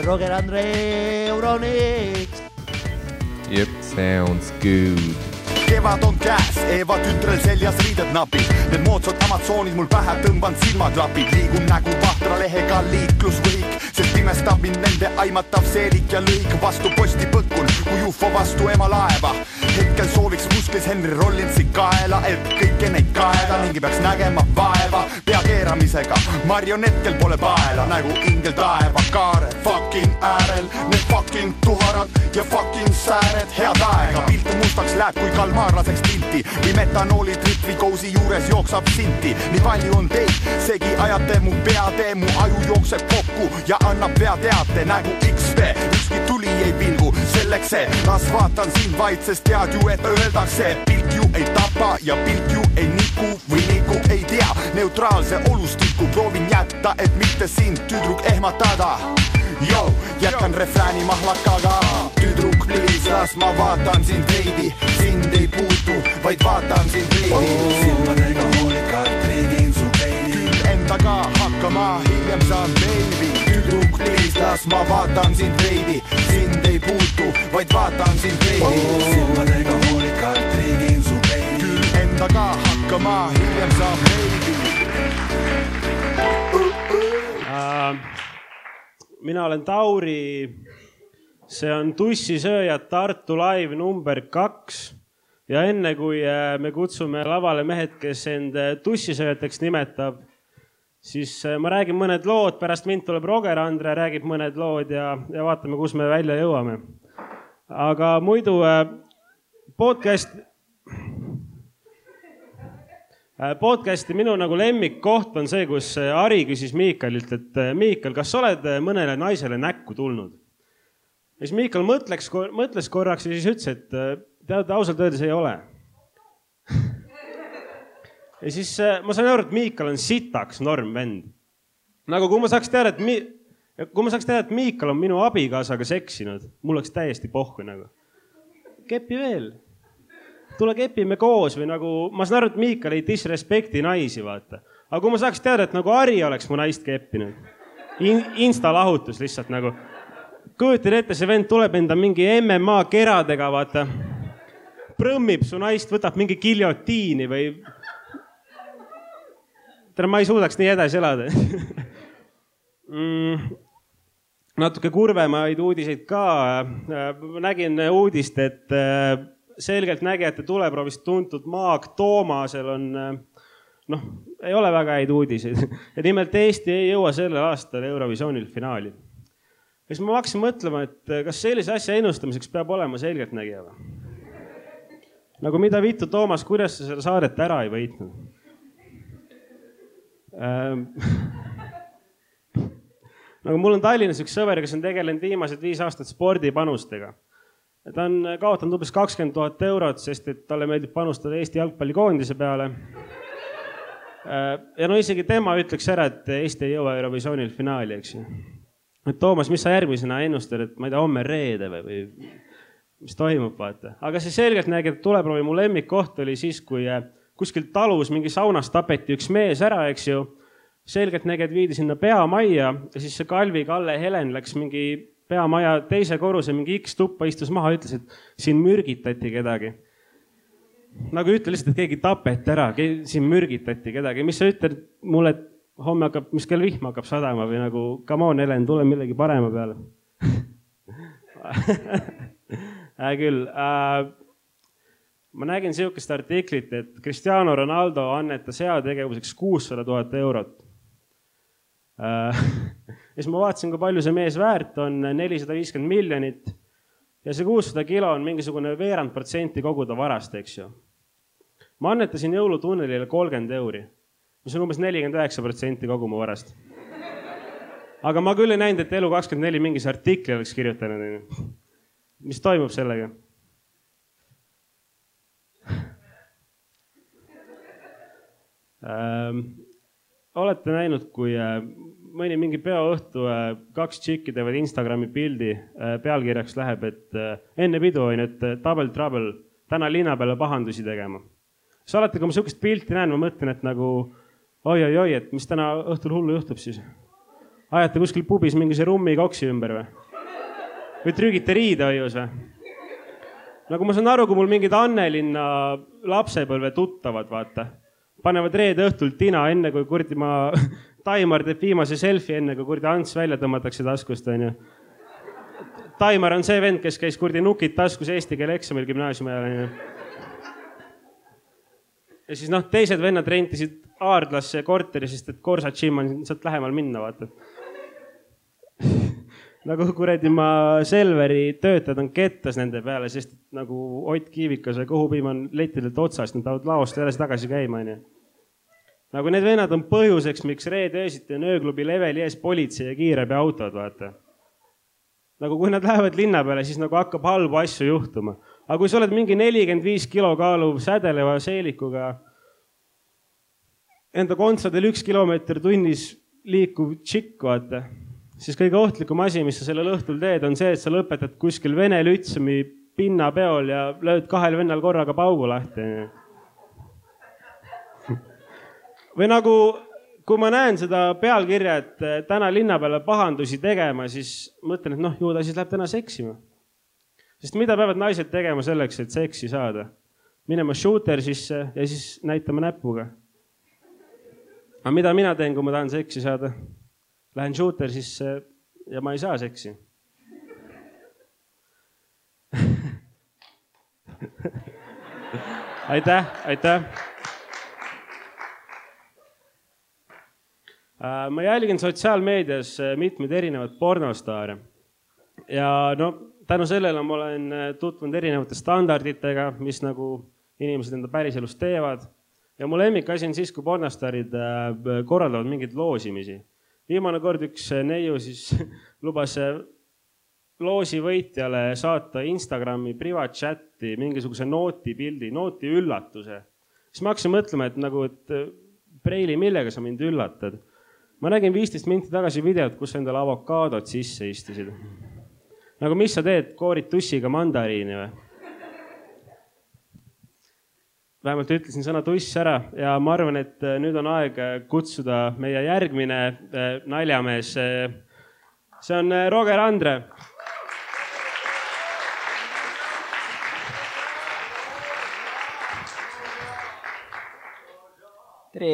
Roger Andre Euroniks. Yep, sounds good. Kevad on käes, Eeva tütrel seljas riided napid. Need moodsad Amazonid mul pähe tõmban silmaklapid. Liigun nägu vahtra lehega liiklusvõik, sest imestab mind nende aimatav seelik ja lõik. Vastu posti põkkun, kui UFO vastu ema laeva. Hetkel sooviks musklis Henry Rollinsi kaela, et kõike neid kaeda mingi peaks nägema vaeva. Pea keeramisega, marionetkel pole paela, nägu ingel taeva kaare. Fucking äärel, need fucking tuharad ja fucking sääred. Head aega, pilt mustaks läheb, kui kalmaar laseks pilti. Või metanooli tripvi kousi juures jooksab sinti. Nii palju on teid, segi ajate mu peatee. Mu aju jookseb kokku ja annab peateate. Nägu XP, ükski tuli ei pilgu. Selleks see, las vaatan sind vaid, sest tead ju, et öeldakse. Pilk ju ei tapa ja pilk ju ei niku või niku ei tea. Neutraalse olustiku proovin jätta, et mitte sind tüdruk ehmatada. Yo, jätkan refrääni mahlakaga. Tüdruk, please, las ma vaatan sind veidi. Sind ei puutu, vaid vaatan sind veidi. Silmadega hoolikalt riigin su peili. Küll endaga hakkama, hiljem saan baby. Tüdruk, please, las ma vaatan sind veidi. Sind ei puutu, vaid vaatan sind veidi. Silmadega hoolikalt riigin su peili. Küll endaga hakkama, hiljem saan baby. Mina olen Tauri, see on Tussisööjad Tartu live number 2 ja enne kui me kutsume lavale mehed, kes end tussisööjateks nimetab, siis ma räägin mõned lood, pärast mind tuleb Roger Andre, räägib mõned lood ja vaatame, kus me välja jõuame. Aga muidu podcasti minu nagu lemmikkoht on see, kus Ari küsis Miikalilt, et Miikal, kas oled mõnele naisele näkku tulnud? Ja siis Miikal mõtles korraks ja siis ütles, et tead, ausalt öeldes ei ole. Ja siis ma sain aru, et Miikal on sitaks norm vend. Nagu kui ma saaks teada, et Miikal on minu abikaasaga seksinud, mul oleks täiesti pohku nagu. Kepi veel. Tule kepime koos või nagu, ma saan aru, et Miikal ei disrespekti naisi, vaata. Aga kui ma saaks teada, et nagu Ari oleks mu naist keppinud. Insta lahutus lihtsalt nagu. Kujutin ette, see vend tuleb enda mingi MMA keradega, vaata. Prõmmib su naist, võtab mingi giljotiini või... Tere, ma ei suudaks nii edasi elada. Natuke kurvemaid uudiseid ka. Nägin uudist, et... selgelt nägijate tuleproovist tuntud Maag Toomasel on, ei ole väga häid uudiseid. Ja nimelt Eesti ei jõua sellel aastal Eurovisioonil finaali. Ja siis ma hakkasin mõtlema, et kas sellise asja ennustamiseks peab olema selgelt nägija või? Nagu mida vittu, Toomas, kuidas sa selle saadet ära ei võitnud? Nagu mul on Tallinnas üks sõber, kes on tegelenud viimased 5 aastat spordipanustega. Ta on kaotanud umbes 20 000 eurot, sest et talle meeldib panustada Eesti jalgpallikoondise peale. Ja isegi tema ütleks ära, et Eesti ei jõua Eurovisioonil finaali, eks ju. Et Toomas, mis sa järgmisena ennustad, et ma ei tea, homme reede või mis toimub, vaata. Aga see selgelt nägi, et tuleproovi mu lemmikkoht oli siis, kui kuskil talus mingi saunas tapeti üks mees ära, eks ju. Selgelt nägi, et viidi sinna peamajja ja siis see Kalvi Kalle Helen läks mingi peamaja teise korruse mingi X tuppa istus maha ja ütles, et siin mürgitati kedagi. Nagu ütle lihtsalt, et keegi tapeti ära, siin mürgitati kedagi. Mis sa ütled mulle, et homme hakkab, mis kell vihm hakkab sadama või nagu, come on, Helen, tule millegi parema peale. Küll. Ma nägin sihukest artiklit, et Cristiano Ronaldo annetas heategevuseks 600 000 eurot. Ja siis ma vaatasin, kui palju see mees väärt on, 450 miljonit ja see 600 kilo on mingisugune veerand protsenti kogu ta varast, eks ju. Ma annetasin jõulutunnelile 30 euri, mis on umbes 49% kogu mu varast. Aga ma küll ei näinud, et Elu24 mingis artikli oleks kirjutanud. Mis toimub sellega? Olete näinud, kui mõni mingi peoõhtu 2 tšikki teevad Instagrami pildi, pealkirjaks läheb, et enne pidu on, et double trouble, täna linna peale pahandusi tegema. Siis alati, kui ma sihukest pilti näen, ma mõtlen, et nagu oi, et mis täna õhtul hullu juhtub siis. Ajate kuskil pubis mingise rummi koksi ümber või? Või trügite riidehoius või? Nagu ma saan aru, kui mul mingid Annelinna lapsepõlve tuttavad, vaata. Panevad reede õhtul tina enne, kui kurdi ma Taimar teeb viimase selfie enne, kui kurdi Ants välja tõmmatakse taskust. Taimar on see vend, kes käis kurdi nukid taskus eesti keele eksamil gümnaasiumi ajal. Ja siis teised vennad rentisid Aardlasse korteri, sest et Korsa Gym on sealt lähemal minna, vaata. Nagu kuradi ma Selveri töötajad on kettas nende peale, sest nagu Ott Kiivikas ja Kõhupiim on letidelt otsast, nad peavad laost edasi tagasi käima. Nagu need vennad on põhjuseks, miks reede öösiti on ööklubi leveli ees politsei ja kiirabi autod, vaata. Nagu kui nad lähevad linna peale, siis nagu hakkab halbu asju juhtuma. Aga kui sa oled mingi 45 kilo kaaluv sädeleva seelikuga, enda kontsadel 1 kilomeeter tunnis liikuv tšikk, vaata, siis kõige ohtlikum asi, mis sa sellel õhtul teed, on see, et sa lõpetad kuskil Vene Lütsumi pinnapeol ja lööd 2 vennal korraga paugu lahti. Või nagu, kui ma näen seda pealkirja, et täna linna peale pahandusi tegema, siis mõtlen, et ju ta siis läheb täna seksima. Sest mida peavad naised tegema selleks, et seksi saada? Minema shooter sisse ja siis näitama näpuga. Aga mida mina teen, kui ma tahan seksi saada? Lähen shooter sisse ja ma ei saa seksi. Aitäh. Ma jälgin sotsiaalmeedias mitmeid erinevad pornostaare. Ja tänu sellele ma olen tutvunud erinevate standarditega, mis nagu inimesed enda päriselus teevad. Ja mu lemmikasi on siis, kui pornostaarid korraldavad mingeid loosimisi. Viimane kord üks neiu siis lubas loosi võitjale saata Instagrami privatchatti mingisuguse nooti pildi, nooti üllatuse. Siis ma hakkasin mõtlema, et Preili, millega sa mind üllatad? Ma nägin 15 minti tagasi videot, kus endale avokaadot sisse istusid. Nagu mis sa teed, koorid tussiga mandariini või? Vähemalt ütlesin sõna tuss ära ja ma arvan, et nüüd on aeg kutsuda meie järgmine naljamees. See on Roger Andre. Tere!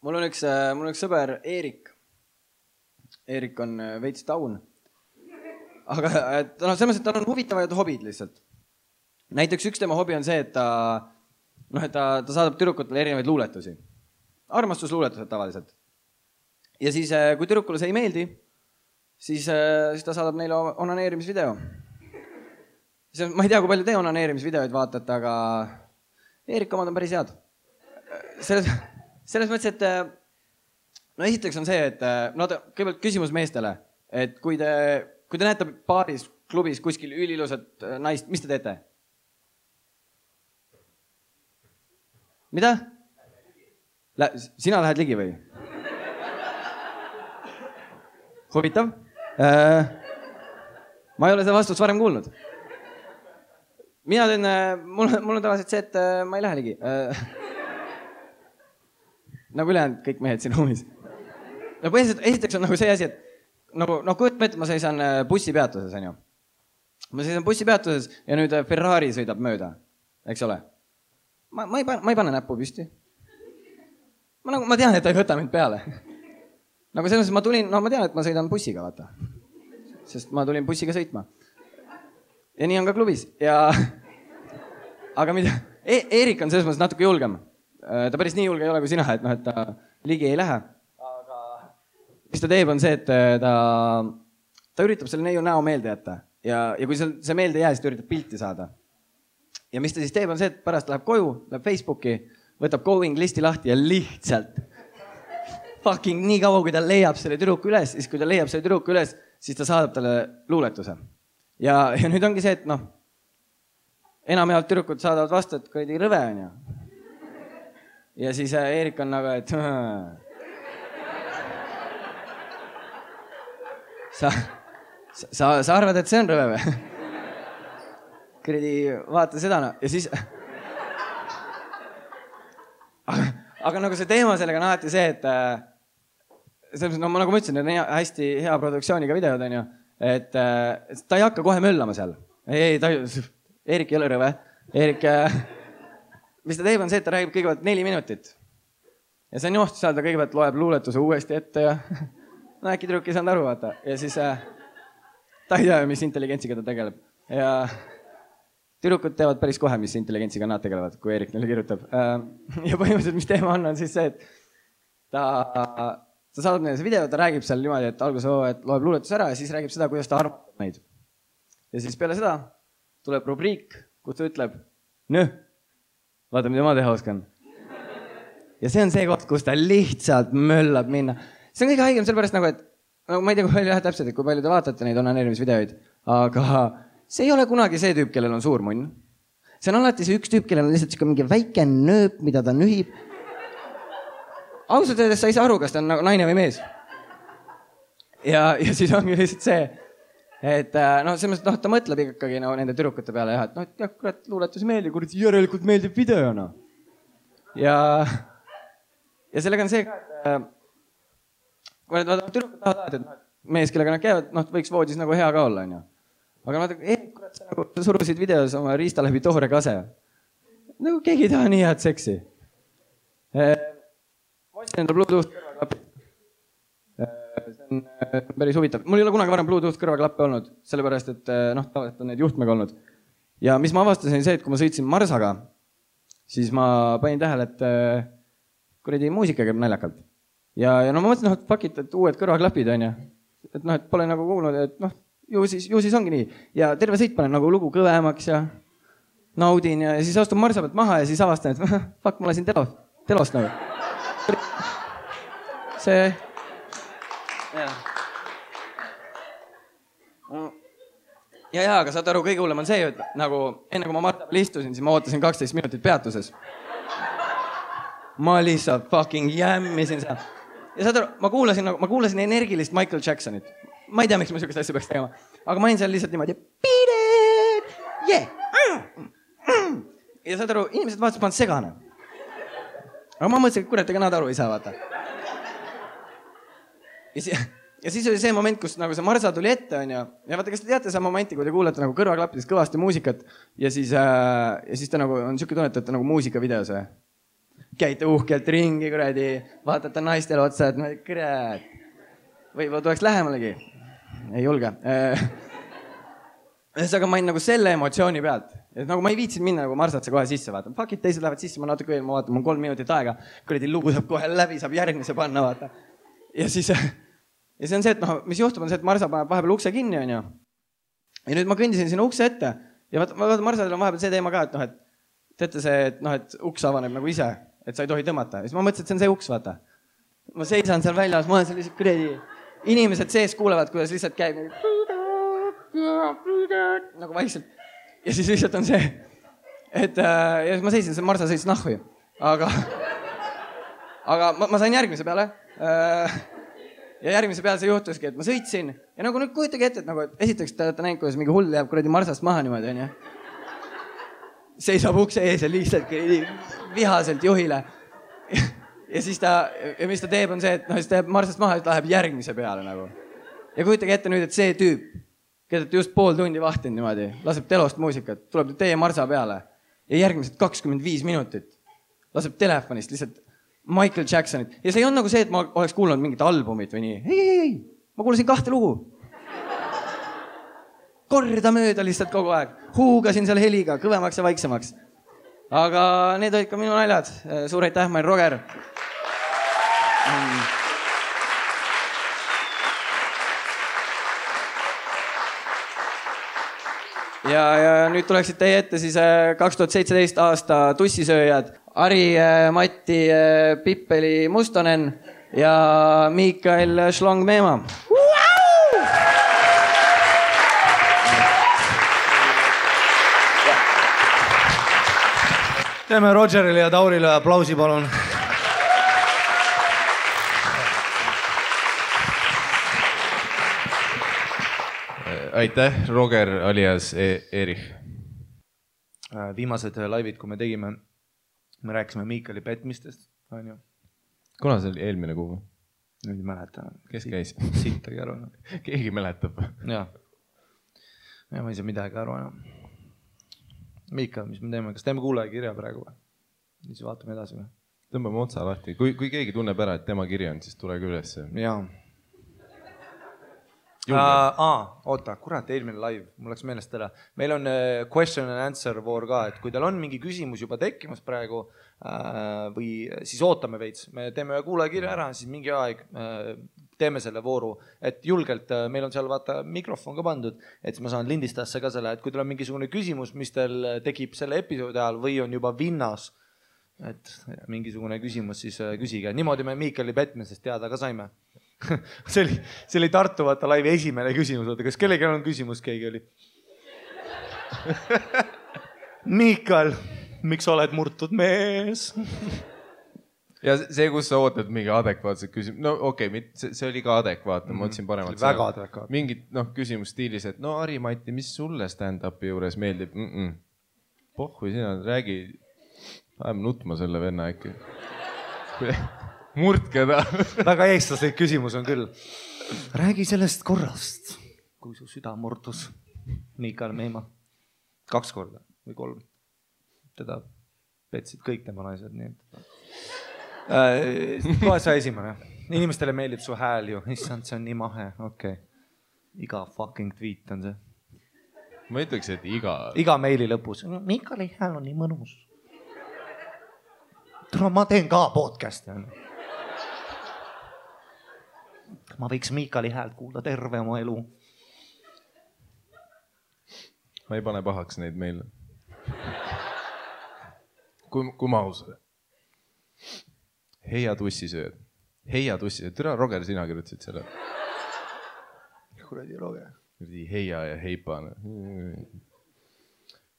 Mul on üks sõber Eerik. Eerik on veits taun. Aga selles mõttes, et tal on huvitavad hobid lihtsalt. Näiteks üks tema hobi on see, et ta saadab tüdrukutele erinevaid luuletusi. Armastusluuletused tavaliselt. Ja siis, kui tüdrukule see ei meeldi, siis ta saadab neile onaneerimisvideo. Ma ei tea, kui palju te onaneerimisvideoid vaatate, aga Eerik omad on päris head. Selles mõttes, et esiteks on see, et kõigepealt küsimus meestele, et kui te näete baaris, klubis kuskil ülilusat naist, mis te teete? Mida? Sina lähed ligi või? Huvitav. Ma ei ole seda vastust varem kuulnud. Mina teen, mul on tavaliselt see, et ma ei lähe ligi. Nagu ülejäänud kõik mehed siin ruumis. Esiteks on nagu see asi, et kujutan ette, ma seisan bussipeatuses, on ju. Ma seisan bussipeatuses ja nüüd Ferrari sõidab mööda, eks ole. Ma ei pane näppu püsti. Ma tean, et ta ei võta mind peale. Nagu selles mõttes ma tean, et ma sõidan bussiga, vaata. Sest ma tulin bussiga sõitma. Ja nii on ka klubis. Aga mida? Eerik on selles mõttes natuke julgem. Ta päris nii julge ei ole kui sina, et ta ligi ei lähe. Aga mis ta teeb on see, et ta üritab selle neiu näo meelde jätta. Ja kui see meelde ei jää, siis ta üritab pilti saada. Ja mis ta siis teeb on see, et pärast läheb koju, läheb Facebooki, võtab going listi lahti ja lihtsalt fucking nii kaua, kui ta leiab selle tüdruku üles, siis kui ta leiab selle tüdruku üles, siis ta saadab talle luuletuse. Ja nüüd ongi see, et enamjaolt tüdrukud saadavad vastu, et kuradi rõve on ju. Ja siis Eerik on nagu, et sa arvad, et see on rõve või? Kuradi vaata seda no. Ja siis aga nagu see teema sellega on alati see, et no nagu ma ütlesin, need on hästi hea produktsiooniga videod on ju, et ta ei hakka kohe möllama seal. Ei, Eerik ei ole rõve. Eerik, mis ta teeb on see, et ta räägib kõigepealt 4 minutit. Ja see on johtu seal, ta kõigepealt loeb luuletuse uuesti ette ja no äkki tüdruk ei saanud aru, vaata. Ja siis ta ei tea, mis intelligentsiga ta tegeleb. Ja tüdrukud teevad päris kohe, mis intelligentsiga nad tegelevad, kui Eerik neile kirjutab. Ja põhimõtteliselt, mis teema on siis see, et ta saadab neile see video, ta räägib seal niimoodi, et alguses et loeb luuletuse ära ja siis räägib seda, kuidas ta armastab neid. Ja siis peale seda tuleb rubriik, kus ta ütleb, vaata, mida ma teha oskan. Ja see on see koht, kus ta lihtsalt möllab minna. See on kõige haigem sellepärast nagu, et ma ei tea, kui palju täpselt, et kui palju te vaatate neid onaneerimisvideoid, aga see ei ole kunagi see tüüp, kellel on suur munn. See on alati see üks tüüp, kellel on lihtsalt mingi väike nööp, mida ta nühib. Ausalt öeldes sa ei saa aru, kas ta on nagu naine või mees. Ja siis ongi lihtsalt see, et ta mõtleb ikkagi nende tüdrukute peale ja et kurat, luuletus meeldib, kurat, järelikult meeldib videona. Ja sellega on see, et kui need tüdrukud tahavad, et mees, kellega nad käivad, võiks voodis nagu hea ka olla, on ju. Aga kurat, sa surusid videos oma riista läbi toore kase. Nagu keegi ei taha nii head seksi. Ma ostsin enda Bluetooth kõrvaklapi. See on päris huvitav. Mul ei ole kunagi varem Bluetooth kõrvaklappe olnud, sellepärast, et tavaliselt on need juhtmega olnud. Ja mis ma avastasin see, et kui ma sõitsin Marsaga, siis ma panin tähele, et kuradi muusika käib naljakalt. Ja ma mõtlesin, et fuck it, et uued kõrvaklapid on ju. Et pole nagu kuulnud, et ju siis ongi nii. Ja terve sõit panen nagu lugu kõvemaks ja naudin ja siis astun Marsa pealt maha ja siis avastan, et fuck, ma lasin telost nagu. See... Ja, aga saad aru, kõige hullem on see, et nagu enne kui ma Marta peal istusin, siis ma ootasin 12 minutit peatuses. Ma lihtsalt fucking jämmisin seal. Ja saad aru, ma kuulasin energilist Michael Jacksonit. Ma ei tea, miks ma sükest asja peaks tegema. Aga ma olin seal lihtsalt niimoodi beat it! Yeah! Ja saad aru, inimesed vaatasid, ma olen segane. Aga ma mõtlesin, et kurat, ega nad aru ei saa vaata. Ja siis oli see moment, kus nagu see Marsa tuli ette, on ju. Ja vaata, kas te teate see momenti, kui te kuulete nagu kõrvaklappidest kõvasti muusikat ja siis ta nagu on siuke tunnet, et ta nagu muusikavideos või? Käite uhkelt ringi, kuradi, vaatate naistele otsa, et kurat. Võib-olla tuleks lähemalegi. Ei julge. Aga ma olin nagu selle emotsiooni pealt. Et nagu ma ei viitsin minna nagu Marsatse kohe sisse vaata. Fuck it, teised lähevad sisse, ma natuke veel, ma vaatan, mul 3 minutit aega. Kuradi lugu saab kohe läbi, saab järgmise panna, vaata. Ja siis... Ja see on see, et mis juhtub on see, et Marsa paneb vahepeal ukse kinni, on ju. Ja nüüd ma kõndisin sinna ukse ette. Ja vaata, Marsadel on vahepeal see teema ka, et teate see, et uks avaneb nagu ise, et sa ei tohi tõmmata. Ja siis ma mõtlesin, et see on see uks, vaata. Ma seisan seal väljas, ma olen seal lihtsalt kuredi. Inimesed sees kuulevad, kuidas lihtsalt käib nagu vaikselt. Ja siis lihtsalt on see, et ja ma seisin, see Marsa sõis nahvi. Aga ma sain järgmise peale. Ja järgmise peale see juhtuski, et ma sõitsin. Ja nagu nüüd kujutage ette, et nagu esiteks te olete näinud, kuidas mingi hull jääb kuradi Marsast maha niimoodi, on ju. Seisab ukse ees ja lihtsalt vihaselt juhile. Ja siis mis ta teeb on see, et siis ta jääb Marsast maha ja ta läheb järgmise peale nagu. Ja kujutage ette nüüd, et see tüüp, keda te just pool tundi vahtinud niimoodi, laseb telost muusikat, tuleb teie Marsa peale ja järgmised 25 minutit laseb telefonist lihtsalt Michael Jacksonit. Ja see ei on nagu see, et ma oleks kuulnud mingit albumit või nii. Ei. Ma kuulasin 2 lugu. Korda mööda lihtsalt kogu aeg. Huugasin seal heliga, kõvemaks ja vaiksemaks. Aga need olid ka minu naljad. Suur aitäh, ma olen Roger. Ja nüüd tuleksid teie ette siis 2017 aasta tussisööjad Ari, Matti, Pippeli Mustonen ja Mikael Schlong-Meema. Teeme Rogerile ja Taurile aplausi, palun. Aitäh, Roger alias Erich. Viimased laivid, kui me tegime, me rääkisime Miikali petmistest. Kuna see oli eelmine kuu? Nüüd ei mäleta. Kes käis? Sittagi aru. Keegi mäletab. Ja ma ei saa midagi aru enam. Miikal, mis me teeme? Kas teeme kuulaja kirja praegu või? Siis vaatame edasi või? Tõmbame otsa lahti. Kui keegi tunneb ära, et tema kiri on, siis tulege üles. Jaa. Oota, kurat, eelmine live, mul läks meelest ära. Meil on question and answer voor ka, et kui teil on mingi küsimus juba tekkimas praegu või siis ootame veits, me teeme kuulaja kirja ära, siis mingi aeg teeme selle vooru, et julgelt meil on seal vaata mikrofon ka pandud, et ma saan lindistasse ka selle, et kui teil on mingisugune küsimus, mis teil tekib selle episoodi ajal või on juba vinnas, et mingisugune küsimus, siis küsige. Niimoodi me Miikali petmisest teada ka saime. See oli Tartu vaata laivi esimene küsimus. Kas kellegi on küsimus, keegi oli? Miikal, miks oled murtud mees? Ja see, kus sa ootad mingi adekvaatset küsimus. No okei, see oli ka adekvaatne. Ma otsin paremalt. Väga adekvaatne. Mingid küsimus stiilis, et no Ari-Mati, mis sulle stand-upi juures meeldib? Pohhui sina, räägi. Ajame nutma selle venna äkki. Murtke ta. Väga eestlaslik küsimus on küll. Räägi sellest korrast, kui su süda murdus. Miikal Meima. 2 korda või 3. Teda petsid kõik tema naised. Kohe sa esimene. Inimestele meeldib su hääl ju. Issand, see on nii mahe. Okay. Iga fucking tweet on see. Ma ütleks, et iga meili lõpus. Miikali hääl on nii mõnus. Ma teen ka podcasti. Ma võiks Miikali häält kuulda terve oma elu. Ma ei pane pahaks neid meile. Kui ma ausad. Heia tussisööd. Heia tussisööd. Türa, Roger, sina kirjutasid selle. Kuradi Roger. Heia ja heipane.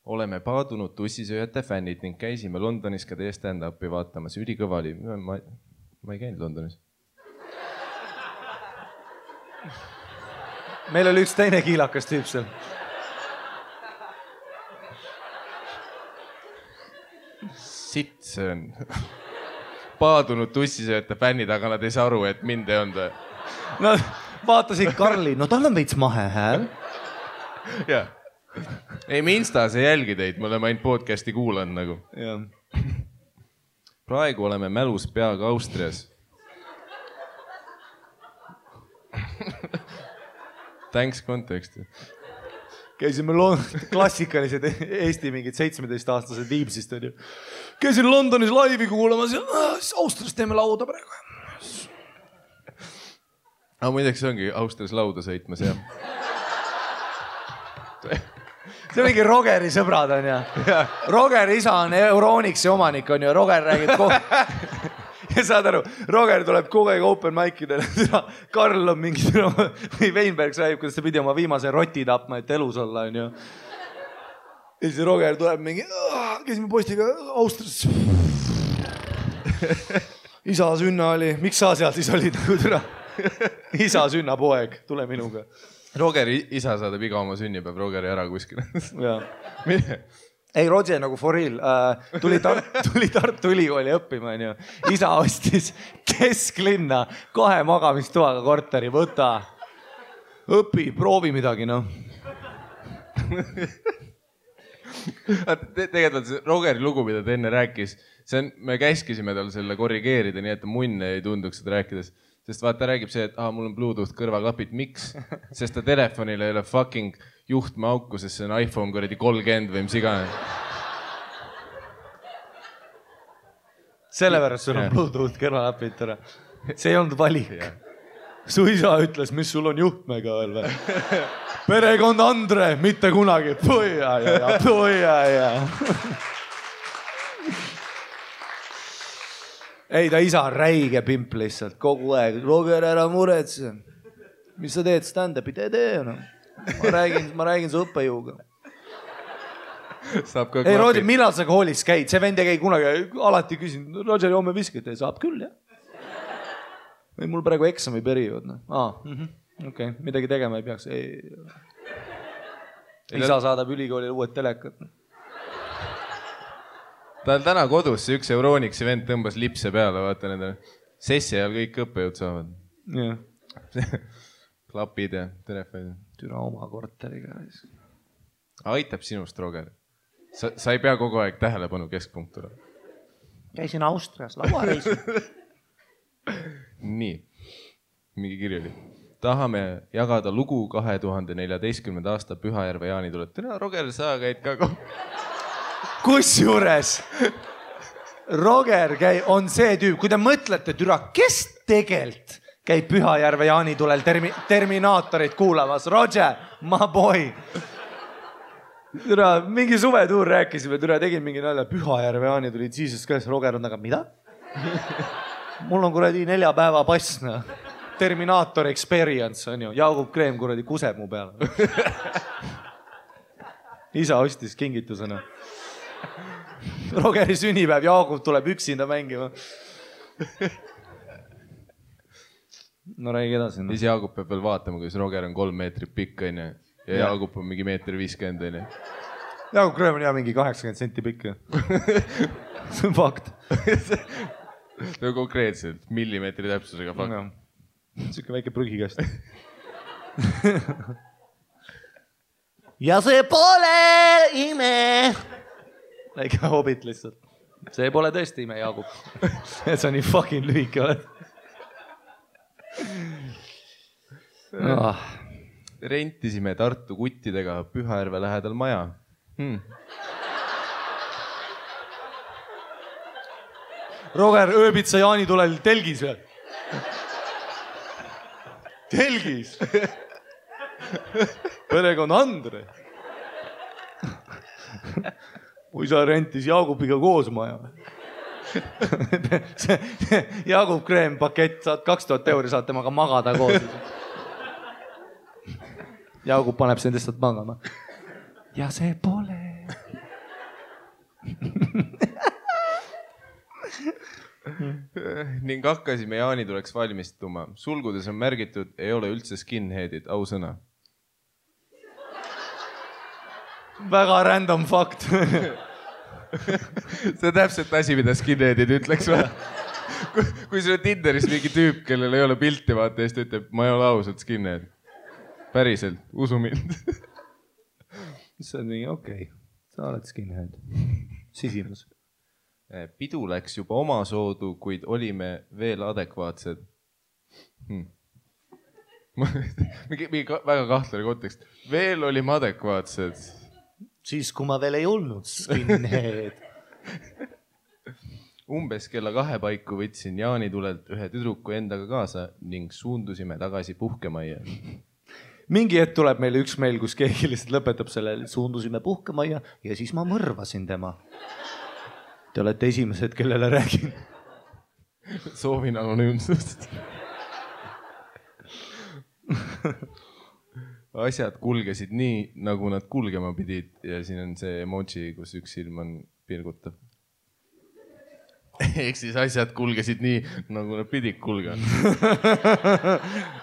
Oleme paadunud tussisööjate fännid ning käisime Londonis ka teie stand-upi vaatamas. Ülikõva oli. Ma ei käinud Londonis. Meil oli üks teine kiilakas tüüp seal. Sitt see on. Paadunud tussisööjate fännid, aga nad ei saa aru, et mind ei olnud. Nad vaatasid Karli. No tal on veits mahe hääl. Jah. Ei, me Instas ei jälgi teid, me oleme ainult podcasti kuulanud nagu. Ja. Praegu oleme mälus peaga Austrias. Thanks context. Käisime klassikalised Eesti mingid 17-aastased Viimsist. Käisin Londonis laivi kuulamas ja Austrias teeme lauda praegu. Aga muideks see ongi Austrias lauda sõitmas, jah. See on mingi Rogeri sõbrad on ja. Roger isa on Euronixi omanik on ju. Roger räägib ja saad aru, Roger tuleb kogu aeg open mic'idele. Karl on mingi või Weinberg räägib, kuidas ta pidi oma viimase roti tapma, et elus olla on ju. Ja siis Roger tuleb mingi, käisime postiga Austrias. Isa sünna oli, miks sa seal siis olid nagu türa? Isa sünna poeg, tule minuga. Rogeri isa saadab iga oma sünnipäev Rogeri ära kuskile. Ei, Roger nagu for real. Tuli Tartu Ülikooli õppima. Isa ostis kesklinna 2 magamistoaga korteri. Võta, õpi, proovi midagi. No. Tegelikult Rogeri lugu, mida ta enne rääkis, me käskisime tal selle korrigeerida, nii et munne ei tunduks seda rääkides. Sest vaata räägib see, et mul on Bluetooth kõrvaklapid. Miks? Sest ta telefonil ei ole fucking juhtme auku, sest see on iPhone 30 või mis igane. Sellepärast sul on Bluetooth kõrvaklapid. See ei olnud valik. Su isa ütles, mis sul on juhtmega veel või? Perekond Andre, mitte kunagi. Puia. Ei, ta isa on räige pimp lihtsalt kogu aeg. Roger, ära muretse. Mis sa teed stand-upi? Tee. No. Ma räägin su õppejõuga. ei Roger, millal sa koolis käid? See vend ei käi kunagi, alati küsin, Roger, homme viskad, saab küll, jah. Või mul praegu eksami periood. Okei, midagi tegema ei peaks. Isa saadab ülikoolile uued telekat. Ta on täna kodus, see üks Euroniksi vend tõmbas lipse peale, vaata nendele. Sessi ajal kõik õppejõud saavad. Klapid ja telefonid. Türa oma korteriga. Aitab sinust, Roger. Sa ei pea kogu aeg tähelepanu keskpunktura. Käisin Austrias lauareisil. Nii, mingi kiri oli. Tahame jagada lugu 2014. aasta Pühajärve jaanituled. Täna, Roger, sa käid ka Kusjuures Roger on see tüüp, kui te mõtlete, türa, kes tegelt käib Pühajärve jaanitulel Terminaatorit kuulamas? Roger, my boy. Türa, mingi suvetuur rääkisime, türa, tegin mingi nalja. Pühajärve jaanitulid, Jesus Christ, Roger on taga, mida? Mul on kuradi 4 päeva pass, Terminaator experience on ju. Jaagup Kreem kuradi kuseb mu peale. Isa ostis kingitusena. Rogeri sünnipäev, Jaagup tuleb üksinda mängima. No räägi edasi. Siis Jaagup peab veel vaatama, kuidas Roger on 3 meetrit pikk ja Jaagup on mingi 1,50 meetrit. Jaagup Kreem on mingi 80 senti pikk. See on fakt. See on konkreetselt millimeetri täpsusega fakt. Siuke väike prügikast. Ja see pole ime. Väike hobit lihtsalt. See pole tõesti ime, Jaagup. Sa nii fucking lühike oled. Rentisime Tartu kuttidega Pühajärve lähedal maja. Roger, ööbid sa jaanitulel telgis või? Telgis? Perekond Andre. Kui sa rentis Jaagupiga koos maja. Jaagup Kreem pakett, saad 2000 euri, saad temaga magada koos. Jaagup paneb sind lihtsalt magama. Ja see pole. Ning hakkasime jaanituleks valmistuma. Sulgudes on märgitud, ei ole üldse skinheadid, ausõna. Väga random fakt. See on täpselt asi, mida skinheadid ütleks. Kui sul on Tinderis mingi tüüp, kellel ei ole pilti, vaata, ja siis ta ütleb, ma ei ole ausalt skinhead. Päriselt, usu mind. See on mingi okei. Sa oled skinhead. Sisinus. Pidu läks juba omasoodu, kuid olime veel adekvaatsed. Mingi väga kahtlane kontekst. Veel olime adekvaatsed. Siis, kui ma veel ei olnud skinhead. Umbes kella 2 paiku võtsin jaanitulelt ühe tüdruku endaga kaasa ning suundusime tagasi puhkemajja. Mingi hetk tuleb meile üks meil, kus keegi lihtsalt lõpetab selle, suundusime puhkemajja ja siis ma mõrvasin tema. Te olete esimesed, kellele räägin. Soovin anonüümsust. Asjad kulgesid nii, nagu nad kulgema pidid ja siin on see emoji, kus üks silm on pilgutav. Ehk siis asjad kulgesid nii, nagu nad pidid kulgema.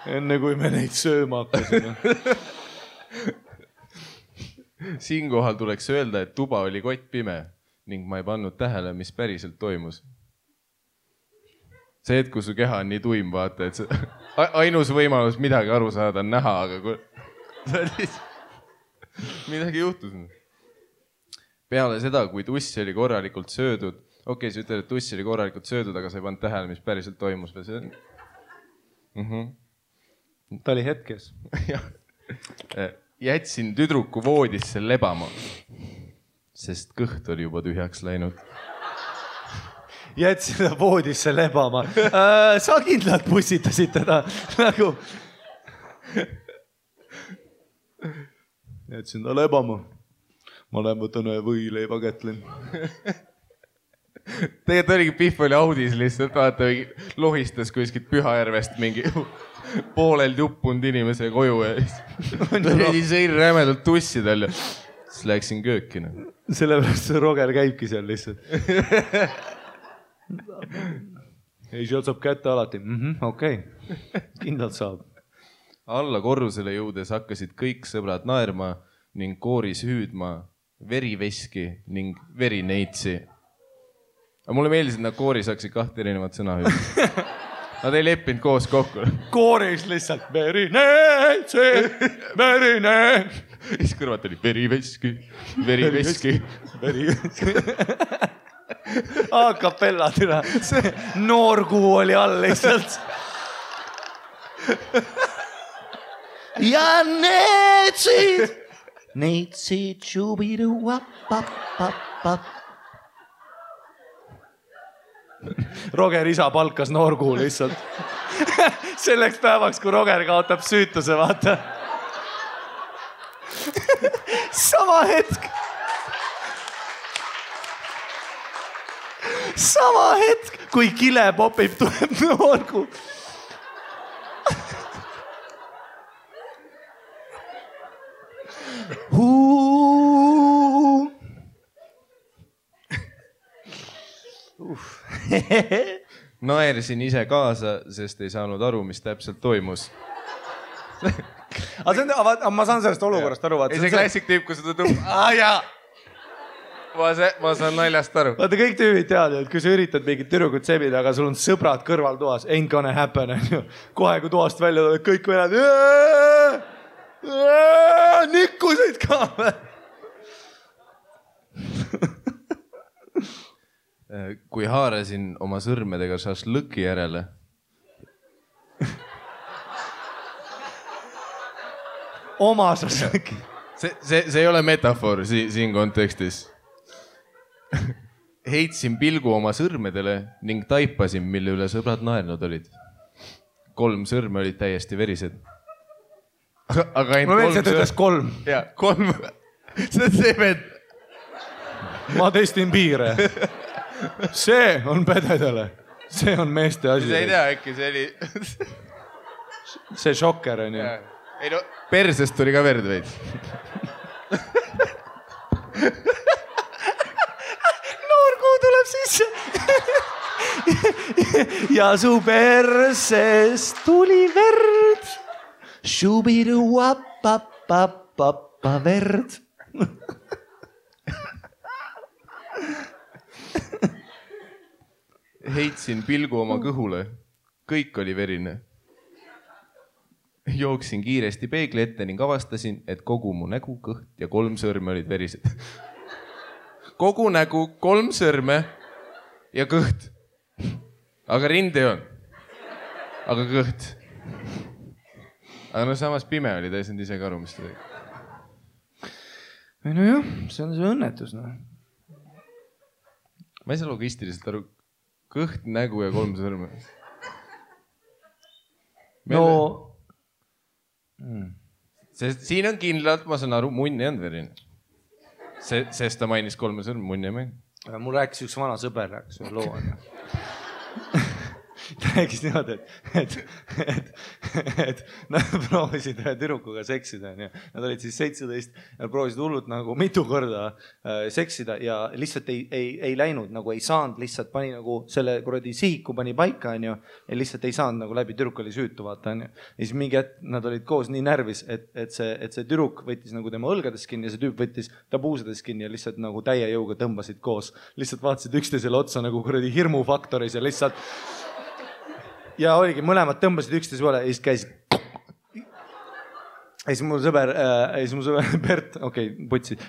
Enne kui me neid sööma hakkasime. Siinkohal tuleks öelda, et tuba oli kott pime ning ma ei pannud tähele, mis päriselt toimus. See hetk, kui su keha on nii tuim, vaata, et ainus võimalus midagi aru saada on näha, aga kui... midagi juhtus. Peale seda, kui tuss oli korralikult söödud, okei, sa ütled, et tuss oli korralikult söödud, aga sa ei pannud tähele, mis päriselt toimus. Ta oli hetkes. Jätsin tüdruku voodisse lebama, sest kõht oli juba tühjaks läinud. Jätsin ta voodisse lebama. Sa kindlalt pussitasid teda nagu... Jätsin ta lebama. Ma lähen võtan ühe võileiva kätlen. Tegelikult oligi Pihv oli audis lihtsalt, vaata, lohistas kuskilt Pühajärvest mingi poolel juppunud inimese koju ja sõin rämedalt tussi tal ja siis läksin köökina. sellepärast see Roger käibki seal lihtsalt. Ei, sealt saab kätte alati. Okei. Kindlalt saab. Alla korrusele jõudes hakkasid kõik sõbrad naerma ning kooris hüüdma veriveski ning verineitsi. Aga mulle meeldis, et nad kooris hakkasid 2 erinevat sõna hüüdma. Nad ei leppinud koos kokku. Kooris lihtsalt verineitsi, verineitsi. Siis kõrvat oli veriveski, veriveski. A capella tira. See noorkuu oli all lihtsalt. Ja neitsid, tšubidu, wap. Roger isa palkas noorkuu lihtsalt. Selleks päevaks, kui Roger kaotab süütuse, vaata. Sama hetk, kui kile popib, tuleb noorkuu. Naersin ise kaasa, sest ei saanud aru, mis täpselt toimus. Aga ma saan sellest olukorrast aru. Ei see klassik tüüp, kui seda tõmbab. Ma saan naljast aru. Vaata, kõik tüübid teavad, et kui sa üritad mingit tüdrukut sebida, aga sul on sõbrad kõrval toas, ain't gonna happen. Kohe, kui toast välja tuleb, kõik venad. Nikkusid ka. Kui haarasin oma sõrmedega šašlõki järele. Oma šašlõki. See ei ole metafoor siin kontekstis. Heitsin pilgu oma sõrmedele ning taipasin, mille üle sõbrad naernud olid. 3 sõrme olid täiesti verised. Aga ainult 3 sõrme. Ma veel see töötas 3. Jaa, 3. See on see vend. Ma testin piire. See on pededele. See on meeste asi. See ei tea, äkki see oli... See šokker on ju. Ei no, persest tuli ka verd veid. Noorkuu tuleb sisse. Ja su persest tuli verd. Šubidu, wap, verd. Heitsin pilgu oma kõhule. Kõik oli verine. Jooksin kiiresti peegli ette ning avastasin, et kogu mu nägu, kõht ja 3 sõrme olid verised. Kogu nägu, 3 sõrme ja kõht. Aga rind ei on. Aga kõht. Aga no samas pime oli, ta ei saanud ise ka aru, mis ta tegi. No jah, see on see õnnetus. No. Ma ei saa logistiliselt aru. Kõht, nägu ja 3 sõrme. No... Sest siin on kindlalt, ma saan aru, munn ei olnud verine. Sest ta mainis 3 sõrme, munn ei maini. Mul rääkis üks vana sõber, rääkis ühe loo. Ta rääkis niimoodi, et nad proovisid ühe tüdrukuga seksida. Nad olid siis 17 ja proovisid hullult nagu mitu korda seksida ja lihtsalt ei läinud, nagu ei saanud, lihtsalt pani nagu selle kuradi sihiku pani paika ja lihtsalt ei saanud nagu läbi, tüdruk oli süütu, vaata. Ja siis mingi hetk nad olid koos nii närvis, et see tüdruk võttis nagu tema õlgades kinni ja see tüüp võttis ta puusades kinni ja lihtsalt nagu täie jõuga tõmbasid koos. Lihtsalt vaatasid üksteisele otsa nagu kuradi hirmufaktoris ja lihtsalt ja oligi, mõlemad tõmbasid üksteise peale ja siis käisid. Ja siis mu sõber Bert, putsid.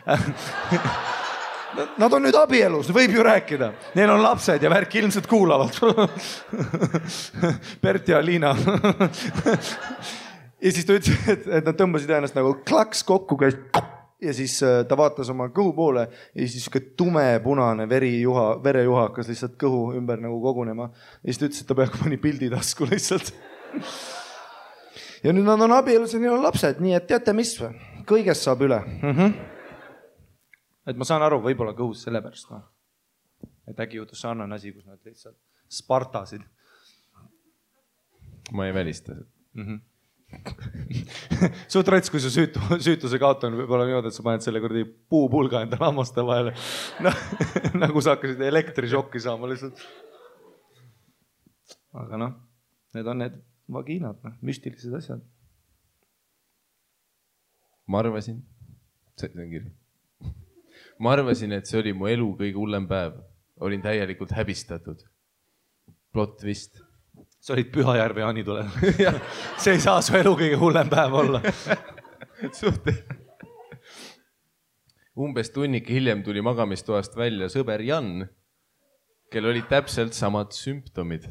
Nad on nüüd abielus, võib ju rääkida. Neil on lapsed ja värk ilmselt kuulavad. Bert ja Liina. Ja siis ta ütles, et nad tõmbasid ennast nagu klaks kokku käis. Ja siis ta vaatas oma kõhu poole ja siis tumepunane verejuha hakkas lihtsalt kõhu ümber nagu kogunema. Ja siis ta ütles, et ta peaaegu pani pildi tasku lihtsalt. Ja nüüd nad on abielus ja neil on lapsed, nii et teate mis või? Kõigest saab üle. Et ma saan aru, võib-olla kõhus selle pärast. Et äkki juhtus sarnane asi, kus nad lihtsalt spartasid. Ma ei välista. suht rets, kui su süütuse kaotamine võib olla niimoodi, et sa paned selle kuradi puupulga enda lammaste vahele. Nagu sa hakkasid elektrišokki saama lihtsalt. Aga need on need vagiinad, müstilised asjad. Ma arvasin, see on kiri. Ma arvasin, et see oli mu elu kõige hullem päev. Olin täielikult häbistatud. Plot twist. Sa olid Pühajärve Jaanitulel. See ei saa su elu kõige hullem päev olla. Umbes tunnik hiljem tuli magamistoast välja sõber Jan, kel olid täpselt samad sümptomid.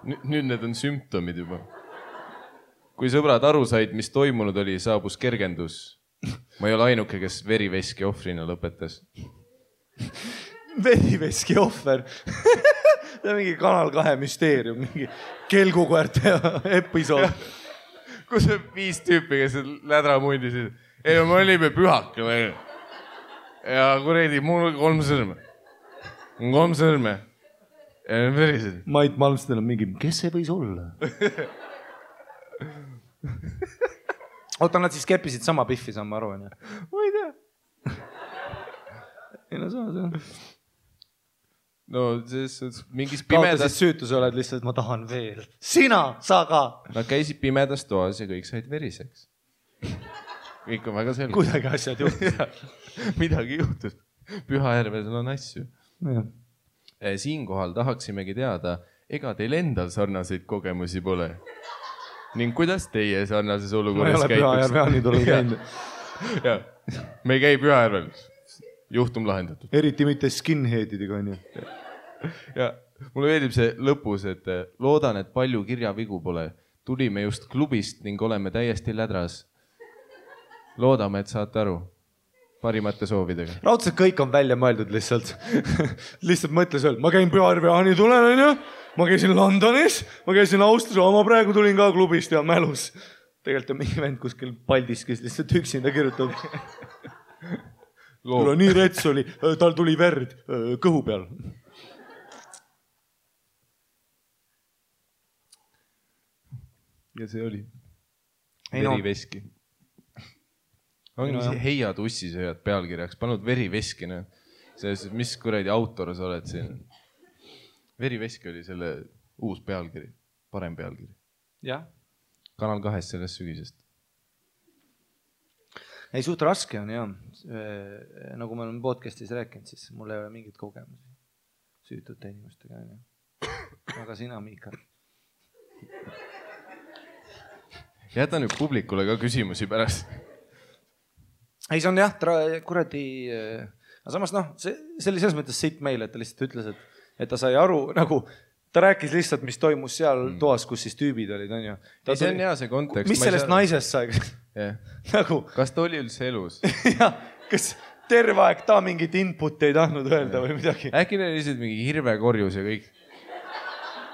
Nüüd need on sümptomid juba. Kui sõbrad aru said, mis toimunud oli, saabus kergendus. Ma ei ole ainuke, kes veriveski ohvrina lõpetas. Veriveski ohver? See on mingi Kanal 2 müsteerium, mingi kelgukoerte episood. Kus on 5 tüüpi, kes lädra mundisid. Ei, me olime pühakil. Ja kuredi, mul 3 sõrme. 3 sõrme. Ja need verised. Mait Malmsten on mingi, kes see võis olla? Oota, nad siis keppisid sama pihvi, saan ma aru. Ma ei tea. Ei no saa. No selles mingis pimedas... pimedas... süütuse oled lihtsalt, ma tahan veel. Sina, sa ka. Nad käisid pimedas toas ja kõik said veriseks. Kõik on väga selge. Kuidagi asjad juhtus. Midagi juhtus. Pühajärvel on asju. Ja. Siinkohal tahaksimegi teada, ega teil endal sarnaseid kogemusi pole? Ning kuidas teie sarnases olukorras käituks? Ma ei ole Pühajärve Jaanitulel käinud. Ja, me ei käi Pühajärvel. Juhtum lahendatud. Eriti mitte skinheadidega on ju. Ja mulle meeldib see lõpus, et loodan, et palju kirjavigu pole. Tulime just klubist ning oleme täiesti lädras. Loodame, et saate aru. Parimate soovidega. Raudselt kõik on välja mõeldud lihtsalt. Lihtsalt mõtles veel, ma käin Pühajärve Jaanitulel, on ju. Ma käisin Londonis, ma käisin Austria, ma praegu tulin ka klubist ja mälus. Tegelikult on mingi vend kuskil Paldiskis lihtsalt üksinda kirjutab. Tule nii rets oli, tal tuli verd kõhu peal. Ja see oli veriveski. Ongi see heiad ussisööjad pealkirjaks, panud veriveski. Mis kuradi autor sa oled siin? Veriveski oli selle uus pealkiri, parem pealkiri. Jah. Kanal 2 sellest sügisest. Ei, suht raske on, jah. Nagu me oleme podcastis rääkinud, siis mul ei ole mingit kogemusi süütute inimestega. Aga sina, Miikal. Jäta nüüd publikule ka küsimusi pärast. Ei, see on jah, kuradi... Aga samas, see oli selles mõttes siit meile, et ta lihtsalt ütles, et ta sai aru, nagu ta rääkis lihtsalt, mis toimus seal toas, kus siis tüübid olid, on ju. See on hea see kontekst. Mis sellest naisest sai? Nagu... Kas ta oli üldse elus? Jah, kas terve aeg ta mingit input ei tahtnud öelda või midagi? Äkki neil lihtsalt mingi hirvekorjus ja kõik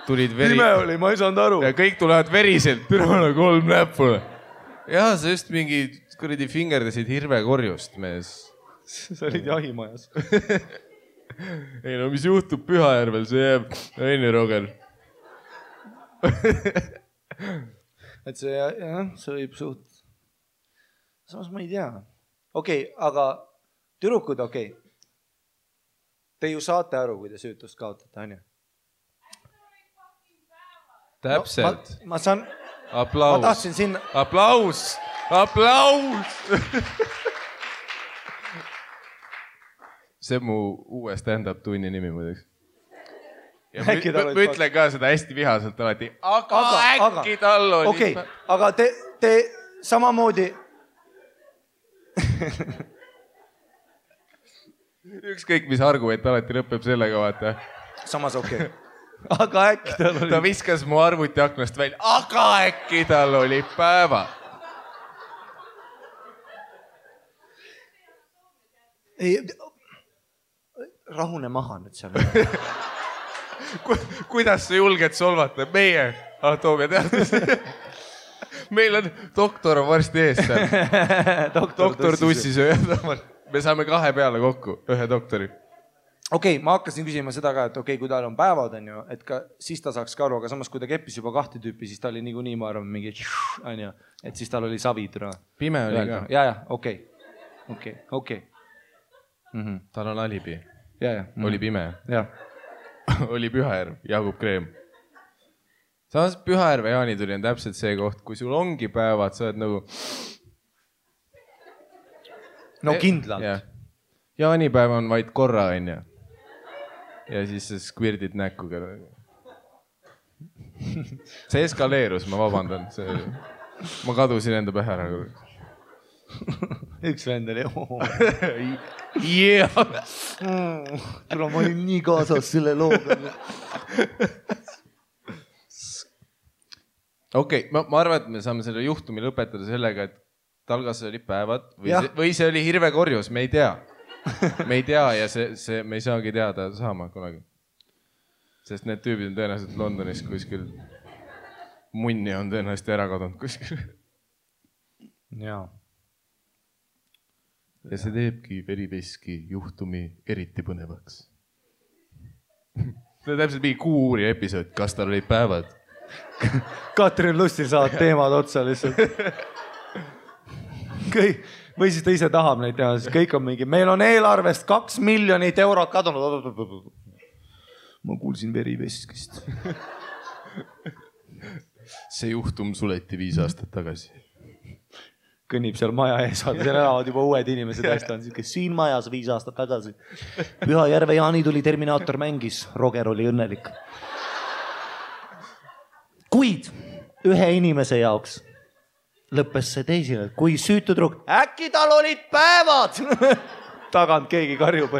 tulid Pime oli, ma ei saanud aru. Ja kõik tulevad veriselt, türale 3 näppule. Ja sa just mingi kuradi fingerdasid hirvekorjust, mees. Sa olid jahimajas. Ei no, mis juhtub Pühajärvel, see jääb Aine Roger. Et see, jah, see võib suht... Samas ma ei tea. Okei, aga türukud, okei. Te ju saate aru, kui te süütust kaotate, on ju? Täpselt. No, ma saan... Aplaus. Ma tahtsin sinna... Aplaus! Aplaus! See on mu uue stand-up tunni nimi muideks. Ma ütlen ka seda hästi vihaselt alati. Aga äkki tal oli... Okei, aga te samamoodi... Ükskõik, mis argument alati lõpeb sellega, vaata. Samas okei. Aga äkki tal oli... Ta viskas mu arvuti aknast välja. Aga äkki tal oli päeva. Ei... Rahune maha nüüd seal. Kuidas sa julged solvata? Meie anatoomia teadus. Meil on doktor varsti ees seal. Doktor tussisööjad. Me saame 2 peale kokku, 1 doktori. okei, ma hakkasin küsima seda ka, et okei, kui tal on päevad, on ju, et ka siis ta saaks ka aru, aga samas kui ta keppis juba 2 tüüpi, siis ta oli niikuinii, ma arvan, mingi on ju, et siis tal oli savid. Pime oli ka. Ja, okei. Tal on alibi. Ja. Oli pime. Ja. Oli Pühajärv, Jaagup Kreem. Samas Pühajärve Jaanituli on täpselt see koht, kui sul ongi päevad, sa oled nagu... No kindlalt. Jaanipäev on vaid korra, on ju. Ja siis sa skvirdid näkku. See eskaleerus, ma vabandan. Ma kadusin enda pähe ära. Üks vend oli. Tule, ma olin nii kaasas selle looga. Okei, ma arvan, et me saame selle juhtumi lõpetada sellega, et talgas oli päevad või see oli hirvekorjus, me ei tea. Me ei tea ja me ei saagi teada saama kunagi. Sest need tüübid on tõenäoliselt Londonis kuskil. Munni on tõenäoliselt ära kadunud kuskil. Jaa. Ja see teebki veriveski juhtumi eriti põnevaks. See on täpselt mingi Kuuri episood, kas tal olid päevad. Katrin Lustil saavad teemad otsa lihtsalt. Või siis ta ise tahab neid teha, siis kõik on mingi, meil on eelarvest 2 miljonit eurot kadunud. Ma kuulsin veriveskist. See juhtum suleti 5 aastat tagasi. Kõnnib seal maja ees, seal elavad juba uued inimesed hästi on, kes siin majas 5 aastat tagasi. Pühajärve Jaanituli Terminaator mängis, Roger oli õnnelik. Kuid ühe inimese jaoks lõppes see teisile, kui süütu trukk, äkki tal olid päevad. Tagant keegi karjub.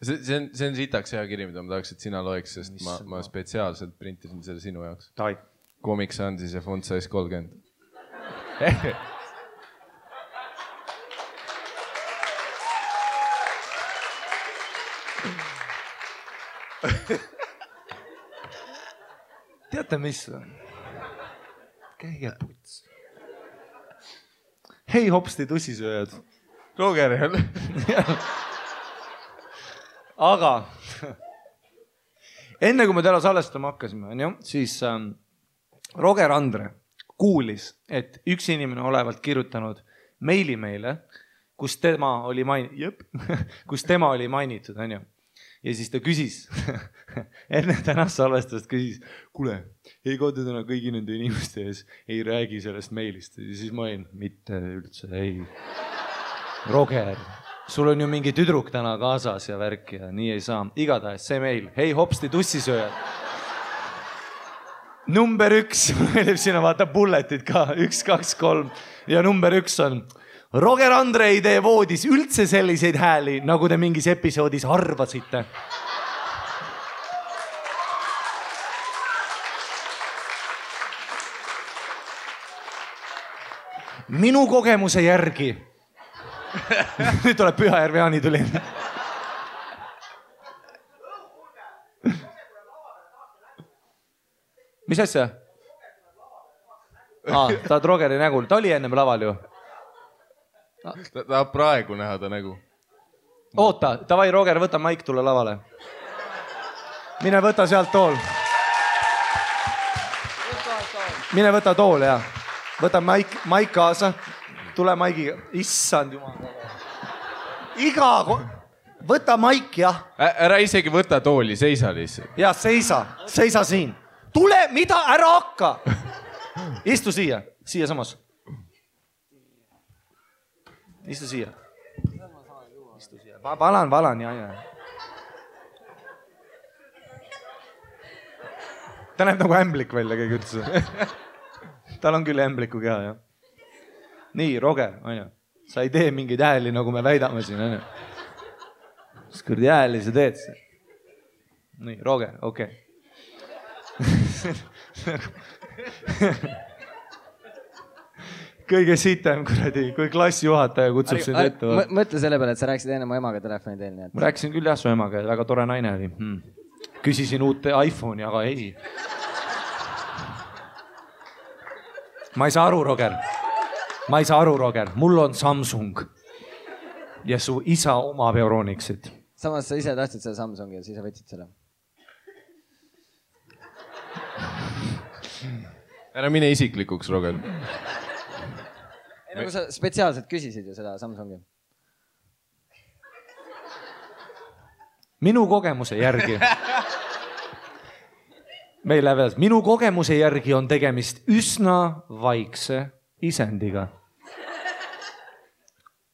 See on sitaks hea kiri, mida ma tahaks, et sina loeks, sest ma spetsiaalselt printisin selle sinu jaoks. Comic Sansis ja font size 30. Teate, mis? Käige puts. Hei hopsti tussisööjad. Roger jälle. Aga enne kui me täna salestama hakkasime, siis Roger Andre kuulis, et üks inimene olevalt kirjutanud meili meile, kus tema oli mainitud, on ju. Ja siis ta küsis, enne tänast salvestust küsis, kuule, ei koodi täna kõigi nende inimeste ees, ei räägi sellest meilist. Ja siis ma olin, mitte üldse, ei. Roger, sul on ju mingi tüdruk täna kaasas ja värk ja nii ei saa. Igatahes see meil, hei hopsti tussisööjad. Number 1, meelib sinna vaata bulletid ka, 1, 2, 3 ja number 1 on... Roger Andre ei tee voodis üldse selliseid hääli, nagu te mingis episoodis arvasite. Minu kogemuse järgi. Nüüd tuleb Pühajärve Jaanituli. Mis asja? Ta on Rogeri nägul. Ta oli ennem laval ju. Ta tahab praegu näha ta nägu. Oota, davai Roger, võta maik, tule lavale. Mine võta sealt tool. Mine võta tool, jah. Võta maik kaasa. Tule maigiga. Issand jumal. Võta maik, jah. Ära isegi võta tooli, seisa lihtsalt. Jah, seisa siin. Tule, mida, ära hakka. Istu siia samas. Istu siia. Valan, ja. Ta näeb nagu ämblik välja, keegi ütles. Tal on küll ämbliku keha, jah. Nii, Roger, on ju. Sa ei tee mingeid hääli, nagu me väidame siin, on ju. Mis kõrdi hääli sa teed? Nii, Roger, okei. Kõige sitem, kuradi, kui klassijuhataja kutsub sind ette. Mõtle selle peale, et sa rääkisid enne mu emaga telefoni teel. Ma rääkisin küll jah su emaga, väga tore naine oli. Küsisin uut iPhone'i, aga ei. ma ei saa aru, Roger. Ma ei saa aru, Roger. Mul on Samsung. Ja su isa omab Euronixit. Samas sa ise tahtsid selle Samsungi ja siis sa võtsid selle. Ära mine isiklikuks, Roger. Nagu sa spetsiaalselt küsisid ju seda Samsungi. Minu kogemuse järgi. Meil läheb edasi. Minu kogemuse järgi on tegemist üsna vaikse isendiga.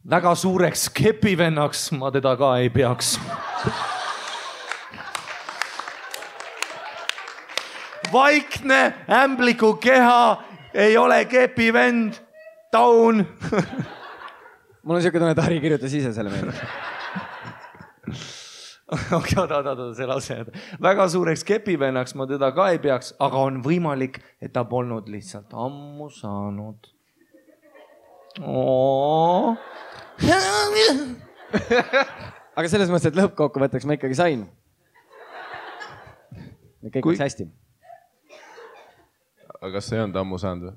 Väga suureks kepivennaks ma teda ka ei peaks. Vaikne, ämbliku keha, ei ole kepivend, taun. Mul on siuke tunne, et Harri kirjutas ise selle meelde. Oota, see lause. Väga suureks kepivennaks ma teda ka ei peaks, aga on võimalik, et ta polnud lihtsalt ammu saanud. Aga selles mõttes, et lõppkokkuvõtteks ma ikkagi sain. Kõik läks hästi. Aga kas sa ei olnud ammu saanud või?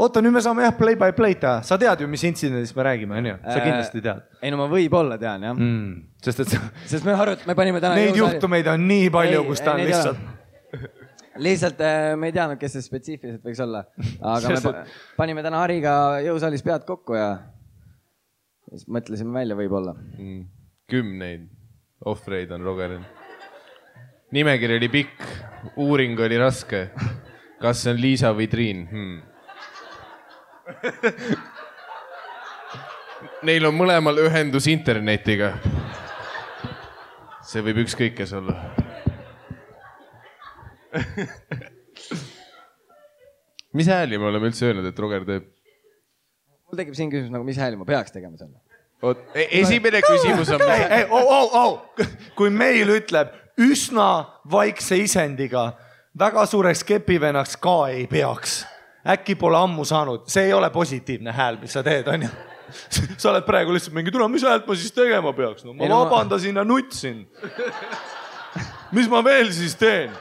Oota, nüüd me saame jah play by play teha. Sa tead ju, mis intsidendist me räägime, on ju? Sa kindlasti tead. Ei, no ma võib-olla tean, jah. Sest me panime täna... Neid juhtumeid on nii palju, kus ta on lihtsalt... Lihtsalt me ei teadnud, kes see spetsiifiliselt võiks olla. Aga me panime täna Hariga jõusaalis pead kokku ja siis mõtlesime välja võib-olla. 10 ohvreid on Rogeril. Nimekiri oli pikk, uuring oli raske. Kas see on Liisa või Triin? Neil on mõlemal ühendus internetiga. See võib ükskõik kes olla. Mis hääli me oleme üldse öelnud, et Roger teeb? Mul tekib siin küsimus, nagu mis hääli ma peaks tegema selle? Esimene küsimus on... Kui meil ütleb üsna vaikse isendiga, väga suureks kepivennaks ka ei peaks. Äkki pole ammu saanud. See ei ole positiivne hääl, mis sa teed, on ju? Sa oled praegu lihtsalt mingi, tule, mis häält ma siis tegema peaks? No, ma vabandasin ja nutsin. Mis ma veel siis teen?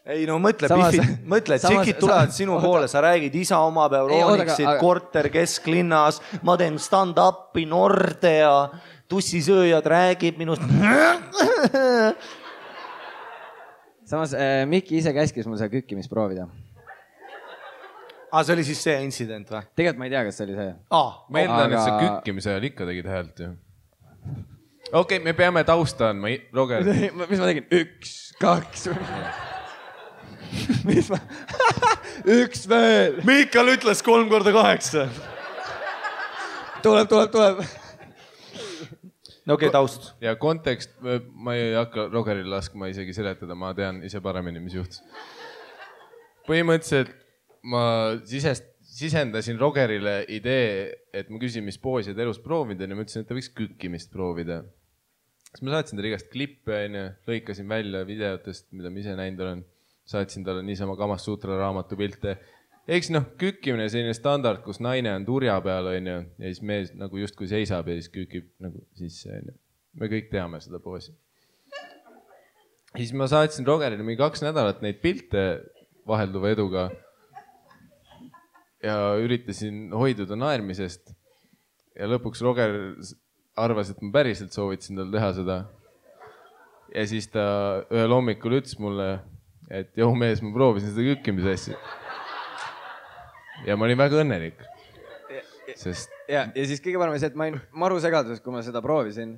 Ei no mõtle, tšikid tulevad sinu poole, sa räägid isa omab Euronixit, korter kesklinnas, ma teen stand-upi Nordea, tussisööjad räägib minust. Samas Mikki ise käskis mul seda kükkimist proovida. See oli siis see intsident või? Tegelikult ma ei tea, kas see oli see. Ma eeldan, et sa kükkimise ajal ikka tegid häält ju. Okei, me peame tausta andma, Roger. Mis ma tegin? 1, 2. Mis ma? 1 veel. Miikal ütles 3x8. Tuleb. No okei, taust. Ja kontekst, ma ei hakka Rogeril laskma isegi seletada, ma tean ise paremini, mis juhtus. Põhimõtteliselt ma sisendasin Rogerile idee, et ma küsin, mis poosid elus proovida ja ma ütlesin, et ta võiks kükkimist proovida. Siis ma saatsin talle igast klippe, lõikasin välja videotest, mida ma ise näinud olen. Saatsin talle niisama Kamas Sutra raamatu pilte. Eks kükkimine selline standard, kus naine on turja peal ja siis mees nagu justkui seisab ja siis kükib nagu sisse. Me kõik teame seda poosi. Siis ma saatsin Rogerile mingi 2 nädalat neid pilte vahelduva eduga ja üritasin hoiduda naermisest. Ja lõpuks Roger arvas, et ma päriselt soovitasin tal teha seda. Ja siis ta ühel hommikul ütles mulle, et joo mees, ma proovisin seda kükkimise asja. Ja ma olin väga õnnelik. Ja siis kõige parem see, et ma olin maru segaduses, kui ma seda proovisin.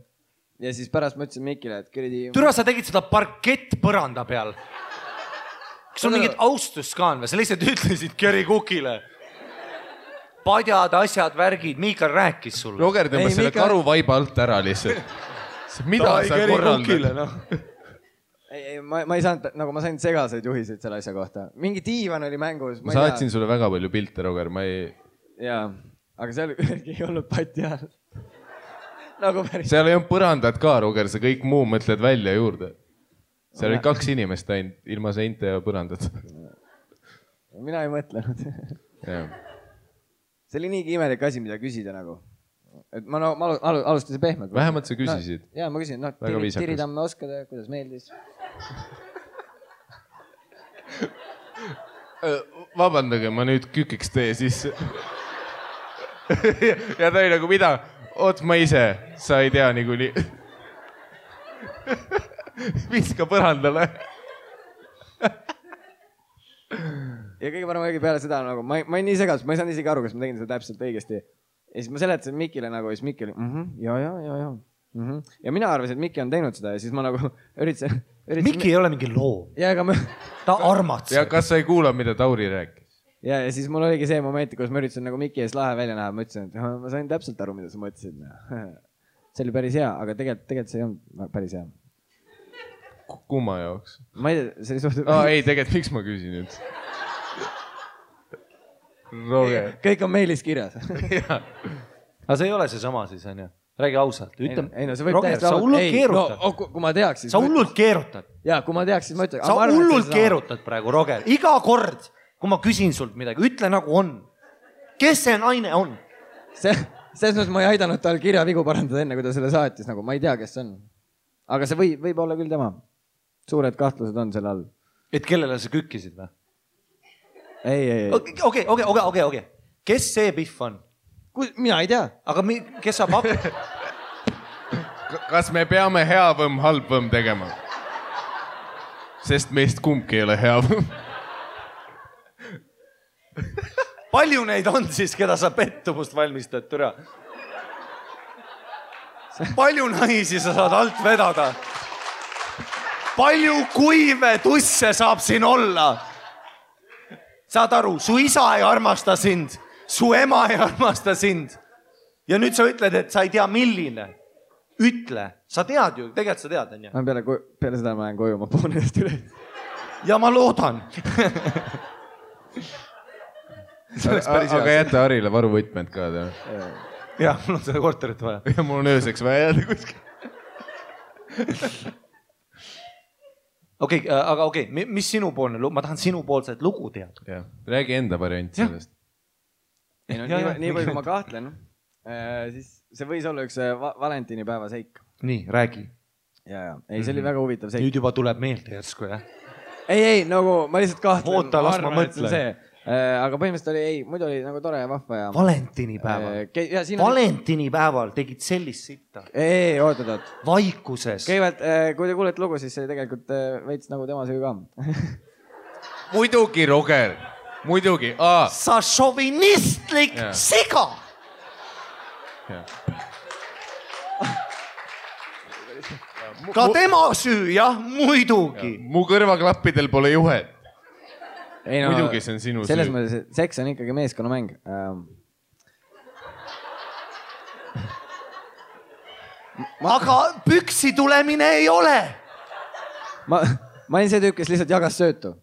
Ja siis pärast ma ütlesin Mikile, et kõredi... Türa, sa tegid seda parkett põranda peal. Kas on mingid austust ka on või? Sa lihtsalt ütlesid Kerry Cookile. Padjad, asjad, värgid. Miikal rääkis sulle. Roger tõmbas selle karuvaiba alt ära lihtsalt. Mida sa korraldad? Ma ei saanud, nagu ma sain segaseid juhiseid selle asja kohta. Mingi diivan oli mängus. Ma saatsin sulle väga palju pilte, Roger. Jaa, aga seal ei olnud pati all. Seal ei olnud põrandat ka, Roger. Sa kõik muu mõtled välja juurde. Seal oli 2 inimest ainult, ilma seinte ja põrandat. Mina ei mõtlenud. See oli niigi imelik asi, mida küsida nagu. Ma alustasin pehmelt. Vähemalt sa küsisid. Jaa, ma küsin. Tiritamme oskada, kuidas meeldis. Vabandage, ma nüüd kükiks teie sisse. Ja ta oli nagu mida? Oot, ma ise, sa ei tea niikuinii. Viska põrandale. Ja kõige parem õige peale seda nagu, ma olin nii segadus, ma ei saanud isegi aru, kas ma tegin seda täpselt õigesti. Ja siis ma seletasin Mikile nagu, ja siis Mikki oli, ja. Ja mina arvasin, et Mikki on teinud seda ja siis ma nagu üritasin... Mikki ei ole mingi loo. Ja, aga ma... Ta armatseb. Ja kas sa ei kuula, mida Tauri rääkis? Ja siis mul oligi see moment, kus ma üritasin nagu Mikki ees lahe välja näha. Ma ütlesin, et ma sain täpselt aru, mida sa mõtlesid. See oli päris hea, aga tegelikult see ei olnud päris hea. Kumma jaoks? Ma ei tea, see oli suht... Ei, tegelikult miks ma küsin nüüd? Roger. Kõik on meilis kirjas. Aga see ei ole see sama siis, on ju? Räägi ausalt. Ei, no see võib Roger, sa hullult keerutad. No, kui ma teaks, siis... Sa hullult keerutad. Jaa, kui ma teaks, siis ma ütlen... Sa hullult keerutad praegu, Roger. Iga kord, kui ma küsin sult midagi, ütle nagu on. Kes see naine on? Selles mõttes ma ei aidanud tal kirjavigu parandada enne, kui ta selle saatis. Nagu, ma ei tea, kes see on. Aga see võib olla küll tema. Suured kahtlused on selle all. Et kellele sa kükkisid või? Ei. Okei. Kes see Pihv on? Mina ei tea. Aga kes saab ab... Kas me peame hea võmm, halb võmm tegema? Sest meist kumbki ei ole hea võmm. Palju neid on siis, keda sa pettumust valmistad, türa? Palju naisi sa saad alt vedada? Palju kuive tusse saab siin olla? Saad aru, su isa ei armasta sind, su ema ei armasta sind. Ja nüüd sa ütled, et sa ei tea milline. Ütle, sa tead ju, tegelikult sa tead, on ju? Peale seda ma lähen koju, ma puhun ennast üle. Ja ma loodan. Aga jäta Harile varuvõtmed ka. Ja, mul on seda korterit vaja. Ja mul on ööseks vaja jääda kuskil. Okei, mis sinupoolne lugu? Ma tahan sinupoolset lugu teada. Räägi enda variant sellest. Nii palju, kui ma kahtlen, siis see võis olla üks Valentinipäeva seik. Nii, räägi. Ei, see oli väga huvitav seik. Nüüd juba tuleb meelde järsku, jah? Ei, nagu ma lihtsalt kahtlen. Oota, las ma mõtlen. Aga põhimõtteliselt oli, muidu oli nagu tore ja vahva ja... Valentinipäeval. Valentinipäeval tegid sellist sitta. Ei, oot. Vaikuses. Kõigepealt, kui te kuulete lugu, siis see tegelikult veits nagu tema süü ka. Muidugi, Roger. Muidugi. Sa šovinistlik siga. Ka tema süü, jah, muidugi. Mu kõrvaklappidel pole juhet. Ei, no, muidugi see on sinu süü. Selles mõttes, et seks on ikkagi meeskonnamäng. Aga püksi tulemine ei ole. Ma olin see tüüp, kes lihtsalt jagas söötu.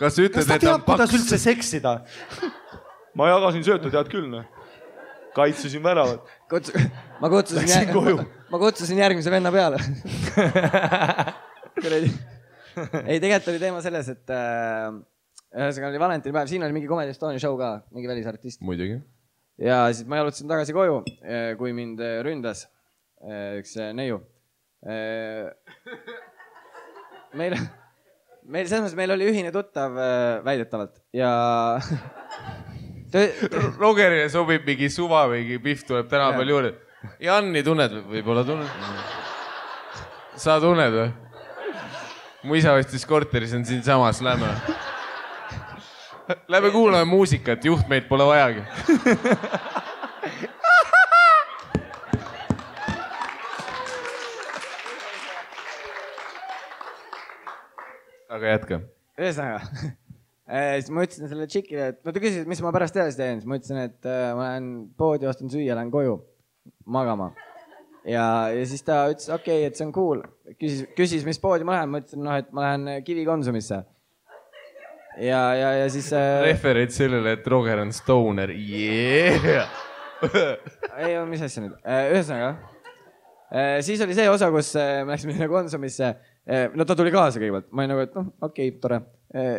Kas ütled, kas ta teab, kuidas üldse seksida? Ma jagasin söötu, tead küll, no. Kaitsesin väravat. Ma kutsusin järgmise venna peale. Ei, tegelikult oli teema selles, et ühesõnaga oli Valentinipäev, siin oli mingi Comedy Estonia show ka, mingi välisartist. Muidugi. Ja siis ma jalutasin tagasi koju, kui mind ründas üks neiu. Meil selles mõttes, meil oli ühine tuttav väidetavalt ja... Rogerile sobib mingi suva või Pihv tuleb täna palju juurde. Janni tunned võib-olla tunned? Sa tunned või? Mu isa vastis korteris on siin samas, lähme kuulame muusikat, juhtmeid pole vajagi. Aga jätka. Ühesõnaga, siis ma ütlesin selle tšikile, et ta küsis, mis ma pärast edasi teen. Siis ma ütlesin, et ma lähen poodi, ostan süüa, lähen koju magama. Ja siis ta ütles, okei, et see on cool. Küsis, mis poodi ma lähen. Ma ütlesin, et ma lähen Kivi Konsumisse. Ja siis... Refereid sellele, et Roger on stoner. Yeah! Ei, mis asja nüüd? Ühesõnaga. Siis oli see osa, kus me läksime Konsumisse. No ta tuli kaasa kõigepealt. Ma olin nagu, et okei, tore.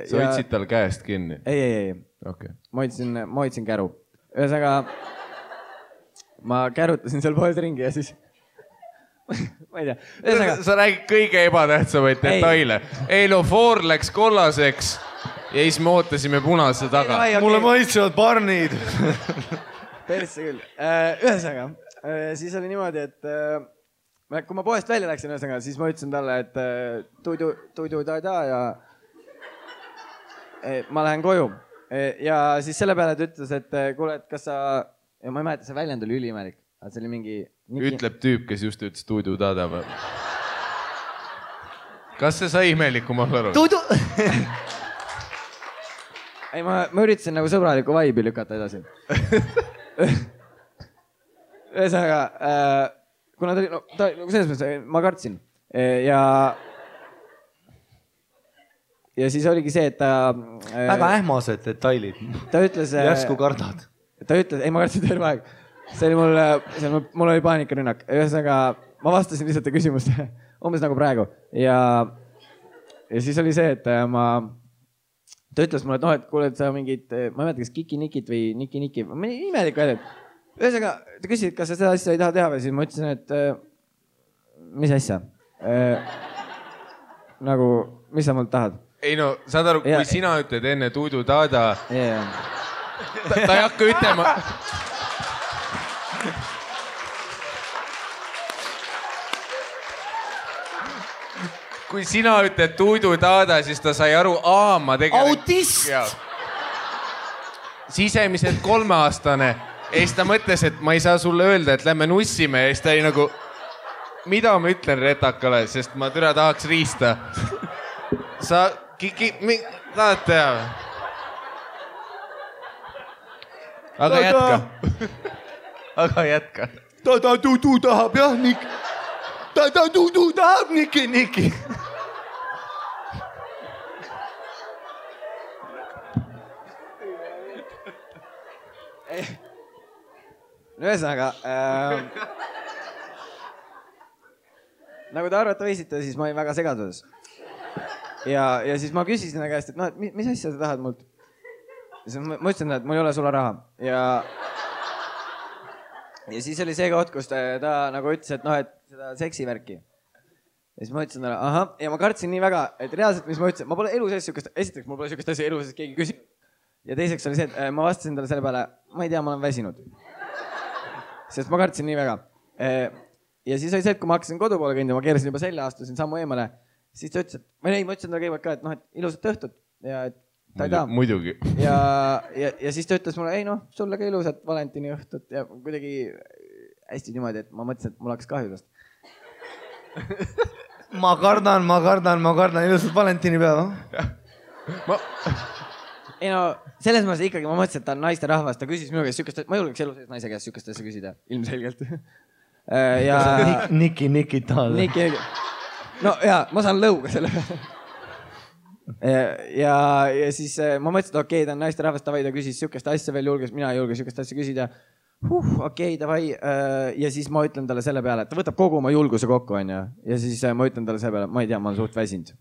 Sa hoidsid tal käest kinni? Ei. Okay. Ma hoidsin käru. Ühesõnaga, ma kärutasin seal pooled ringi ja siis ma ei tea. Sa räägid kõige ebatähtsamaid detaile. Eilofoor läks kollaseks ja siis me ootasime punase taga. Mulle maitsevad barnid. Persse küll. Ühesõnaga, siis oli niimoodi, et kui ma poest välja läksin, siis ma ütlesin talle, et tuidu ta ja ma lähen koju. Ja siis selle peale ta ütles, et kuule, et kas sa... Ja ma ei mäleta, see väljend oli üliimelik. See oli mingi... Ütleb tüüp, kes just ütles tuidu tada. Kas see sai imelikum olla aru? Tuidu... Ei, ma üritasin nagu sõbraliku vaibi lükata edasi. Ühesõnaga, kuna ta oli... No, selles mõttes ma kartsin. Ja siis oligi see, et ta... Väga ähmased detailid. Ta ütles... Järsku kardad. Ta ütles... Ei, ma kartsin terve aeg. See oli mul oli paanikarünnak. Ühesõnaga, ma vastasin lihtsalt küsimust umbes nagu praegu. Ja siis oli see, et ta ütles mulle, et noh, et kuule, et sa mingid... Ma ei mäleta, kas Kiki-Nikit või Niki-Niki. Imelik väljend. Ühesõnaga, ta küsis, kas sa seda asja ei taha teha või siis ma ütlesin, et mis asja? Nagu, mis sa mult tahad? Ei no, saad aru, kui sina ütled enne tuidu tada, ta ei hakka ütlema. Kui sina ütled tuidu tada, siis ta sai aru, ma tegelikult... Autist! Sisemiselt 3-aastane. Ja siis ta mõtles, et ma ei saa sulle öelda, et lähme nussime. Ja siis ta oli nagu, mida ma ütlen retakale, sest ma türa tahaks riista. Sa... tahad teha? Aga jätka. Aga jätka. Ta tudu tahab, jah, Nik. Ta tudu tahab, Niki. Ühesõnaga, nagu te arvata võisite, siis ma olin väga segaduses. Ja siis ma küsisin ta käest, et noh, et mis asja sa tahad mult? Ma ütlesin, et mul ei ole sulle raha. Ja siis oli see koht, kus ta nagu ütles, et noh, et seda seksivärki. Ja siis ma ütlesin talle, ahah, ja ma kartsin nii väga, et reaalselt, mis ma ütlesin, ma pole elu sees sükest, esiteks mul pole sükest asja elu sees keegi küsib. Ja teiseks oli see, et ma vastasin talle selle peale, ma ei tea, ma olen väsinud. Sest ma kartsin nii väga. Ja siis oli see, et kui ma hakkasin kodu poole kõndima, ma keerasin juba selja, astusin sammu eemale, siis ta ütles, et ma ütlesin talle kõigepealt ka, et noh, et ilusat õhtut ja et ta ei taha. Muidugi. Ja siis ta ütles mulle, ei noh, sulle ka ilusat Valentini õhtut ja kuidagi hästi niimoodi, et ma mõtlesin, et mul hakkas kahju tast. Ma kardan ilusat Valentini päeva. Ei no, selles mõttes ikkagi ma mõtlesin, et ta on naiste rahvas, ta küsis minu käest sükest, ma julgeks elu sees naise käest sükest asja küsida, ilmselgelt. Niki tahad. No jaa, ma saan lõuga selle peale. Ja siis ma mõtlesin, et okei, ta on naiste rahvas, ta küsis sükest asja veel julges, mina ei julge sükest asja küsida. Okei, davai. Ja siis ma ütlen talle selle peale, et ta võtab kogu oma julguse kokku, on ja siis ma ütlen talle selle peale, ma ei tea, ma olen suht väsinud.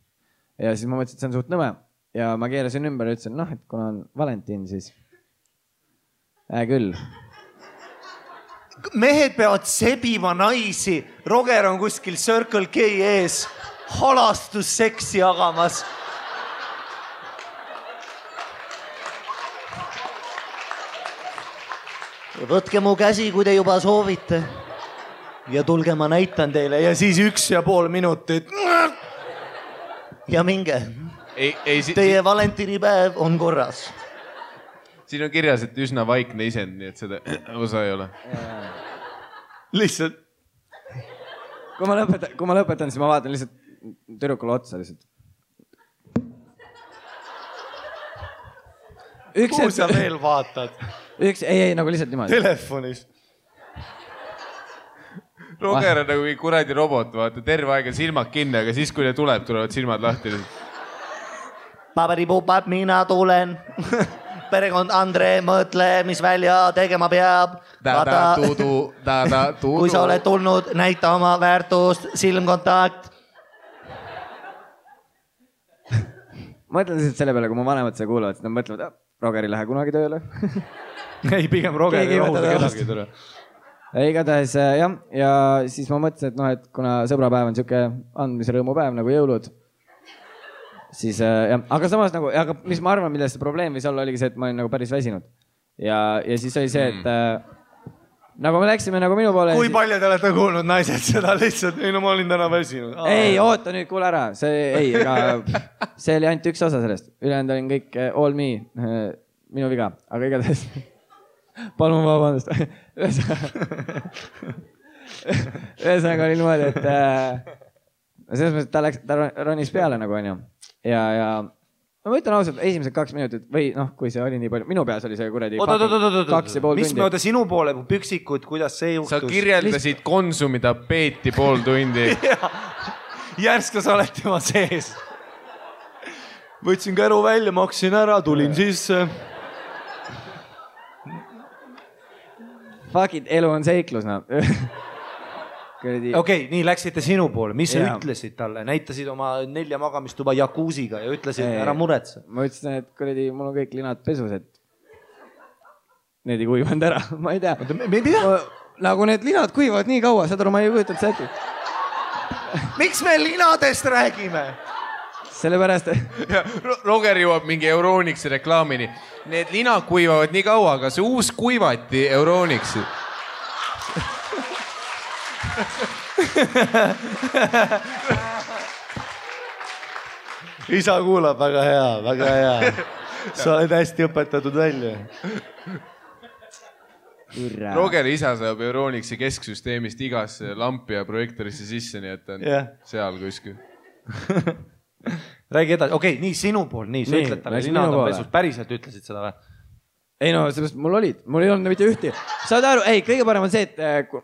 Ja siis ma mõtlesin, et see on suht nõme. Ja ma keerasin ümber ja ütlesin, noh, et kuna on Valentin, siis küll. Mehed peavad sebima naisi. Roger on kuskil Circle K ees halastusseksi jagamas. Võtke mu käsi, kui te juba soovite. Ja tulge, ma näitan teile. Ja siis 1,5 minutit. Ja minge. Teie Valentinipäev on korras. Siin on kirjas, et üsna vaikne isend, nii et seda osa ei ole. Lihtsalt. Kui ma lõpetan, siis ma vaatan lihtsalt tüdrukule otsa lihtsalt. Kuhu sa veel vaatad? Ei, nagu lihtsalt niimoodi. Telefonis. Roger on nagu kuradi robot, vaata, terve aega silmad kinni, aga siis, kui ne tuleb, tulevad silmad lahti. Paberipupad, mina tulen. Perekond Andre, mõtle, mis välja tegema peab. Kui sa oled tulnud, näita oma väärtust, silmkontakt. Ma mõtlen lihtsalt selle peale, kui mu vanemad seda kuulavad, siis nad mõtlevad, Roger ei lähe kunagi tööle. Ei, pigem Roger ei rahuda kedagi. igatahes jah, ja siis ma mõtlesin, et noh, et kuna sõbrapäev on siuke andmise rõõmupäev nagu jõulud, siis jah, aga samas nagu, aga mis ma arvan, milles see probleem võis olla, oligi see, et ma olin nagu päris väsinud. Ja siis oli see, et nagu me läksime nagu minu poole. Kui palju te olete kuulnud naised seda lihtsalt? Ei, no ma olin täna väsinud. Ei, oota nüüd, kuule ära. See oli ainult üks osa sellest. Ülejäänud olin kõik all me, minu viga, aga igatahes. Palun vabandust. Ühesõnaga oli niimoodi, et selles mõttes, et ta ronis peale nagu on ju. Ja ma ütlen ausalt, esimesed 2 minutit või noh, kui see oli nii palju, minu peas oli see kuradi 2,5 tundi. Mis me oota sinu poole, püksikud, kuidas see juhtus? Sa kirjeldasid Konsumi tapeeti 0,5 tundi. Järsk sa oled tema sees. Võtsin käru välja, maksin ära, tulin sisse. Fuck it, elu on seiklus, no. Okei, nii läksite sinu poole. Mis sa ütlesid talle? Näitasid oma 4 magamistuba jakuusiga ja ütlesid, ära muretse. Ma ütlesin, et kuradi, mul on kõik linad pesus, et need ei kuivanud ära. Ma ei tea. Nagu need linad kuivavad nii kaua, saad aru, ma ei kujutanud seda. Miks me linadest räägime? Sellepärast... Roger jõuab mingi Euronixi reklaamini. Need linad kuivavad nii kaua, aga see uus kuivati Euronixi. Isa kuulab, väga hea, väga hea. Sa oled hästi õpetatud välja. Rogeri isa saab Euronixi kesksüsteemist igasse lampi ja projektorisse sisse, nii et on seal kuskil. Räägi edasi. Okei, nii sinu pool, nii, sa ütled talle linad on pesus. Päriselt ütlesid seda või? Ei no, sellest mul ei olnud mitte ühti. Saad aru, ei, kõige parem on see, et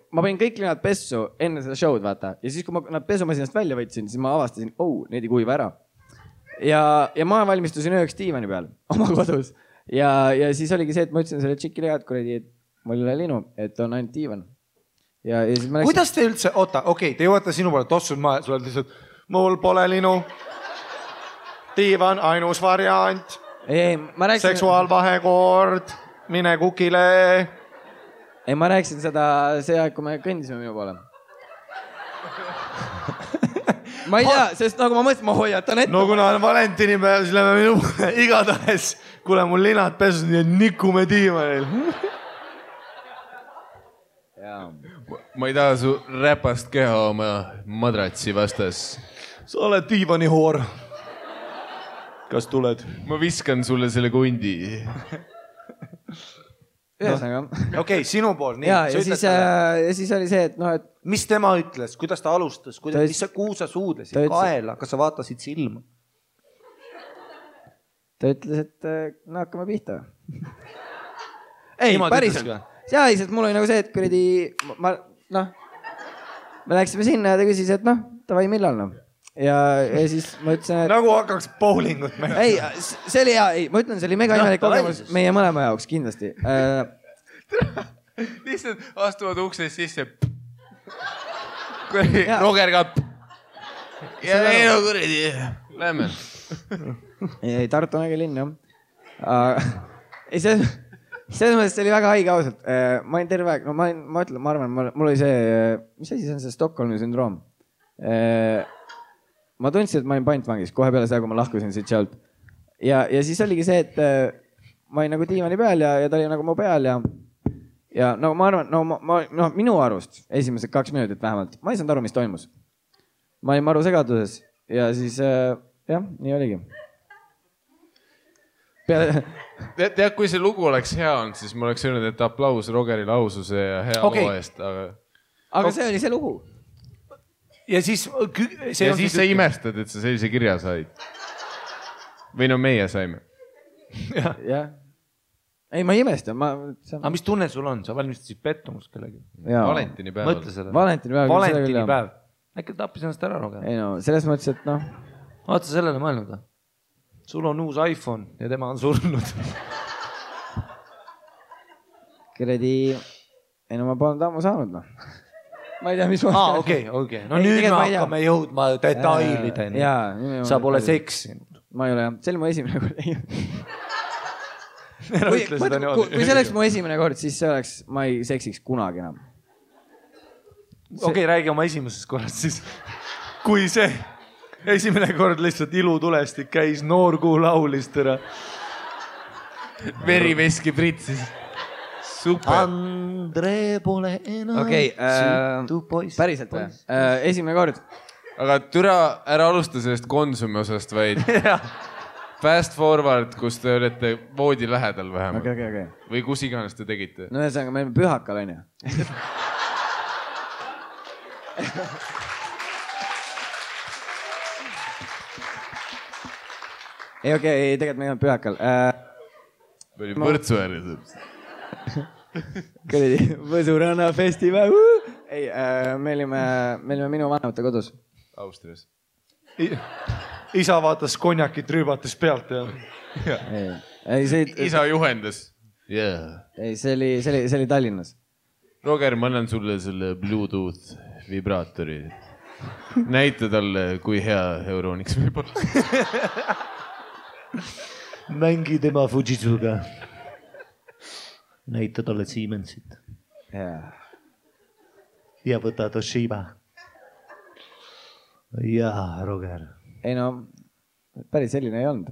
ma panin kõik linad pessu enne seda show'd, vaata. Ja siis, kui ma nad pesumasinast välja võtsin, siis ma avastasin, need ei kuiva ära. Ja ma valmistusin ööks diivani peal oma kodus. Ja siis oligi see, et ma ütlesin selle tšikile head kuradi, et mul ei ole linu, et on ainult diivan. Ja siis ma läksin... Kuidas te üldse, oota, okei, te jõuate sinu poole, tossud maja, sul oled lihtsalt, mul pole linu, diivan, ainus variant. Ei, ma rääksin... Seksuaalvahekord, mine kukile. Ei, ma rääksin seda see aeg, kui me kõndisime minu poole. Ma ei tea, sest nagu ma mõtlesin, ma hoiatan ette. No kuna on valentinipäev, siis lähme minu poole igatahes. Kuule, mul linad pesus, nii et nikume diivanil. Ma ei taha su räpast keha oma madratsi vastas. Sa oled diivanihoor. Kas tuled? Ma viskan sulle selle kundi. Ühesõnaga. Okei, sinu pool. Ja siis oli see, et noh, et... Mis tema ütles? Kuidas ta alustas? Kuhu sa suudlesid? Kaela? Kas sa vaatasid silma? Ta ütles, et no hakkame pihta. Ei, päriselt. Jaa, sest mul oli nagu see, et kuradi... Me läksime sinna ja ta küsis, et noh, tavai millal noh. Ja siis ma ütlesin, et... Nagu hakkaks bowlingut mängima. Ei, see oli hea, ma ütlen, see oli mega imelik kogemus meie mõlema jaoks, kindlasti. Lihtsalt astuvad uksest sisse. Roger ka. Ja ei no kuradi. Lähme. Ei, Tartu on äge linn, jah. Ei, selles mõttes see oli väga haige ausalt. Ma olin terve aeg, no ma arvan, mul oli see, mis asi see on see Stockholmi sündroom? Ma tundsin, et ma olin pantvangis kohe peale seda, kui ma lahkusin siit sealt. Ja siis oligi see, et ma olin nagu diivani peal ja ta oli nagu mu peal ja no ma arvan, no minu arust esimesed 2 minutit vähemalt, ma ei saanud aru, mis toimus. Ma olin maru segaduses ja siis jah, nii oligi. Tead, kui see lugu oleks hea olnud, siis ma oleks öelnud, et aplaus Rogerile aususe ja hea loo eest. Aga see oli see lugu. Ja siis sa imestad, et sa sellise kirja said. Või no meie saime. Jah. Ei, ma ei imesta. Aga mis tunne sul on? Sa valmistasid pettumust kellegi? Valentinipäeval. Mõtle selle. Valentinipäeval. Äkki tappis ennast ära, Roger? Ei no, selles mõttes, et noh. Vaata sellele mõelnud. Sul on uus iPhone ja tema on surnud. Kuradi... Ei no ma polnud ammu saanud, noh. Ma ei tea, mis ma... Okei. No nüüd me hakkame jõudma detailideni. Sa pole seksinud. Ma ei ole, jah. See oli mu esimene kord. Kui see oleks mu esimene kord, siis see oleks, ma ei seksiks kunagi enam. Okei, räägi oma esimesest korrast siis. Kui see esimene kord lihtsalt ilutulestik käis, noorkuu laulis tõra. Veriveski pritsis. Super. Andre pole enam süütu poiss. Päriselt või? Esimene kord. Aga türa ära alusta sellest Konsumi osast, vaid fast forward, kus te olete voodi lähedal vähemalt. Okay. Või kus iganes te tegite. No ühesõnaga, me oleme pühakal, on ju. Ei, tegelikult me ei olnud pühakal. Me olime Võrtsu ääres. Kõredi, Võsuranna festival. Ei, me olime minu vanemate kodus. Austrias. Isa vaatas konjakit rüübates pealt ja. Isa juhendas. Ei, see oli Tallinnas. Roger, ma annan sulle selle Bluetooth vibraatori. Näita talle, kui hea Euroniks võib olla. Mängi tema Fujitsuga. Näita talle Siemensit. Ja võta Toshiba. Jaa, Roger. Ei no, päris selline ei olnud.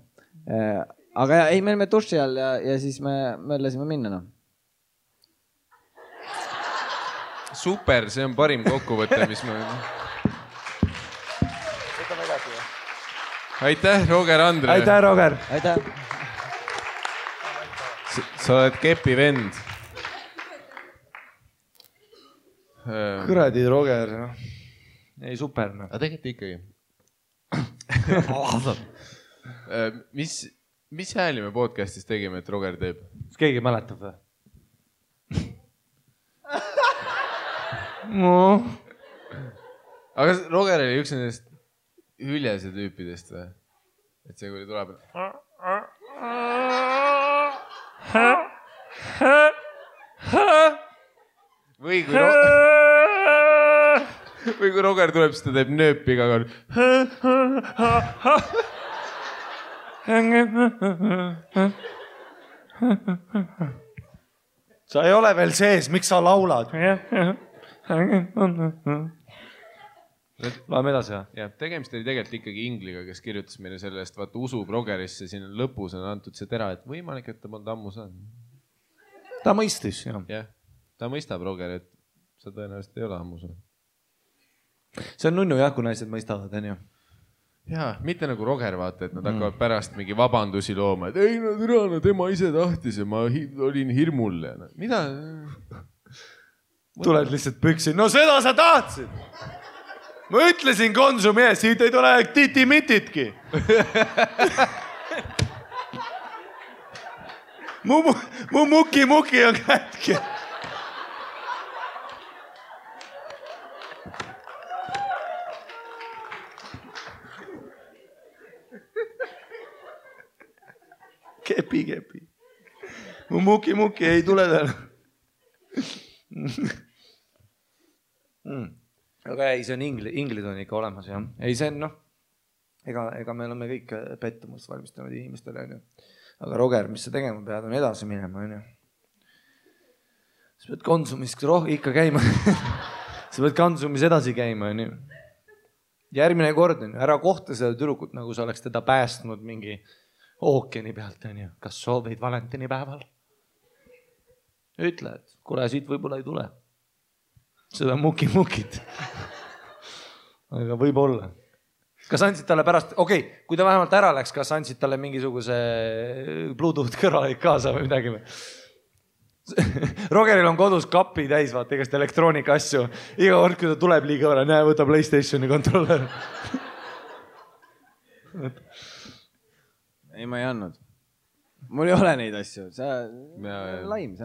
Aga ei, me olime duši all ja siis me mõtlesime minna. No. Super, see on parim kokkuvõte, mis me... Aitäh, Roger Andre. Aitäh, Roger. Aitäh. Sa oled kepi vend. Kuradi, Roger. Ei, super. Aga tegelikult ikkagi. Mis hääli me podcastis tegime, et Roger teeb? Kas keegi mäletab või? Aga Roger oli üks nendest hüljese tüüpidest või? Et see, kui tuleb... Või kui Roger tuleb, siis ta teeb nööpi iga kord. Sa ei ole veel sees, miks sa laulad? Läheme edasi, jah? Ja, tegemist oli tegelikult ikkagi Ingliga, kes kirjutas meile selle eest, vaata usub Rogerisse, siin lõpus on antud see tera, et võimalik, et ta polnud ammu saanud. Ta mõistis, jah. Jah, ta mõistab Roger, et sa tõenäoliselt ei ole ammu saanud. See on nunnu jah, kui naised mõistavad, on ju. Jaa, mitte nagu Roger, vaata, et nad hakkavad pärast mingi vabandusi looma, et ei, no tema ise tahtis ja ma olin hirmul. Mida? Tuled lihtsalt püksi. No seda sa tahtsid! Ma ütlesin Konsumi ees, siit ei tule titi-mititki. Mu muki on kätki. Kepi. Mu muki ei tule täna. Aga ei, see on inglid on ikka olemas, jah. Ei, see on, ega me oleme kõik pettumust valmistanud inimestele, on ju. Aga Roger, mis sa tegema pead, on edasi minema, on ju. Sa pead Konsumis ikka käima. Sa pead Konsumis edasi käima, on ju. Järgmine kord, on ju, ära kohta seda tüdrukut, nagu sa oleks teda päästnud mingi ookeani pealt, on ju. Kas soovid valentinipäeval? Ütle, et kuule, siit võib-olla ei tule. Seda mukit. Aga võib olla. Kas andsid talle pärast, kui ta vähemalt ära läks, kas andsid talle mingisuguse Bluetooth kõrvalik kaasa või midagi või? Rogeril on kodus kapi täis, vaata, igast elektroonika asju. Iga kord, kui ta tuleb liiga võrra, näe, võta PlayStationi kontroller. Ei, ma ei andnud. Mul ei ole neid asju. See on laim.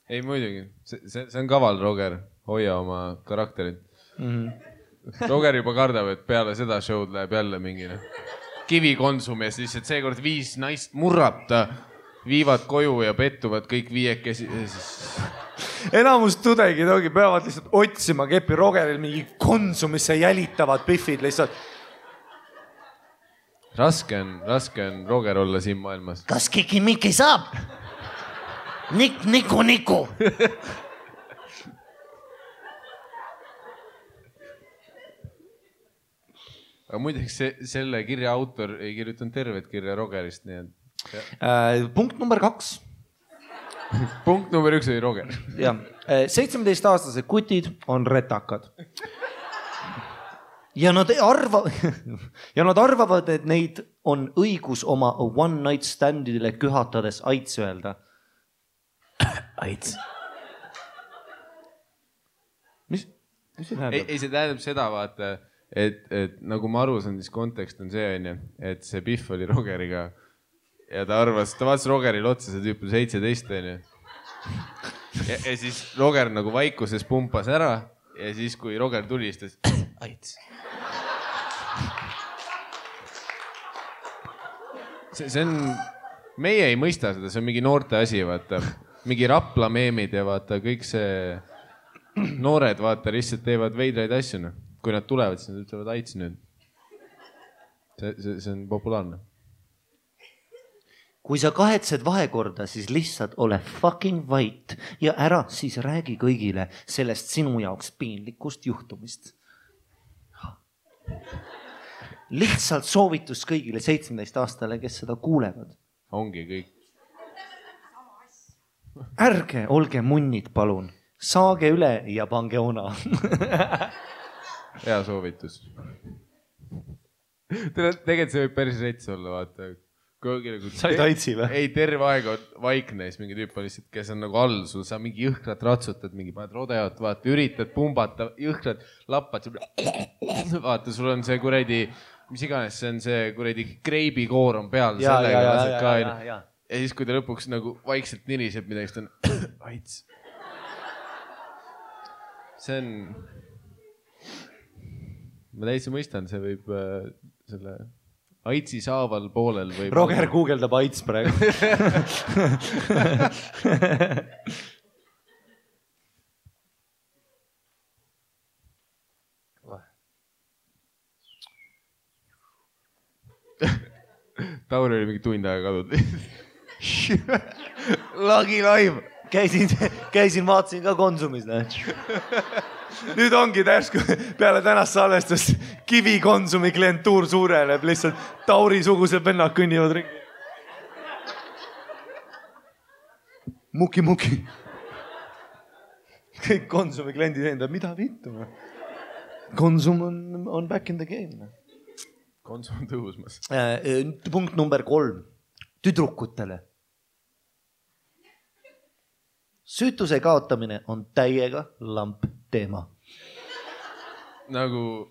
Ei, muidugi. See on kaval, Roger. Hoia oma karakterit. Roger juba kardab, et peale seda show'd läheb jälle mingine kivi Konsumi ja siis, et seekord 5 naist murrab ta, viivad koju ja pettuvad kõik 5 Enamus tudengid peavad lihtsalt otsima kepi Rogeril mingi Konsumisse jälitavad pihvid lihtsalt. Raske on Roger olla siin maailmas. Kas kiki-miki saab? Niku. aga muideks selle kirja autor ei kirjutanud tervet kirja Rogerist, nii et... Punkt number 2. Punkt number 1 oli Roger. Ja, 17-aastased kutid on retakad. Ja nad arvavad, et neid on õigus oma one night standidele kühatades aits öelda. Aits. Mis see tähendab? Ei, see tähendab seda, vaata, et nagu ma aru saan, siis kontekst on see, et see Pihv oli Rogeriga ja ta vaatas Rogeril otsa, see tüüp on 17, ja siis Roger nagu vaikuses pumpas ära ja siis, kui Roger tuli, siis ta aits. See on, meie ei mõista seda, see on mingi noorte asi, vaata, mingi Rapla meemid ja vaata, kõik see noored, vaata, lihtsalt teevad veidraid asju, no. Kui nad tulevad, siis nad ütlevad aits nüüd. See on populaarne. Kui sa kahetsed vahekorda, siis lihtsalt ole fucking vait ja ära siis räägi kõigile sellest sinu jaoks piinlikust juhtumist. Lihtsalt soovitus kõigile 17-aastale, kes seda kuulevad. Ongi kõik. Ärge olge munnid, palun. Saage üle ja pange ona. Hea soovitus. Tegelikult see võib päris rets olla, vaata. Said aitsi või? Ei, terve aeg on vaikne, siis mingi tüüp on lihtsalt, kes on nagu all, sul sa mingi jõhkrat ratsutad, mingi paned rodeot, vaata, üritad pumbata, jõhkrat lappad, vaata, sul on see kuredi, mis iganes, see on see kuredi kreibikoor on peal. Ja siis, kui ta lõpuks nagu vaikselt niriseb midagi, siis ta on aits. See on, ma täitsa mõistan, see võib selle... Aitsi saaval poolel või... Roger guugeldab aits praegu. Tauri oli mingi tund aega kadud. Lagi live. Käisin, vaatasin ka Konsumis. Nüüd ongi tärsku peale tänast salvestust Kivi Konsumi klientuur suureneb, lihtsalt Tauri-sugused vennad kõnnivad ringi. Muki. Kõik Konsumi kliendid endab, mida vittu? Konsum on back in the game. Konsum on tõusmas. Punkt number 3. Tüdrukutele. Süütuse kaotamine on täiega lamp teema. Nagu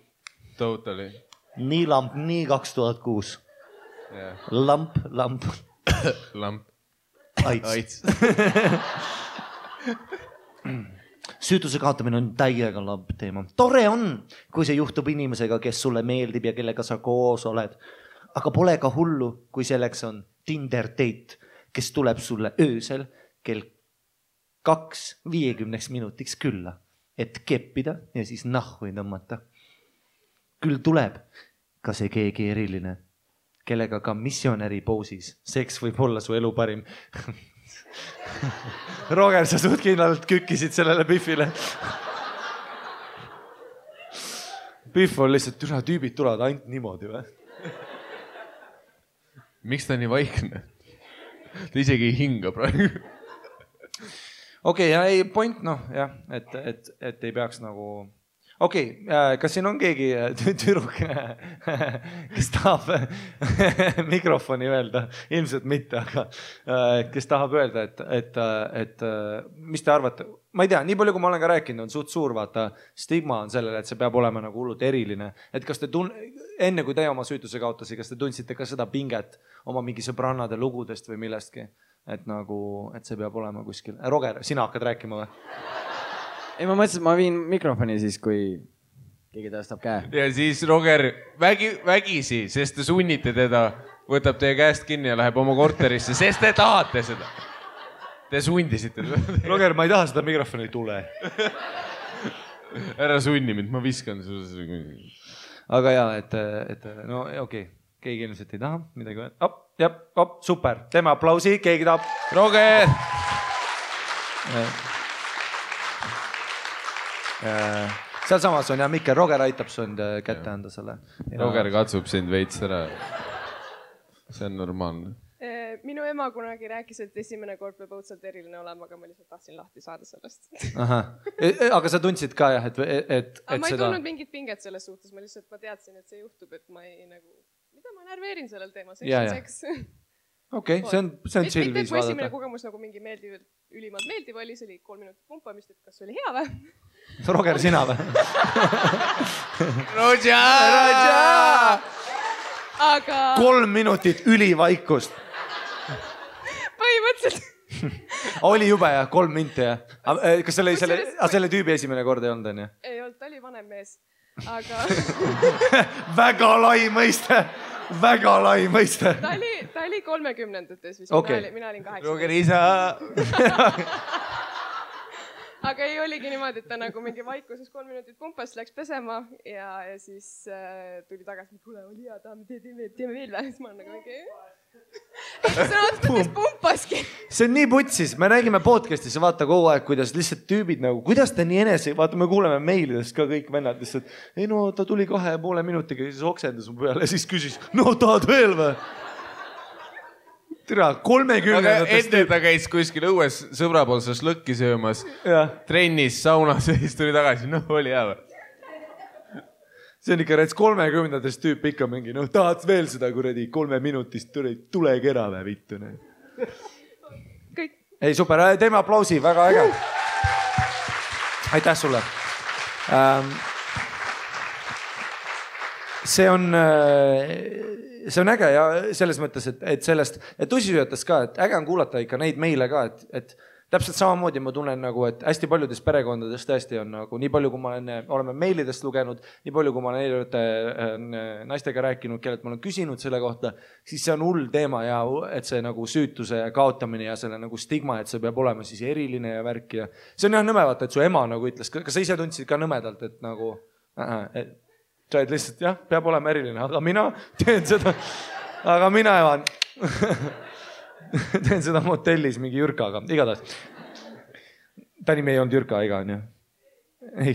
totally. Nii lamp, nii 2006. Yeah. Lamp. Lamp. Aits. Süütuse kaotamine on täiega lamp teema. Tore on, kui see juhtub inimesega, kes sulle meeldib ja kellega sa koos oled. Aga pole ka hullu, kui selleks on Tinder date, kes tuleb sulle öösel kell 2:50 minutiks külla, et keppida ja siis nahhu tõmmata. Küll tuleb ka see keegi eriline, kellega ka missionäri poosis. Seks võib olla su elu parim. Roger, sa suht kindlalt kükkisid sellele Pihvile. Pihv on lihtsalt, üle tüübid tulevad ainult niimoodi või? Miks ta nii vaikne? Ta isegi ei hinga praegu. Okei, ei point, jah, et ei peaks nagu... Okei, kas siin on keegi tüdruk, kes tahab mikrofoni öelda? Ilmselt mitte, aga kes tahab öelda, et mis te arvate? Ma ei tea, nii palju, kui ma olen ka rääkinud, on suht suur, vaata, stigma on sellele, et see peab olema nagu hullult eriline. Et kas te enne kui te oma süütuse kaotasi, kas te tundsite ka seda pinget oma mingi sõbrannade lugudest või millestki? Et nagu, et see peab olema kuskil. Roger, sina hakkad rääkima või? Ei, ma mõtlesin, et ma viin mikrofoni siis, kui keegi tõstab käe. Ja siis Roger vägisi, sest te sunnite teda, võtab teie käest kinni ja läheb oma korterisse, sest te tahate seda. Te sundisite. Roger, ma ei taha seda mikrofoni, ei tule. Ära sunni mind, ma viskan. Aga jaa, et no okei. Keegi ilmselt ei taha midagi öelda. Super. Teeme aplausi, keegi tahab. Roger! sealsamas on ja Mikkel, Roger aitab sind kätte anda selle. Roger katsub sind veits ära. See on normaalne. Minu ema kunagi rääkis, et esimene kord peab õudselt eriline olema, aga ma lihtsalt tahtsin lahti saada sellest. Aga sa tundsid ka jah, et ma ei tundnud mingit pinget selles suhtes, ma teadsin, et see juhtub, et ma ei nagu, mida ma närveerin sellel teema, seks. Okei, see on chill viis vaadata. Mitte esimene kogemus nagu mingi ülimalt meeldiv oli, see oli 3 minutit pumpamist, et kas oli hea või? Roger, sina või? Roger! 3 minutit ülivaikust. Põhimõtteliselt. Oli jube jah, 3 minti jah. Kas selle tüübi esimene kord ei olnud, on ju? Ei olnud, ta oli vanem mees. Aga... Väga lai mõiste. Väga lai mõiste. Ta oli 30-ndates vist. Mina olin 8. Roger isa. Aga ei oligi niimoodi, et ta nagu mingi vaikuses 3 minutit pumpas, läks pesema ja siis tuli tagasi, kuule, oli hea, teeme veel või? Siis ma olen nagu mingi... See on oot, kes pumpaski. See on nii putsis, me räägime podcastis ja vaata kogu aeg, kuidas lihtsalt tüübid nagu, kuidas ta nii enese, vaata me kuuleme meilidest ka kõik vennad lihtsalt, ei no ta tuli 2,5 minutiga, siis oksendas mu peale ja siis küsis, no tahad veel või? Tere, 30. Aga enne ta käis kuskil õues sõbra pool šašlõkki söömas, trennis, saunas ja siis tuli tagasi, noh oli hea või? See on ikka 30-ndast tüüp ikka mingi, noh tahad veel seda kuradi 3 minutist tule kera või vittu. Kõik. Ei super, teeme aplausi, väga äge. Aitäh sulle. See on äge ja selles mõttes, et sellest, et tussisööjatest ka, et äge on kuulata ikka neid meile ka, et täpselt samamoodi ma tunnen nagu, et hästi paljudes perekondades tõesti on nagu nii palju, kui ma oleme meilidest lugenud, nii palju, kui ma olen naistega rääkinud, kellelt ma olen küsinud selle kohta, siis see on hull teema ja et see nagu süütuse kaotamine ja selle nagu stigma, et see peab olema siis eriline ja värk ja see on jah nõme vaata, et su ema nagu ütles, kas sa ise tundsid ka nõmedalt, et nagu sa oled lihtsalt jah, peab olema eriline, aga mina teen seda, aga mina evan teen seda motellis mingi Jürkaga, igatahes. Ta nimi ei olnud Jürka, ega on ju? Ei.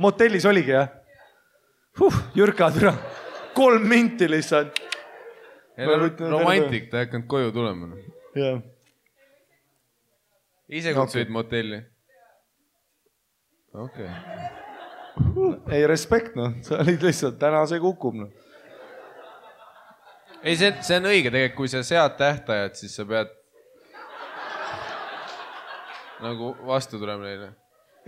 Motellis oligi, jah? Jürka, türa. 3 minti lihtsalt. Romantik, ta ei hakkanud koju tulema. Jah. Ise kutsuid motelli? Okei. Ei, respekt, noh. Sa olid lihtsalt, täna see kukub, noh. Ei, see on õige tegelikult, kui sa sead tähtajad, siis sa pead nagu vastu tulema neile.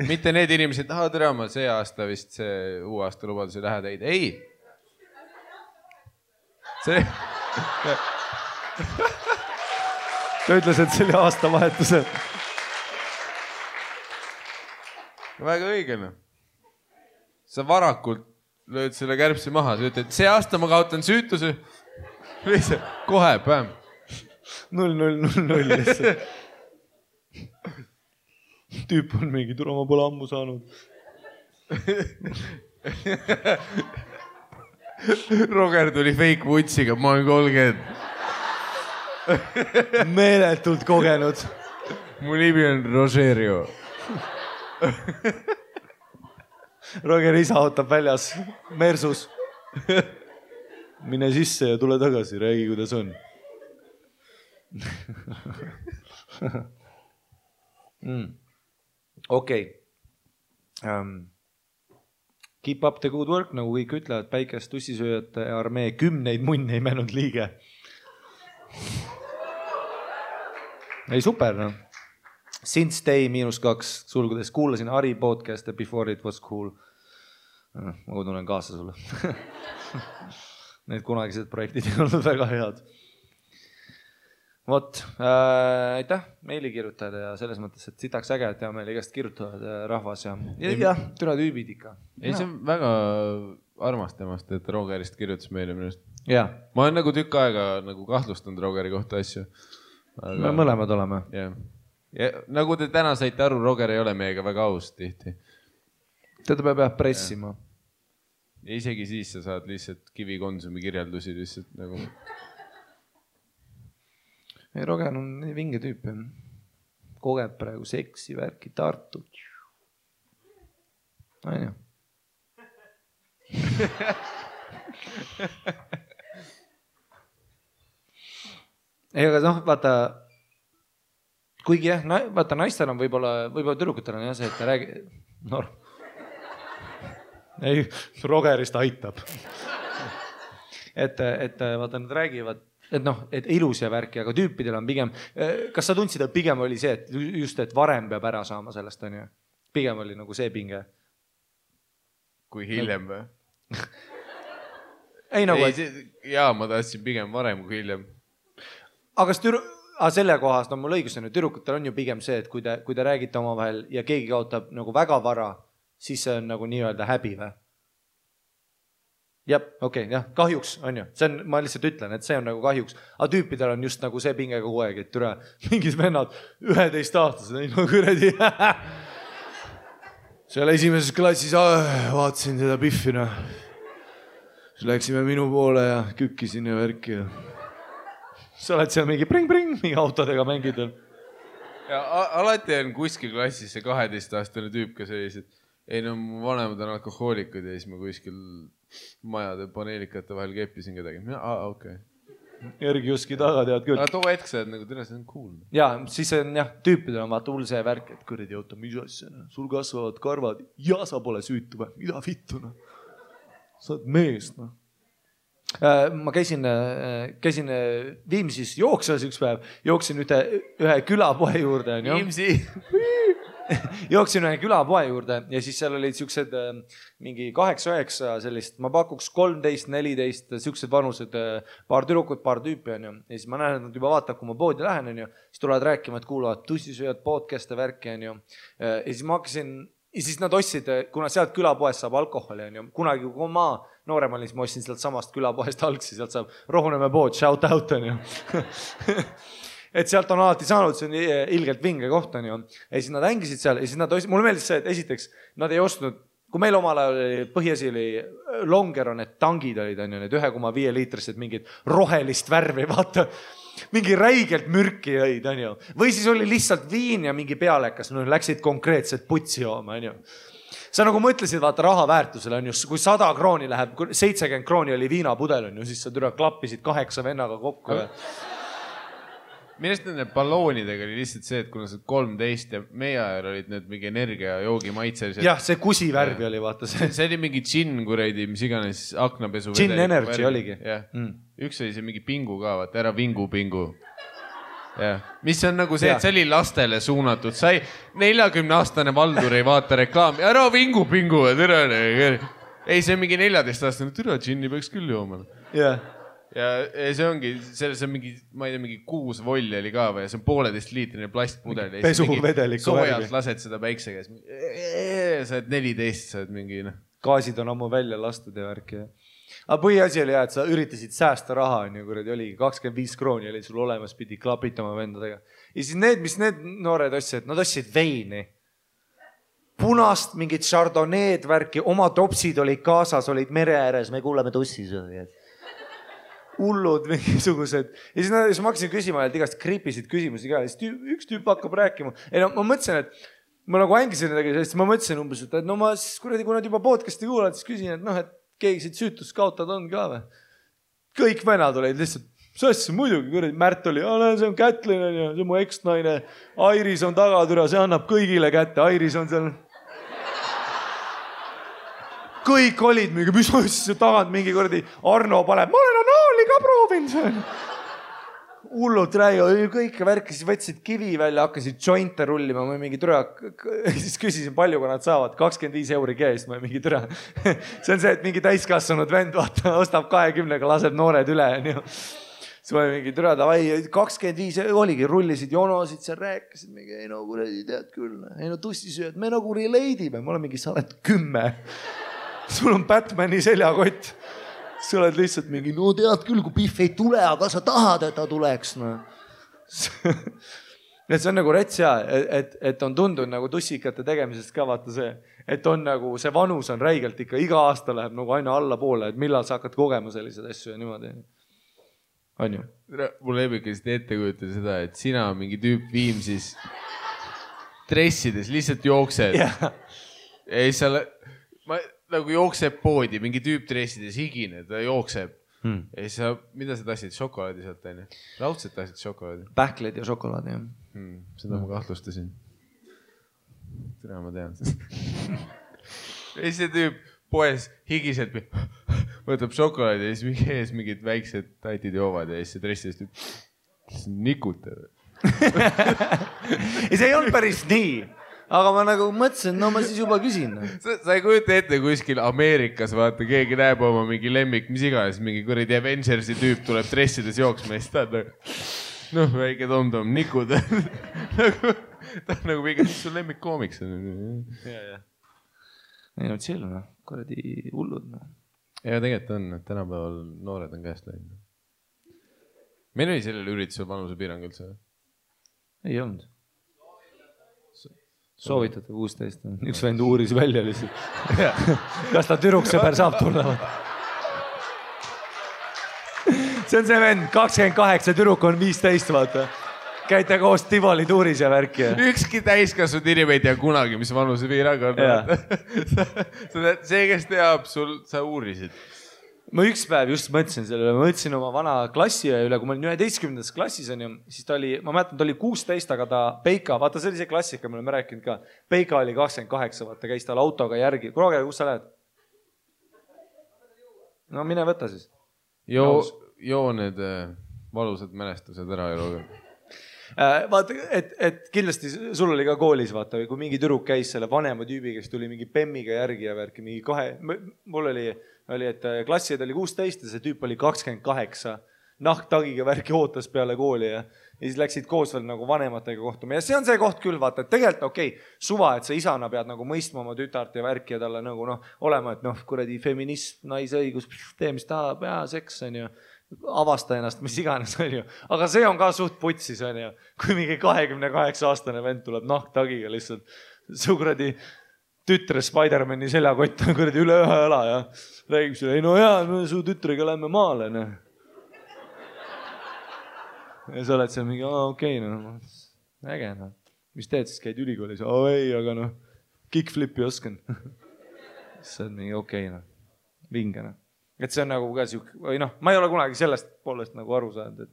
Mitte need inimesed, tere, ma see aasta vist see uue aasta lubadus ei lähe teid. Ei. See... Ta ütles, et see oli aastavahetusel. Väga õige, noh. Sa varakult lööd selle kärbsi maha, sa ütled, see aasta ma kaotan süütuse. Lihtsalt, kohe, päm. 0-0-0-0 lihtsalt. Tüüp on mingi, tule ma pole ammu saanud. Roger tuli fake vutsiga, ma olen 30. Meeletult kogenud. Mu nimi on Rogerio. Roger isa ootab väljas, Mersus. Mine sisse ja tule tagasi, räägi, kuidas on. Okei. Keep up the good work, nagu kõik ütlevad, päikest tussisööjate armee 10 munne ei mänud liige. Ei, super, noh. Since day -2, sulgudes, kuulasin Ari podcast'e before it was cool. Ma tunnen kaasa sulle. Need kunagised projektid ei olnud väga head. Vot, aitäh meilikirjutajad ja selles mõttes, et sitaks äge, et meil igast kirjutavad rahvas ja türa tüübid ikka. Ei, see on väga armas temast, et Rogerist kirjutas meile minust. Ja. Ma olen nagu tükk aega nagu kahtlustanud Rogeri kohta asju. Me mõlemad oleme. Ja nagu te täna saite aru, Roger ei ole meiega väga aus tihti. Teda peab pressima. Ja isegi siis sa saad lihtsalt kivikonsumi kirjeldusi lihtsalt nagu... Ei, Roger on nii vinge tüüp. Kogeb praegu seksi, värki, Tartu. On ju. ei, aga noh, vaata, kuigi jah, vaata naistel on võib-olla tüdrukutel on jah see, et ta räägi... Ei, Rogerist aitab. et vaata, nad räägivad, et noh, et ilus ja värki, aga tüüpidel on pigem... Kas sa tundsid, et pigem oli see, et just, et varem peab ära saama sellest, on ju? Pigem oli nagu see pinge. Kui hiljem või? Ei nagu... Jaa, ma tahtsin pigem varem kui hiljem. Aga selle kohast on mul õigus, tüdrukutel on ju pigem see, et kui te räägite omavahel ja keegi kaotab nagu väga vara, siis see on nagu nii-öelda häbi või? Jah, okei, jah, kahjuks on ju. See on, ma lihtsalt ütlen, et see on nagu kahjuks. Aga tüüpidel on just nagu see pinge kogu aeg, et türa mingid vennad 11-aastased, ei no kuradi. Seal esimeses klassis vaatasin seda Biffina. Siis läksime minu poole ja kükkisin ja värki ja... Sa oled seal mingi pring-pring, mingi autodega mängid. Ja alati on kuskil klassis see 12-aastane tüüp, kes sellised, ei no mu vanemad on alkohoolikud ja siis ma kuskil majade paneelikate vahel keppisin kedagi. Okei. Järgi Juski taga tead küll. Aga too hetk sa oled nagu tõenäoliselt see on cool. Ja, siis on jah, tüüpidel on vaata hull see värk, et kuradi auto, mis asja, sul kasvavad karvad ja sa pole süütu või, mida vittu, noh. Sa oled mees, noh. Ma käisin Viimsis jooksvas üks päev, jooksin ühe külapoe juurde. Viimsi! Jooksin ühe külapoe juurde ja siis seal olid siuksed mingi 8-9 sellist, ma pakuks 13-14 siuksed vanused, paar tüdrukut, paar tüüpi on ju. Ja siis ma näen, et nad juba vaatab, kui ma poodi lähen on ju, siis tulevad rääkima, et kuulavad tussisööjad podcast'e värki on ju. Ja siis ma hakkasin, ja siis nad ostsid, kuna sealt külapoest saab alkoholi on ju, kunagi kui ma noorem olin, siis ma ostsin sealt samast külapoest algsi, sealt saab Rohunemäe pood, shout out on ju. Et sealt on alati saanud, see on ilgelt vinge koht on ju. Ja siis nad hängisid seal ja siis nad ostsid, mulle meeldis see, et esiteks nad ei ostnud, kui meil omal ajal oli põhiasi oli Longer on need tangid olid on ju, need 1,5 liitrised mingid rohelist värvi, vaata. Mingi räigelt mürki jõid, on ju. Või siis oli lihtsalt viin ja mingi pealekas, no läksid konkreetselt putsi jooma, on ju. Sa nagu mõtlesid, vaata raha väärtusele on ju, kui 100 krooni läheb, 70 krooni oli viinapudel on ju, siis sa türa klappisid 8 vennaga kokku. Millest nende balloonidega oli lihtsalt see, et kuna sa 13 ja meie ajal olid need mingi energia joogi maitselised. Jah, see kusi värvi oli, vaata see. See oli mingi džinn, kuradi, mis iganes aknapesu. Džinn energy oligi. Üks oli see mingi pingu ka, vaata, ära vingu. Ja. Mis on nagu see, et see oli lastele suunatud. Sai 40-aastane Valdur ei vaata reklaami. Ära vingu. Ei, see on mingi 14-aastane. Türa džinni peaks küll jooma. Ja see ongi, selles on mingi, ma ei tea, mingi 6 volli oli ka või. See on 1,5 liitrine plastpudel. Pesuvedeliku värvi. Soojalt lased seda päikse käes. Sa oled 14, sa oled mingi... Gaasid on ammu välja lastud ja värki. Aga põhiasi oli jah, et sa üritasid säästa raha, on ju, kuradi oligi 25 krooni oli sul olemas, pidi klapitama vendadega. Ja siis mis need noored ostsid, nad ostsid veini. Punast, mingid chardonneed värki, oma topsid olid kaasas, olid mere ääres, me kuuleme tussisööjad. Hullud mingisugused. Ja siis ma hakkasin küsima, et igast kriipisid küsimusi ka. Üks tüüp hakkab rääkima. Ei no ma mõtlesin, et ma nagu hängisin nendega, sest ma mõtlesin umbes, et no ma siis kuradi, kui nad juba podcasti kuulad, siis küsin, et noh, et keegi siit süütust kaotad on ka või? Kõik vennad olid lihtsalt, see muidugi, kuradi Märt oli, see on Kätlin, see on mu eksnaine, Airis on tagatüra, see annab kõigile kätte, Airis on seal. Kõik olid mingi, mis asja tagant mingi kuradi Arno paneb, ma olen anaali ka proovinud. Hullud räägi, kõik värki, siis võtsid kivi välja, hakkasid jointe rullima, ma mingi türa, siis küsisin palju, kui nad saavad, 25 € käest, ma mingi türa. See on see, et mingi täiskasvanud vend, vaata, ostab 20-ga, laseb noored üle, on ju. Siis ma mingi türa, davai, 25 oligi, rullisid jonosid, seal rääkisid, mingi, ei no kuradi tead küll, ei no tussisööd, me nagu relate'ime, ma olen mingi, sa oled 10. Sul on Batmani seljakott. Sa oled lihtsalt mingi, no tead küll, kui Biff ei tule, aga sa tahad, et ta tuleks. No. Et see on nagu rets ja, et on tundunud nagu tussikate tegemisest ka vaata see, et on nagu see vanus on räigelt ikka, iga aasta läheb nagu aina alla poole, et millal sa hakkad kogema sellised asju ja niimoodi. On ju? Mul ebikest ette kujutada seda, et sina mingi tüüp Viimsis dressides lihtsalt jooksed. ei, ma nagu jookseb poodi, mingi tüüp dressides higine, ta jookseb. Ei, mida sa tahtsid? Šokolaadi sealt, on ju? Raudselt tahtsid šokolaadi? Pähkled ja šokolaadi, jah. Seda ma kahtlustasin. Tere, ma tean. Ei, see tüüp poes higiselt võtab šokolaadi ja siis mingi ees mingid väiksed tatid joovad ja siis see dressidest nikutab. Ei, see ei olnud päris nii. Aga ma nagu mõtlesin, no ma siis juba küsin. Sa ei kujuta ette kuskil Ameerikas, vaata, keegi näeb oma mingi lemmik, mis iganes, mingi kuradi Avengersi tüüp tuleb dressides jooksma ja siis ta noh, väike tom-tom, nikud. Ta on nagu mingi, mis su lemmik koomiks on? Ei no chill, noh, kuradi hullud. Ja tegelikult on, et tänapäeval noored on käest läinud. Meil oli sellel üritusel vanuse piirang üldse? Ei olnud. Soovitatud 16. Üks vend uuris välja lihtsalt. Kas ta türuksõber saab tulla? See on see vend, 28, türuk on 15, vaata. Käite koos Tivoli tuuris ja värki. Ükski täiskasvanud inimene ei tea kunagi, mis vanuse piirang on. See, kes teab, sa uurisid. Ma üks päev just mõtlesin sellele, ma mõtlesin oma vana klassi üle, kui ma olin 11. klassis, siis ta oli, ma mäletan, ta oli 16, aga ta Peika, vaata see oli see klassika, me oleme rääkinud ka. Peika oli 28, vaata, käis tal autoga järgi. Kuule, kus sa lähed? No mine võta siis. Joo need valusad mälestused ära eluga. Vaata, et kindlasti sul oli ka koolis, vaata, kui mingi tüdruk käis selle vanema tüübi, kes tuli mingi pemmiga järgi ja värki, mingi mul oli, et klassijad oli 16 ja see tüüp oli 28, nahktagiga värki ootas peale kooli ja siis läksid koos veel nagu vanematega kohtuma. Ja see on see koht küll, vaata, et tegelikult okei, suva, et sa isana pead nagu mõistma oma tütart ja värki ja talle nagu olema, et kuradi feminism, naisõigus, tee mis tahab, seks on ju. Avasta ennast, mis iganes on ju. Aga see on ka suht putsis on ju. Kui mingi 28-aastane vend tuleb nahktagiga lihtsalt su kuradi tütre Spider-Mani seljakott on kuradi üle ühe õla ja räägib sulle, ei no jaa, su tütrega lähme maale. Ja sa oled seal mingi, okei, äge. Mis teed siis, käid ülikoolis? Ei, aga kickflipi oskan. See on mingi okei, vinge. Et see on nagu ka siuke, või ma ei ole kunagi sellest poolest nagu aru saanud,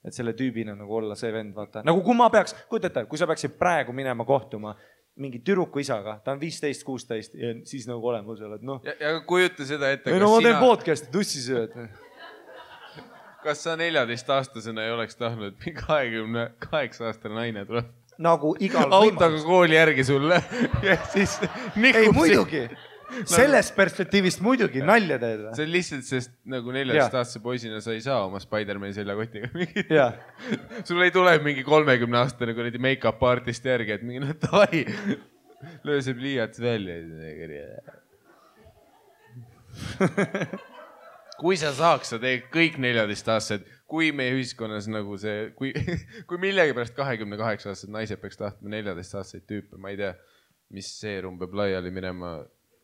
et selle tüübina nagu olla see vend, vaata. Nagu kui ma peaks, kujutate, kui sa peaksid praegu minema kohtuma mingi türuku isaga, ta on 15-16 ja siis nagu olema seal, et Ja kujuta seda ette, ma teen podcasti, tussis ju, et kas sa 14-aastasena ei oleks tahtnud, et 28-aastane naine tuleb? Nagu igal autoga kooli järgi sulle ja siis nikub. Ei, muidugi. Sellest perspektiivist muidugi nalja teed. See on lihtsalt, sest nagu 14-aastase poisina sa ei saa oma Spider-Mani seljakotiga mingi. Sul ei tule mingi 30-aastane kuradi make-up artist järgi, et mingi davai, löö see pliiats välja. Kui sa saaks, sa teed kõik 14-aastased, kui meie ühiskonnas nagu see, kui millegi pärast 28-aastased naised peaks tahtma 14-aastaseid tüüpe, ma ei tea, mis seerum peab laiali minema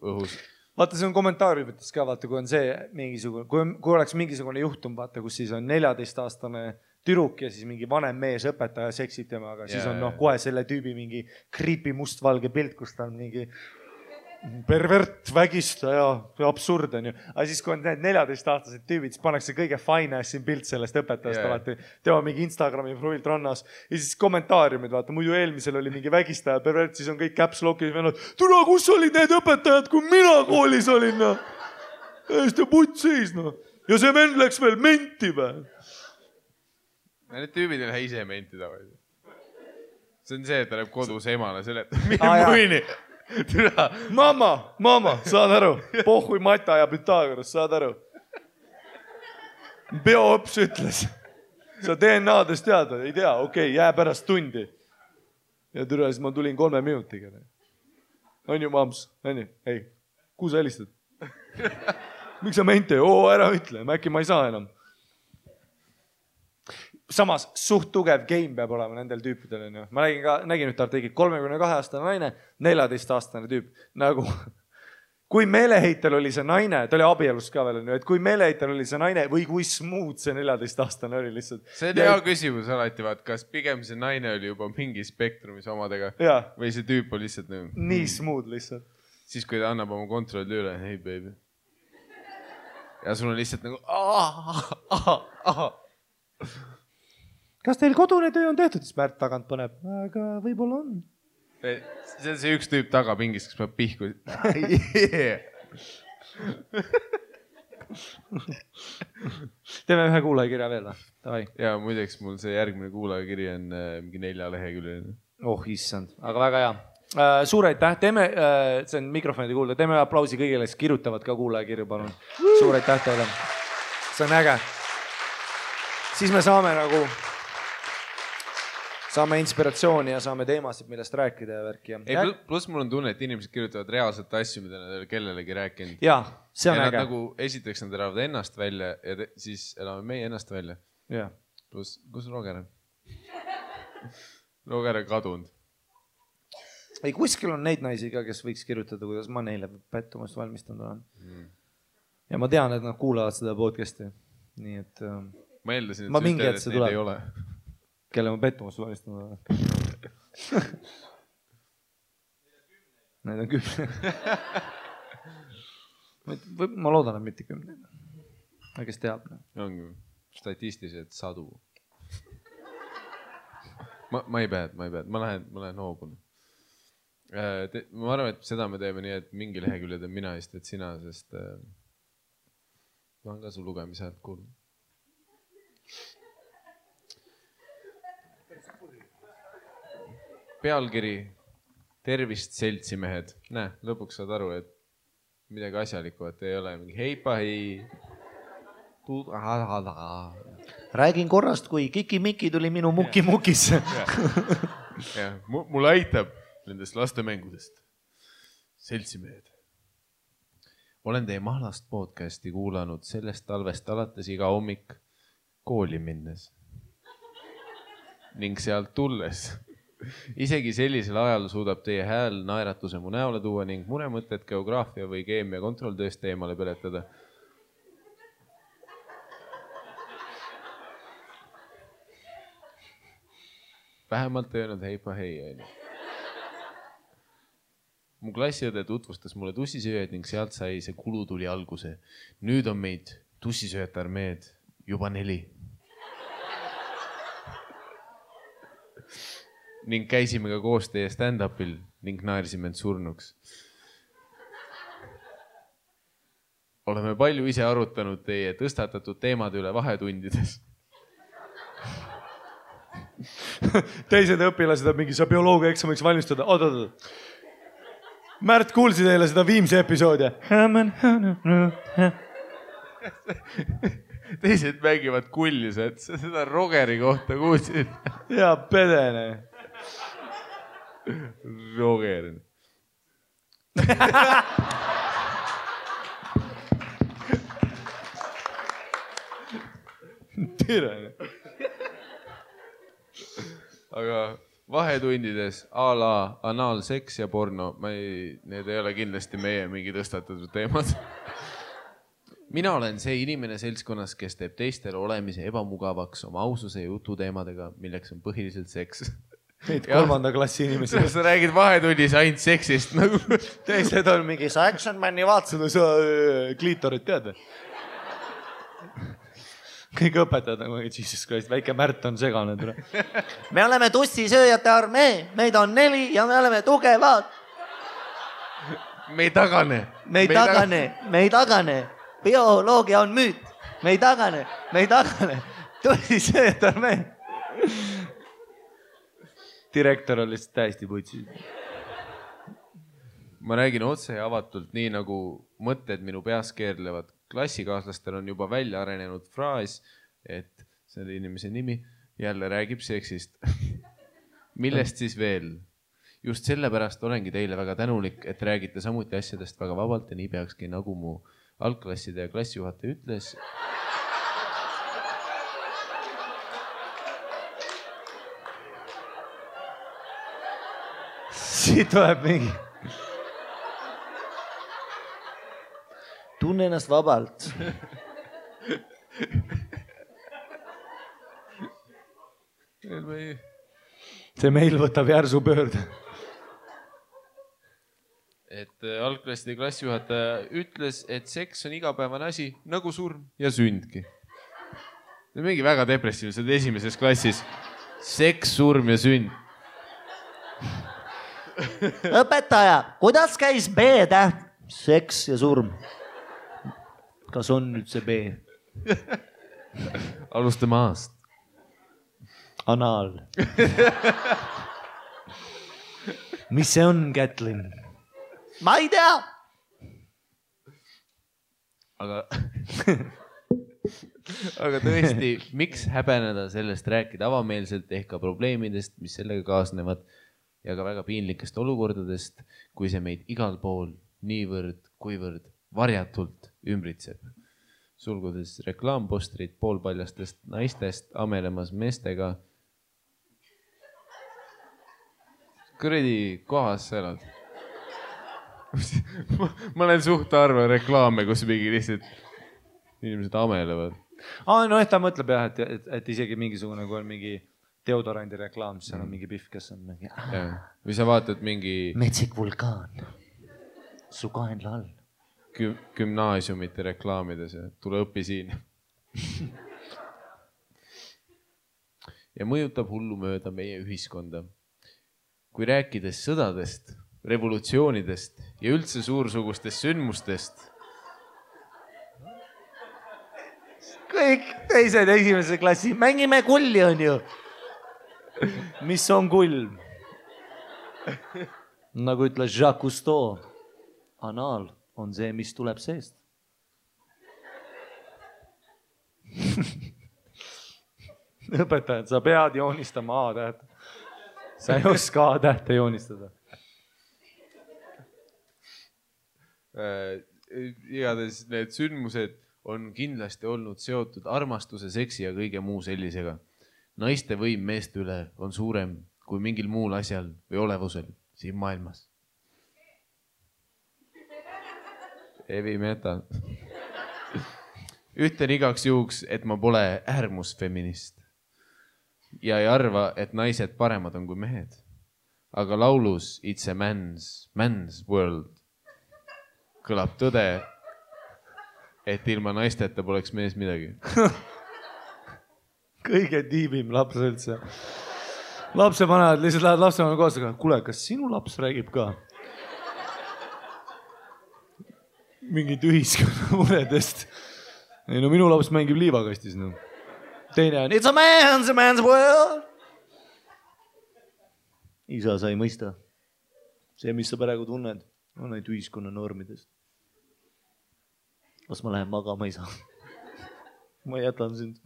õhus. Vaata, see on kommentaariumites ka, vaata, kui on see mingisugune, kui oleks mingisugune juhtum, vaata, kus siis on 14-aastane türuk ja siis mingi vanem mees õpetaja seksib temaga, siis on kohe selle tüübi mingi creepy mustvalge pilt, kus ta on mingi pervert, vägistaja, absurd on ju. Aga siis, kui on need 14-aastased tüübid, siis pannakse kõige fine assin pilt sellest õpetajast alati. Tema mingi Instagrami profilt rannas. Ja siis kommentaariumid, vaata, muidu eelmisel oli mingi vägistaja, pervert, siis on kõik caps lock'is vennad. Tule, kus olid need õpetajad, kui mina koolis olin? Hästi putt seis, Ja see vend läks veel menti või? Need tüübid ei lähe ise menti tavaliselt. See on see, et ta läheb kodus emale selle, Mama, saad aru? Pohhui Mata ja Pythagoras, saad aru? Bioõps ütles. Sa DNA-dest tead, ei tea, okei, jää pärast tundi. Ja türa, siis ma tulin 3 minutiga. On ju, mams? On ju? Ei, kuhu sa helistad? Miks sa mente? Ära ütle, äkki ma ei saa enam. Samas suht tugev game peab olema nendel tüüpidel. Ma nägin nüüd artiklit, 32-aastane naine, 14-aastane tüüp. Nagu, kui meeleheitel oli see naine, ta oli abielus ka veel, et kui meeleheitel oli see naine või kui smooth see 14-aastane oli lihtsalt. See on hea küsimus alati, vaat, kas pigem see naine oli juba mingi spektrumis omadega või see tüüp oli lihtsalt nii smooth lihtsalt. siis kui ta annab oma kontrolli üle, hey baby. Ja sul on lihtsalt nagu kas teil kodune töö on tehtud? Siis Märt tagant paneb, aga võib-olla on. See on see üks tüüp tagapingis, kes peab pihku. Teeme ühe kuulajakirja veel. Ja muideks mul see järgmine kuulajakiri on mingi 4 leheküljeline. Oh issand, aga väga hea. Suur aitäh, teeme, see on mikrofonide kuulda, teeme aplausi kõigile, kes kirjutavad ka kuulajakirju, palun. Suur aitäh teile. See on äge. Siis me saame inspiratsiooni ja saame teemasid, millest rääkida ja värki. Plus mul on tunne, et inimesed kirjutavad reaalselt asju, mida nad ei ole kellelegi rääkinud. Jaa, see on äge. Nagu esiteks nad elavad ennast välja ja siis elame meie ennast välja. Jaa. Plus, kus Roger on? Roger on kadunud. Ei, kuskil on neid naisi ka, kes võiks kirjutada, kuidas ma neile pettumust valmistanud olen. Ja ma tean, et nad kuulavad seda podcasti. Nii et ma eeldasin, et neid ei ole. Kelle ma pettumust valmistanud olen. Neid on 10. Ma loodan, et mitte 10. Aga kes teab? Ongi statistiliselt 100. Ma ei pead. Ma lähen hoobun. Ma arvan, et seda me teeme nii, et mingi lehekülje teeb mina ja siis sina, sest ma on ka su lugemise häält kuulnud. Pealkiri, tervist seltsimehed. Näe, lõpuks saad aru, et midagi asjalikku, et ei ole mingi heipa, hei. Räägin korrast, kui Kiki-Miki tuli minu muki-mukisse. Mul aitab nendest lastemängudest. Seltsimehed. Olen teie Mahlast podcasti kuulanud sellest talvest alates iga hommik kooli minnes. Ning sealt tulles. Isegi sellisel ajal suudab teie hääl naeratuse mu näole tuua ning muremõtted geograafia või keemia kontrolltööst eemale peletada. Vähemalt ei öelnud heipa hei. Mu klassiõde tutvustas mulle tussisööjad ning sealt sai see kulutuli alguse. Nüüd on meid tussisööjate armeed juba 4. Ning käisime ka koos teie stand-upil ning naersime end surnuks. Oleme palju ise arutanud teie tõstatatud teemad üle vahetundides. Teised õpilased on mingi, sa bioloogia eksamiks valmistada. Oot. Märt, kuulsi teile seda Viimse episoodi? Teised mängivad kullis, et seda Rogeri kohta kuulsid. Ja pedene. Roger. Tere. Aga vahetundides a la anaalseks ja porno, need ei ole kindlasti meie mingi tõstatatud teemad. Mina olen see inimene seltskonnas, kes teeb teistele olemise ebamugavaks oma aususe ja jututeemadega, milleks on põhiliselt seks. Neid 3. klassi inimesi. Sa räägid vahetunnis ainult seksist nagu. Teised on mingi, sa Action Mani vaatasid, sa kliitorit tead. Kõik õpetajad nagu, Jesus Christ, väike Märt on segane. Me oleme tussisööjate armee, meid on 4 ja me oleme tugevad. Me ei tagane. Bioloogia on müüt. Me ei tagane. Tussisööjate armee. Direktor on lihtsalt täiesti putsi. Ma räägin otse ja avatult, nii nagu mõtted minu peas keerlevad. Klassikaaslastel on juba välja arenenud fraas, et selle inimese nimi jälle räägib seksist. Millest siis veel? Just sellepärast olengi teile väga tänulik, et räägite samuti asjadest väga vabalt ja nii peakski, nagu mu algklasside ja klassijuhataja ütles. Siit tuleb mingi. Tunne ennast vabalt. See meil võtab järsu pöörde. et algklasside klassijuhataja ütles, et seks on igapäevane asi nagu surm ja sündki. Mingi väga depressiivne, see oli esimeses klassis. Seks, surm ja sünd. Õpetaja, kuidas käis B-täht? Seks ja surm. Kas on nüüd see B? Alustame aast. Anaal. Mis see on, Kätlin? Ma ei tea. Aga tõesti, miks häbeneda sellest rääkida avameelselt ehk ka probleemidest, mis sellega kaasnevad ja ka väga piinlikest olukordadest, kui see meid igal pool niivõrd, kuivõrd varjatult ümbritseb. Sulgudes reklaampostrid poolpaljastest naistest amelemas meestega. Kuradi kohas sa elad. Ma olen suht harva reklaame, kus mingi lihtsalt inimesed amelevad. Noh, ta mõtleb jah, et isegi mingisugune, kui on mingi deodorandi reklaam, siis seal on mingi pihv, kes on mingi... Või sa vaatad mingi... Metsik vulkaan. Su kaenla all. Gümnaasiumite reklaamides ja tule õpi siin. Ja mõjutab hullumööda meie ühiskonda. Kui rääkides sõdadest, revolutsioonidest ja üldse suursugustest sündmustest. Kõik teised esimese klassi, mängime kulli on ju. Mis on kull? Nagu ütles Jacques Cousteau, anaal on see, mis tuleb seest. Õpetajad, sa pead joonistama A-täht. Sa ei oska A-tähte joonistada. Igatahes need sündmused on kindlasti olnud seotud armastuse, seksi ja kõige muu sellisega. Naiste võim meeste üle on suurem kui mingil muul asjal või olevusel siin maailmas. Heavy metal. Ütlen igaks juhuks, et ma pole äärmusfeminist ja ei arva, et naised paremad on kui mehed. Aga laulus It's a man's world kõlab tõde, et ilma naisteta poleks mees midagi. Kõige tiibim laps üldse. Lapse vanemad lihtsalt lähed lapsevanema koos, aga kuule, kas sinu laps räägib ka? Mingid ühiskonna muredest. Ei, no minu laps mängib liivakastis. No. Teine on It's a man's world. Isa sa ei mõista. See, mis sa praegu tunned, on neid ühiskonna normidest. Kas ma lähen magama, isa? Ma jätan sind.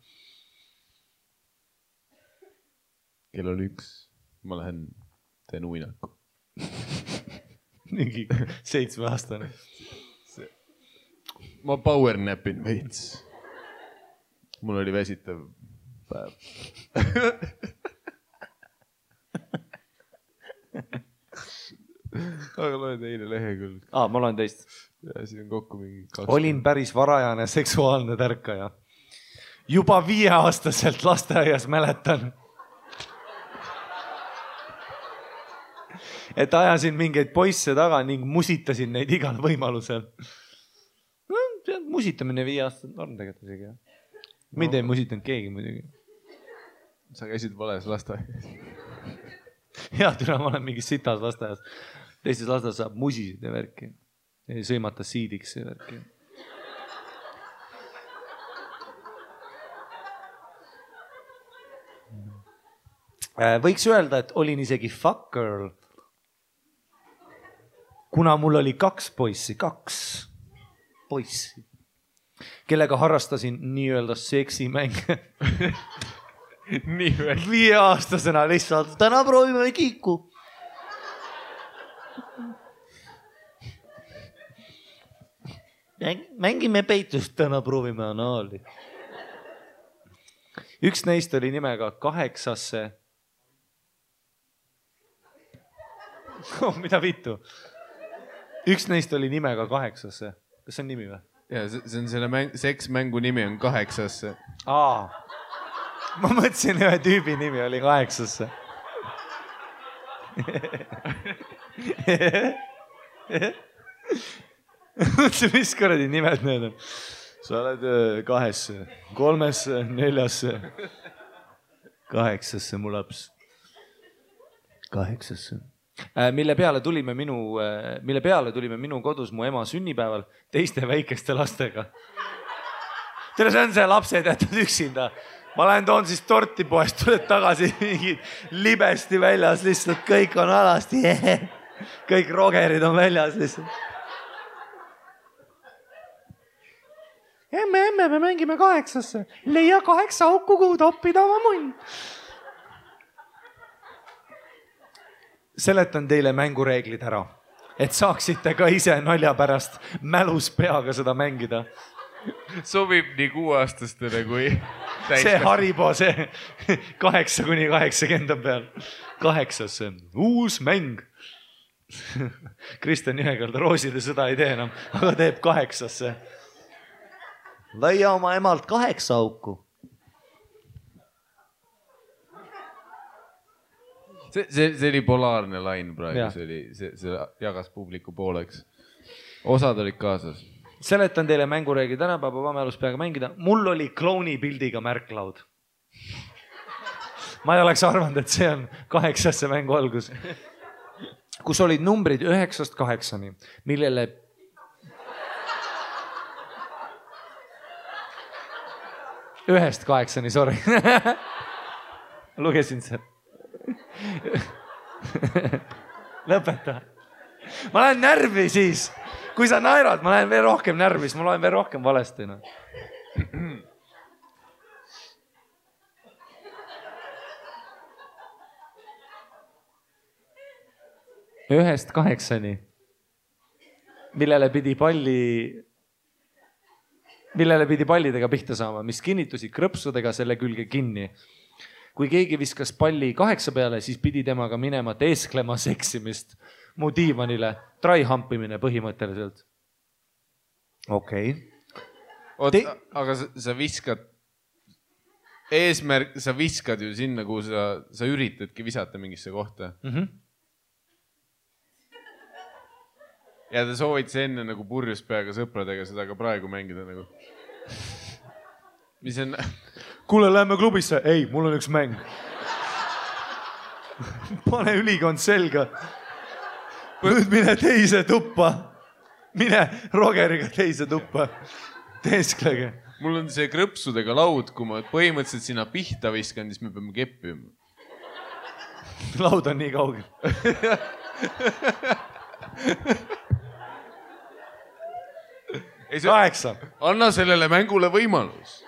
Kell on 1. Ma lähen teen uinaku. Mingi 7-aastane. Ma powernapin veits. Mul oli väsitav päev. Aga loen teine lehekülg. Ma loen teist. Ja siin on kokku mingi 2. Olin päris varajane seksuaalne tärkaja. Juba 5-aastaselt lasteaias mäletan. Et ajasin mingeid poisse taga ning musitasin neid igal võimalusel. No, musitamine 5-aastaselt norm tegelikult isegi. Mind ei musitanud keegi muidugi. Sa käisid vales lasteaias. Hea türa, ma olen mingis sitas lasteaias. Teistes lasteaias saab musisid ja värki. Ei sõimata siidiks ja värki. Võiks öelda, et olin isegi fuck girl. Kuna mul oli 2 poissi, kellega harrastasin nii-öelda seksimänge. 5-aastasena lihtsalt, täna proovime kiiku. Mängime peitust, täna proovime anaali. Üks neist oli nimega 8. Mida vittu? Üks neist oli nimega 8. Kas see on nimi või? Ja, see on selle seksmängu nimi on 8. Ma mõtlesin, ühe tüübi nimi oli 8. Mõtlesin, mis kuradi nimed need on. Sa oled 2, 3, 4, 8 mu laps. 8. Mille peale tulime minu kodus mu ema sünnipäeval teiste väikeste lastega. Tere, see on see lapsed jätnud üksinda. Ma lähen toon siis torti poest, tuled tagasi mingid libesti väljas, lihtsalt kõik on alasti. Kõik rogerid on väljas lihtsalt. Emme, me mängime 8. Leia 8 auku, kuhu toppida oma munn. Seletan teile mängureeglid ära, et saaksite ka ise nalja pärast mälus peaga seda mängida. Sobib nii 6-aastastele kui see Haribo, see 8-80 peal. 8. Uus mäng. Kristjan Jõekalda rooside sõda ei tee enam, aga teeb 8. Leia oma emalt 8 auku. See oli polaarne lain praegu, see jagas publiku pooleks. Osad olid kaasas. Seletan teile mängureegli tänapäeva mälus peaga mängida. Mul oli klouni pildiga märklaud. Ma ei oleks arvanud, et see on 8. mängu algus. Kus olid numbrid 9-8, millele... Ühest 8, sorry. Lugesin see. Lõpeta. Ma lähen närvi siis. Kui sa naerad, ma lähen veel rohkem närvi, siis ma loen veel rohkem valesti. No. 1-8, millele pidi pallidega pihta saama, mis kinnitusid krõpsudega selle külge kinni. Kui keegi viskas palli 8 peale, siis pidi temaga minema teesklema seksimist mu diivanile. Try-humpimine põhimõtteliselt. Okei. Aga sa viskad, eesmärk, sa viskad ju sinna, kuhu sa üritadki visata mingisse kohta. Ja te soovid see enne nagu purjus peaga sõpradega seda ka praegu mängida nagu. Mis on... Kuule, lähme klubisse. Ei, mul on üks mäng. Pane ülikond selga. Nüüd mine teise tuppa. Mine Rogeriga teise tuppa. Teesklege. Mul on see krõpsudega laud, kui ma põhimõtteliselt sinna pihta viskan, siis me peame keppima. Laud on nii kaugel. Ei, 8. Anna sellele mängule võimalus.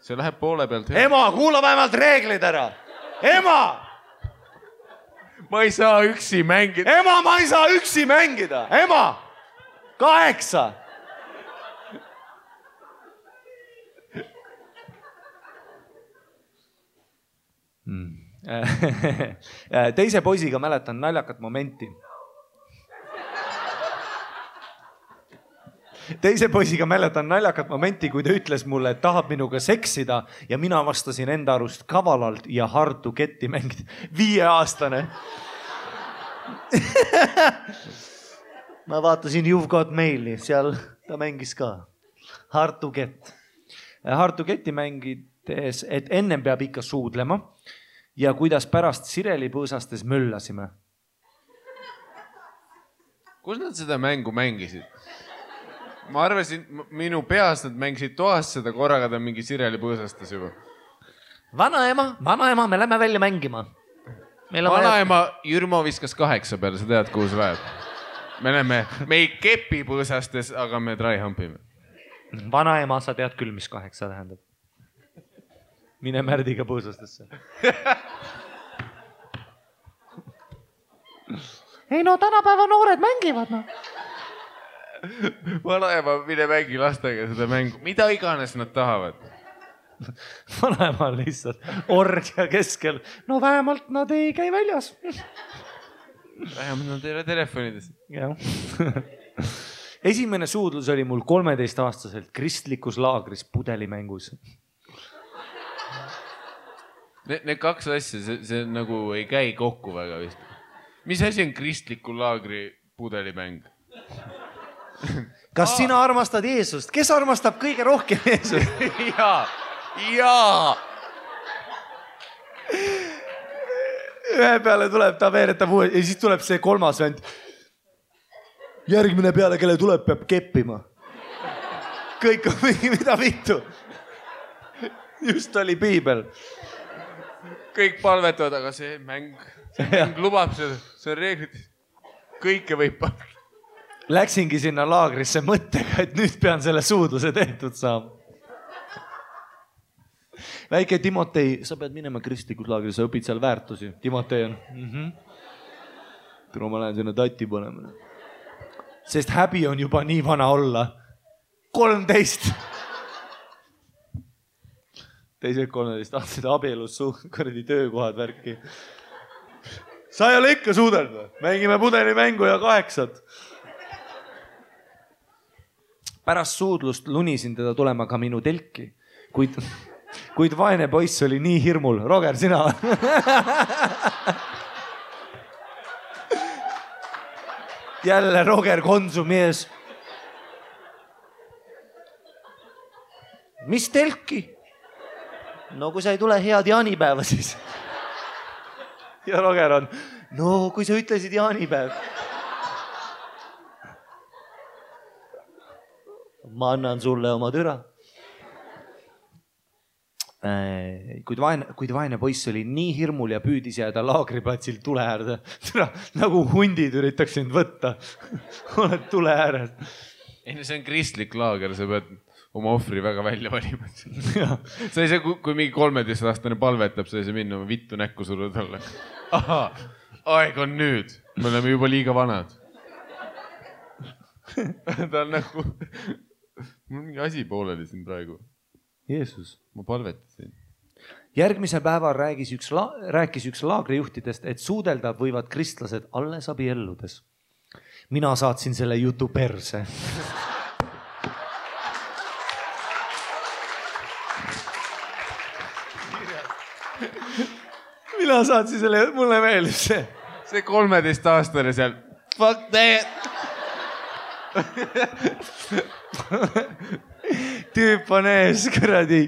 See läheb poole pealt. Ema, kuula vähemalt reeglid ära. Ema! Ma ei saa üksi mängida. Ema, ma ei saa üksi mängida. Ema! 8. Teise poisiga mäletan naljakat momenti. Kui ta ütles mulle, et tahab minuga seksida ja mina vastasin enda arust kavalalt ja hard to get'i mängida. 5-aastane. Ma vaatasin You've Got Maili, seal ta mängis ka. Hard to get. Hard to get'i mängides, et ennem peab ikka suudlema ja kuidas pärast Sireli põõsastes möllasime. Kus nad seda mängu mängisid? Ma arvasin, minu peas nad mängisid toas seda, korraga ta mingi Sireli põõsastas juba. Vanaema, me lähme välja mängima. Vanaema Jürmo viskas 8 peale, sa tead, kuhu see läheb. Me ei kepi põõsastes, aga me try-humpime. Vanaema, sa tead küll, mis 8 tähendab. Mine Märdiga põõsastesse. Ei no, tänapäeva noored mängivad, no. Vanaema, mine mängi lastega seda mängu. Mida iganes nad tahavad. Vanaema on lihtsalt orgia keskel. No vähemalt nad ei käi väljas. Vähemalt nad ei ole telefonides. Esimene suudlus oli mul 13-aastaselt kristlikus laagris pudelimängus. Need 2 asja, see nagu ei käi kokku väga vist. Mis asi on kristliku laagri Pudelimäng. Kas sina armastad Jeesust? Kes armastab kõige rohkem Jeesust? Jaa. Ühe peale tuleb, ta veeretab uue ja siis tuleb see kolmas vend. Järgmine peale, kelle tuleb, peab keppima. Kõik on mingi, mida vittu. Just oli piibel. Kõik palvetavad, aga see mäng lubab seda, see on reeglid. Kõike võib palvetada. Läksingi sinna laagrisse mõttega, et nüüd pean selle suudluse tehtud saama. Väike Timotei, sa pead minema kristlikus laagris, sa õpid seal väärtusi. Timotei on. Tule ma lähen sinna tatti panema. Sest häbi on juba nii vana olla. 13. Teised 13 aastased abielus kuradi töökohad värki. Sa ei ole ikka suudelnud. Mängime pudelimängu ja 8. Pärast suudlust lunisin teda tulema ka minu telki, kuid vaene poiss oli nii hirmul. Roger, sina? Jälle Roger Konsumi ees. Mis telki? No kui sa ei tule head jaanipäeva siis. Ja Roger on, no kui sa ütlesid jaanipäev. Ma annan sulle oma türa. Kuid vaene poiss oli nii hirmul ja püüdis jääda laagriplatsil tule äärde. Türa, nagu hundid üritaks sind võtta. Oled tule ääres. Ei, see on kristlik laager, sa pead oma ohvri väga välja valima. Sa ei saa, kui mingi 13-aastane palvetab, sa ei saa minna oma vittu näkku sulle talle. Aha, aeg on nüüd. Me oleme juba liiga vanad. Ta on nagu... Mul mingi asi pooleli siin praegu. Jeesus. Ma palvetasin. Järgmisel päeval rääkis üks laagrijuhtidest, et suudelda võivad kristlased alles abielludes. Mina saatsin selle jutu perse. Mina saatsin selle, mulle meeldib see. See 13-aastane seal. Fuck that! Tüüp on ees, kuradi.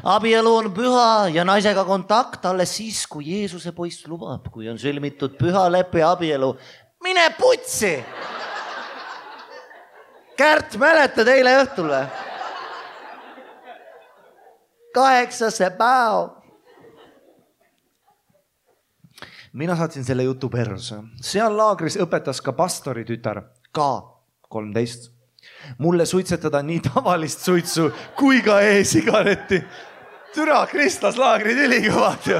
Abielu on püha ja naisega kontakt alles siis, kui Jeesuse poiss lubab, kui on sõlmitud püha leppe abielu. Mine putsi! Kärt, mäletad eile õhtul või? 8. päev. Mina saatsin selle jutu perse. Seal laagris õpetas ka pastori tütar, ka 13. Mulle suitsetada nii tavalist suitsu kui ka e-sigaretti. Türa, kristlaslaagrid ülikõvad ju.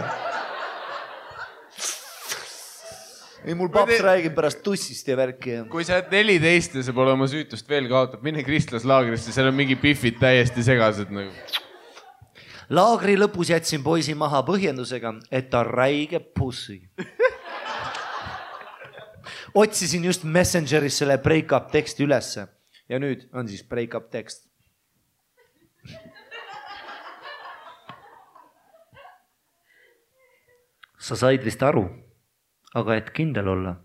Ei, mul paps räägib pärast tussist ja värki. Kui sa 14 ja sa pole oma süütust veel kaotab, mine kristlaslaagrisse, seal on mingi pifid täiesti segased nagu. Laagri lõpus jätsin poisi maha põhjendusega, et ta räige pussi. Otsisin just Messengeris selle break-up teksti ülesse. Ja nüüd on siis break-up tekst. Sa said vist aru, aga et kindel olla,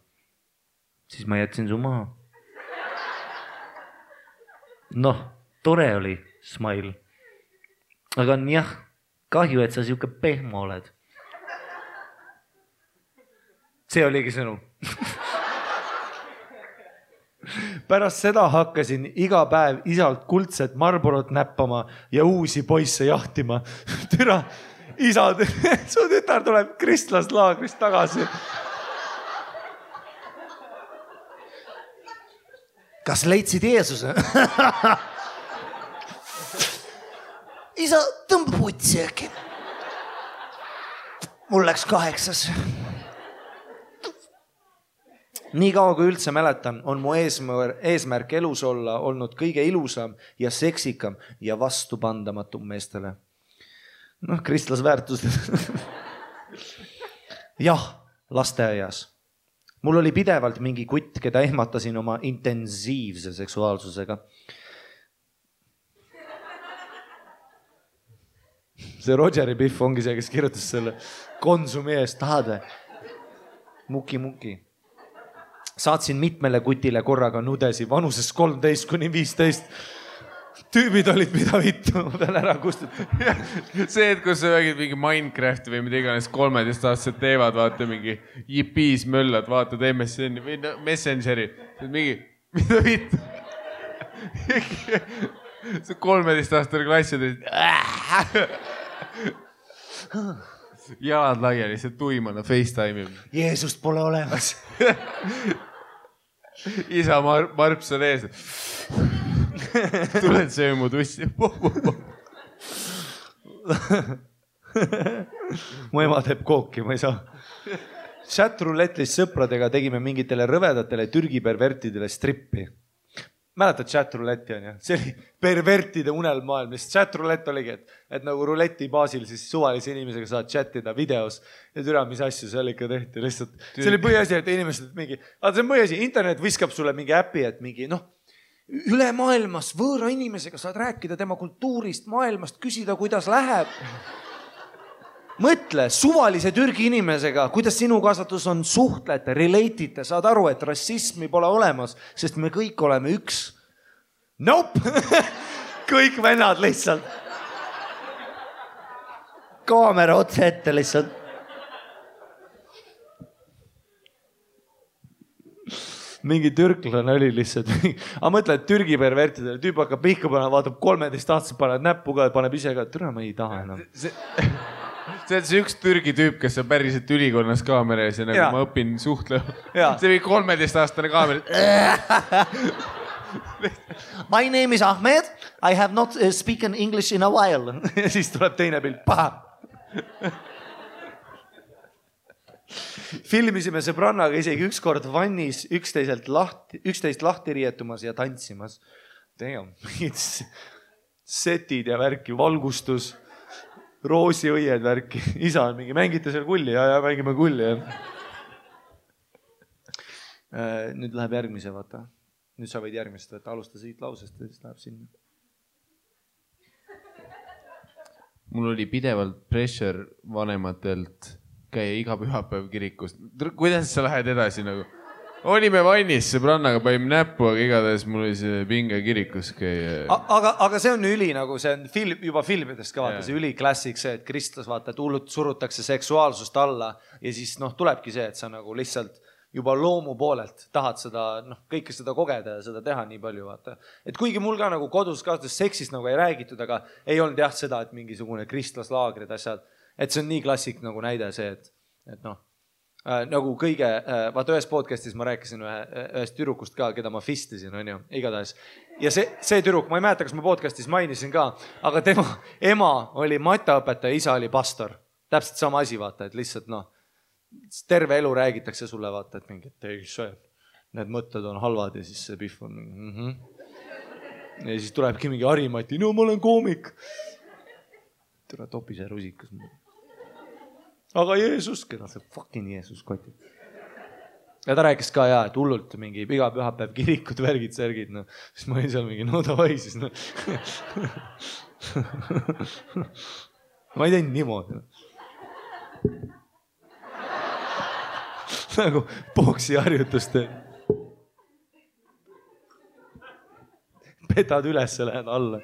siis ma jätsin su maha. Noh, tore oli, smile. Aga on jah, kahju, et sa siuke pehmo oled. See oligi sõnum. Pärast seda hakkasin iga päev isalt kuldset Marlborot näppama ja uusi poisse jahtima. Türa, isa, su tütar tuleb kristlaslaagrist tagasi. Kas leidsid Jeesuse? Isa, tõmba putsi äkki. Mul läks 8. Nii kaua kui üldse mäletan, on mu eesmärk elus olla olnud kõige ilusam ja seksikam ja vastupandamatum meestele. Noh, kristlasväärtused. Jah, lasteaias. Mul oli pidevalt mingi kutt, keda ehmatasin oma intensiivse seksuaalsusega. See Rogeri Biff ongi see, kes kirjutas selle Konsumi eest. Tahad või? Muki. saatsin mitmele kutile korraga nudesi vanuses 13–15. Tüübid olid mida vittu, ma pean ära kustutama. See, et kus sa räägid mingi Minecrafti või mida iganes 13-aastased teevad, vaata mingi JP-s möllad, vaatad MSN-i või Messengeri. Mingi, mida vittu? See 13-aastane klassid. Jalad laiali, see tuimana FaceTime'i. Jeesust pole olemas. Isa Marps on ees. Tuled söö mu tussi. Mu ema teeb kooki, ma ei saa. Chat-rouletlis sõpradega tegime mingitele rõvedatele Türgi pervertidele strippi. Mäletad chat-rouletti on ju? See oli pervertide unelmaailm, mis chat-roulett oligi, et nagu ruleti baasil siis suvalise inimesega saad chatida videos ja türa, mis asju seal ikka tehti lihtsalt. See oli põhiasi, et inimesed mingi, see on põhiasi, internet viskab sulle mingi äpi, et mingi üle maailmas võõra inimesega saad rääkida tema kultuurist, maailmast, küsida, kuidas läheb. Mõtle suvalise Türgi inimesega, kuidas sinu kasvatus on, suhtlete, relate'ite, saad aru, et rassismi pole olemas, sest me kõik oleme üks. Nope! Kõik vennad lihtsalt. Kaamera otse ette lihtsalt. Mingi türklane oli lihtsalt. Aga mõtle, et Türgi pervertidele tüüp hakkab pihku panema, vaatab 13-aastased, paneb näppu ka, paneb ise ka, et türa, ma ei taha enam. See on see üks Türgi tüüp, kes on päriselt ülikonnas kaamera ees ja nagu ma õpin suhtlema. See oli 13-aastane kaamera. My name is Ahmed. I have not spoken English in a while. Ja siis tuleb teine pilt. Paha. Filmisime sõbrannaga isegi ükskord vannis üksteist lahti riietumas ja tantsimas. Damn. Setid ja värki, valgustus. Roosiõied värki. Isa on mingi, mängite seal kulli ja mängime kulli. Nüüd läheb järgmise, vaata. Nüüd sa võid järgmist võtta, alusta siit lausest ja siis läheb sinna. Mul oli pidevalt pressure vanematelt käia iga pühapäev kirikust. Kuidas sa lähed edasi nagu? Olime vannis sõbrannaga, panime näppu, aga igatahes mul oli see pinge kirikus käia. Aga see on üli nagu, see on juba filmidest ka vaata, see üli klassik see, et Kristus vaata, et hullult surutakse seksuaalsust alla ja siis tulebki see, et sa nagu lihtsalt juba loomu poolelt tahad seda, kõike seda kogeda ja seda teha nii palju vaata. Et kuigi mul ka nagu kodus kasvatas seksist nagu ei räägitud, aga ei olnud jah seda, et mingisugune kristlaslaagrid asjad, et see on nii klassik nagu näide see, et nagu kõige, vaata ühes podcastis ma rääkisin ühest tüdrukust ka, keda ma fistisin, on ju, igatahes. Ja see tüdruk, ma ei mäleta, kas ma podcastis mainisin ka, aga tema ema oli mataõpetaja, isa oli pastor. Täpselt sama asi, vaata, et lihtsalt terve elu räägitakse sulle, vaata, et mingi, et ei, need mõtted on halvad ja siis see pihv on mingi, Ja siis tulebki mingi Harimati, no ma olen koomik. Tere topi see rusikas. Aga Jeesus, keda see fucking Jeesus koti. Ja ta rääkis ka et hullult mingi iga pühapäev kirikud, värgid, särgid. Siis ma olin seal mingi, no davai siis. Ma ei teinud niimoodi. Nagu boksi harjutust. Petad üles, lähed alla.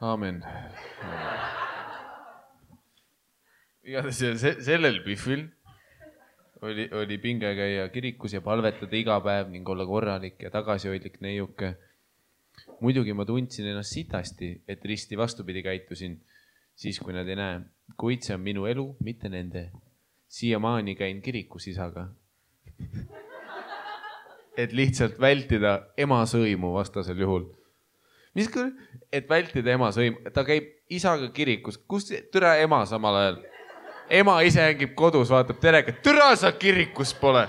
Aamen. Sellel pihvil oli pinge käia kirikus ja palvetada iga päev ning olla korralik ja tagasihoidlik neiuke. Muidugi ma tundsin ennast sitasti, et risti vastupidi käitusin, siis kui nad ei näe. Kuid see on minu elu, mitte nende. Siiamaani käin kirikus isaga. Et lihtsalt vältida ema sõimu vastasel juhul. Mis küll, et vältida ema sõimu? Ta käib isaga kirikus. Kus türa ema samal ajal? Ema ise hängib kodus, vaatab terega. Türa sa kirikus pole.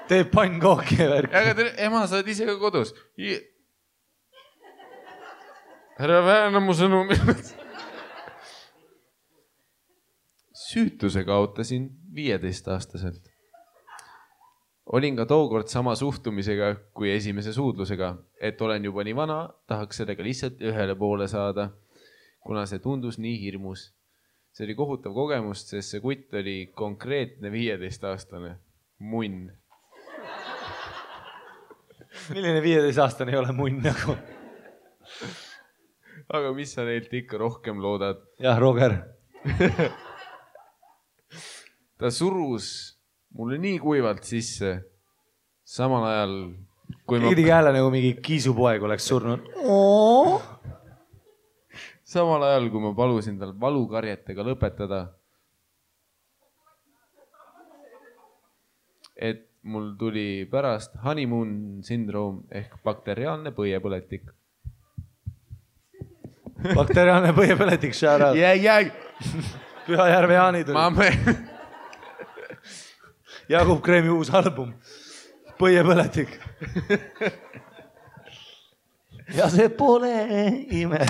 Teeb pannkooki ja värk. Aga ema sa oled ise ka kodus. Ära väärna mu sõnu. Süütuse kaotasin 15-aastaselt. olin ka tookord sama suhtumisega kui esimese suudlusega, et olen juba nii vana, tahaks sellega lihtsalt ühele poole saada, kuna see tundus nii hirmus. See oli kohutav kogemus, sest see kutt oli konkreetne 15-aastane munn. Milline 15-aastane ei ole munn nagu? Aga mis sa neilt ikka rohkem loodad? Jah, Roger. Ta surus mulle nii kuivalt sisse, samal ajal kui Tegi hääle nagu mingi kiisupoeg oleks surnud. Samal ajal kui ma palusin tal valukarjetega lõpetada, et mul tuli pärast honeymoon syndroom ehk bakteriaalne põiepõletik. Bakteriaalne põiepõletik, shout out. Pühajärve Jaani tuli. Jakub Kreemi uus album. Põiepõletik. Ja see pole ime.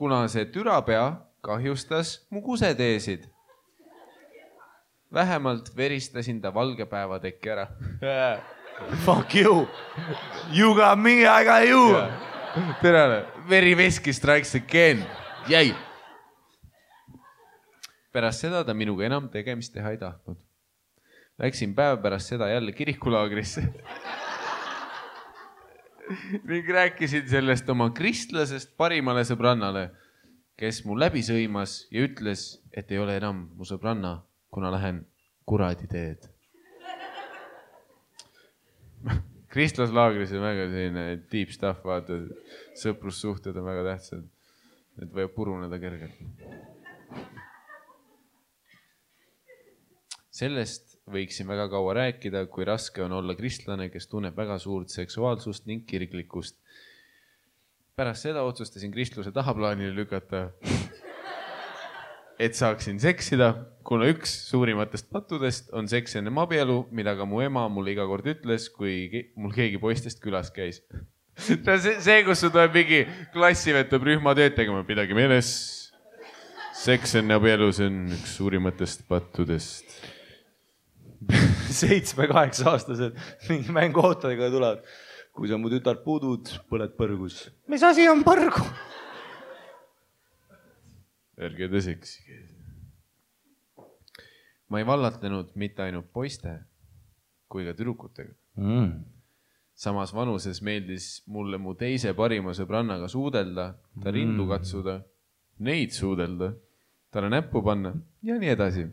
Kuna see türapea kahjustas mu kuseteesid. Vähemalt veristasin ta valgepäeva tekki ära. Fuck you. You got me, I got you. Terane, veriveski strikes again. Jäi. Pärast seda ta minuga enam tegemist teha ei tahtnud. Läksin päev pärast seda jälle kirikulaagrisse. Ning rääkisin sellest oma kristlasest parimale sõbrannale, kes mu läbi sõimas ja ütles, et ei ole enam mu sõbranna, kuna lähen kuradi teed. Kristlaslaagris on väga selline deep stuff, vaata, sõprussuhted on väga tähtsad, et võib puruneda kergelt. Sellest võiksin väga kaua rääkida, kui raske on olla kristlane, kes tunneb väga suurt seksuaalsust ning kiriklikkust. Pärast seda otsustasin kristluse tahaplaanile lükata, et saaksin seksida, kuna üks suurimatest pattudest on seks enne abielu, mida ka mu ema mulle iga kord ütles, kui mul keegi poistest külas käis. See, kus su tuleb mingi klassivetab rühma tööd tegema, midagi meeles. Seks enne abielu, see on üks suurimatest pattudest. 7-8 aastased mingi mänguautodega tulevad. Kui sa mu tütar pudud, põled põrgus. Mis asi on põrgu? Ärge te seksige. Ma ei vallatlenud mitte ainult poiste kui ka tüdrukutega. Samas vanuses meeldis mulle mu teise parima sõbrannaga suudelda, ta rindu katsuda, neid suudelda, talle näppu panna ja nii edasi.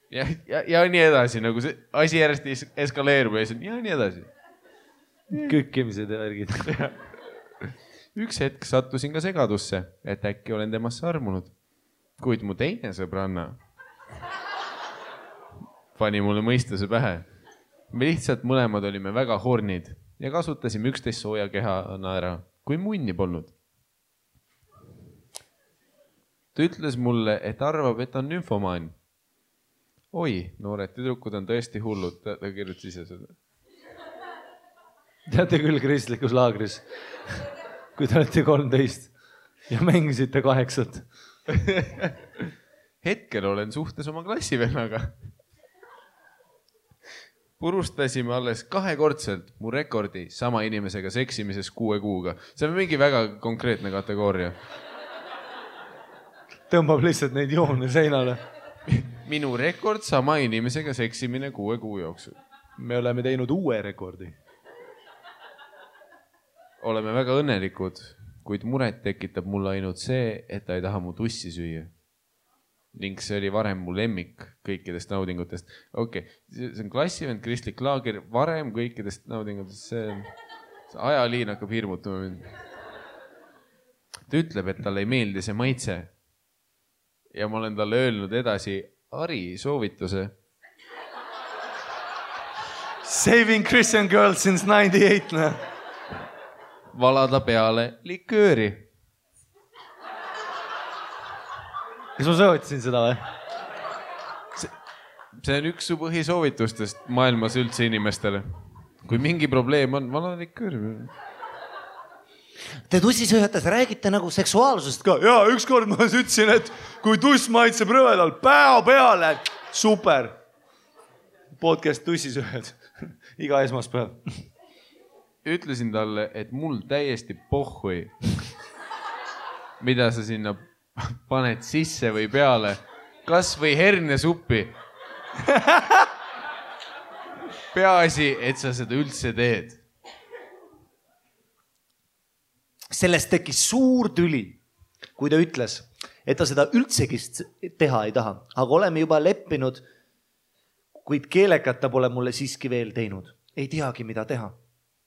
Ja nii edasi, nagu see asi järjest eskaleerub ja nii edasi. Kükkimised ja värgid. Üks hetk sattusin ka segadusse, et äkki olen temasse armunud. Kuid mu teine sõbranna pani mulle mõistuse pähe. Me lihtsalt mõlemad olime väga hornid ja kasutasime üksteist sooja kehana ära, kui munni polnud. Ta ütles mulle, et arvab, et on nümfomaan. Oi, noored tüdrukud on tõesti hullud, ta kirjutas ise seda. Teate küll kristlikus laagris, kui te olete 13 ja mängisite 8. Hetkel olen suhtes oma klassivennaga. Purustasime alles 2-kordselt mu rekordi sama inimesega seksimises 6 kuuga. See on mingi väga konkreetne kategooria. Tõmbab lihtsalt neid joone seinale. Minu rekord sama inimesega seksimine 6 kuu jooksul. Me oleme teinud uue rekordi. Oleme väga õnnelikud, kuid muret tekitab mulle ainult see, et ta ei taha mu tussi süüa. Ning see oli varem mu lemmik kõikidest naudingutest. Okei, see on klassivend, kristlik laager, varem kõikidest naudingutest. See ajaliin hakkab hirmutama mind. Ta ütleb, et talle ei meeldi see maitse. Ja ma olen talle öelnud edasi Ari soovituse. Saving Christian girls since 98. Valada peale likööri. Kas ma soovitasin seda või? See on üks su põhisoovitustest maailmas üldse inimestele. Kui mingi probleem on, valada likööri. Te tussisööjates räägite nagu seksuaalsusest ka. ja ükskord ma ütlesin, et kui tuss maitseb rõvedal, päo peale, super. Podcast tussisööjad, iga esmaspäev. Ütlesin talle, et mul täiesti pohhui, mida sa sinna paned sisse või peale, kas või hernesuppi. Peaasi, et sa seda üldse teed. Sellest tekkis suur tüli, kui ta ütles, et ta seda üldsegi teha ei taha, aga oleme juba leppinud, kuid keelekat ta pole mulle siiski veel teinud. Ei teagi, mida teha.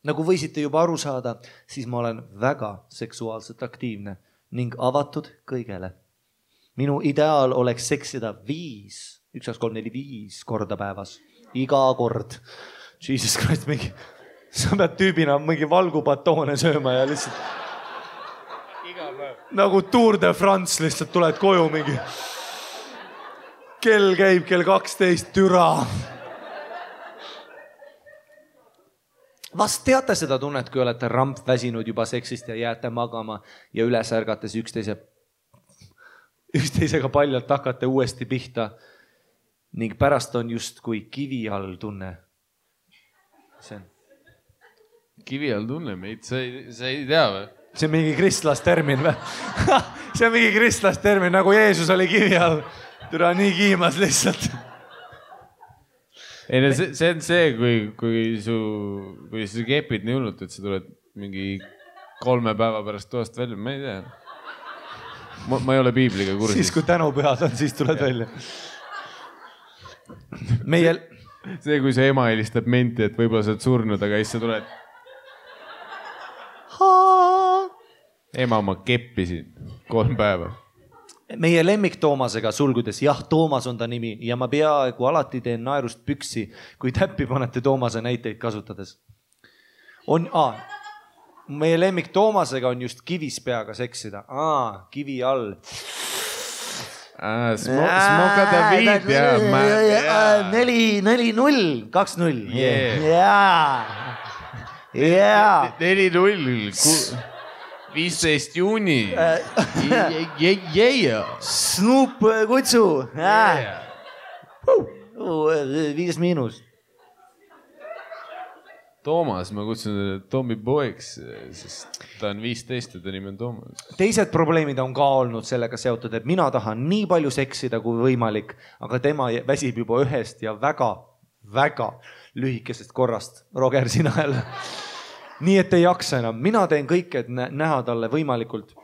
Nagu võisite juba aru saada, siis ma olen väga seksuaalselt aktiivne ning avatud kõigele. Minu ideaal oleks seksida 5 korda päevas. Iga kord. Jesus Christ, sa pead tüübina mingi valgupatoone sööma ja lihtsalt nagu Tour de France lihtsalt tuled koju mingi. Kell käib kell 12, türa. Vast teate seda tunnet, kui olete ramp väsinud juba seksist ja jääte magama ja üles ärgates üksteisega paljalt hakate uuesti pihta ning pärast on just kui kivi all tunne. Kivi all tunne meid, sa ei tea või? See on mingi kristlastermin või? See on mingi kristlastermin, nagu Jeesus oli kivi all. Türa nii kiimas lihtsalt. Ei, no see on see, kui sa kepid nii hullult, et sa tuled mingi 3 päeva pärast toast välja. Ma ei tea. Ma ei ole piibliga kursis. Siis kui tänupühad on, siis tuled välja. See, kui see ema helistab menti, et võib-olla sa oled surnud, aga siis sa tuled. Ema, ma keppisin 3 päeva. Meie lemmik Toomasega sulgudes, jah, Toomas on ta nimi ja ma peaaegu alati teen naerust püksi, kui täppi panete Toomase näiteid kasutades. Meie lemmik Toomasega on just kivis peaga seksida. Kivi all. Smoka David, jah. 4-0, 2-0. Jaa. 4-0. 15 juuni. Snoop kutsu. 5-. Toomas, ma kutsun Tommy poeks, sest ta on 15 ja ta nimi on Toomas. Teised probleemid on ka olnud sellega seotud, et mina tahan nii palju seksida kui võimalik, aga tema väsib juba ühest ja väga, väga lühikesest korrast. Roger, sina jälle. Nii, et ei jaksa enam. Mina teen kõik, et näha talle võimalikult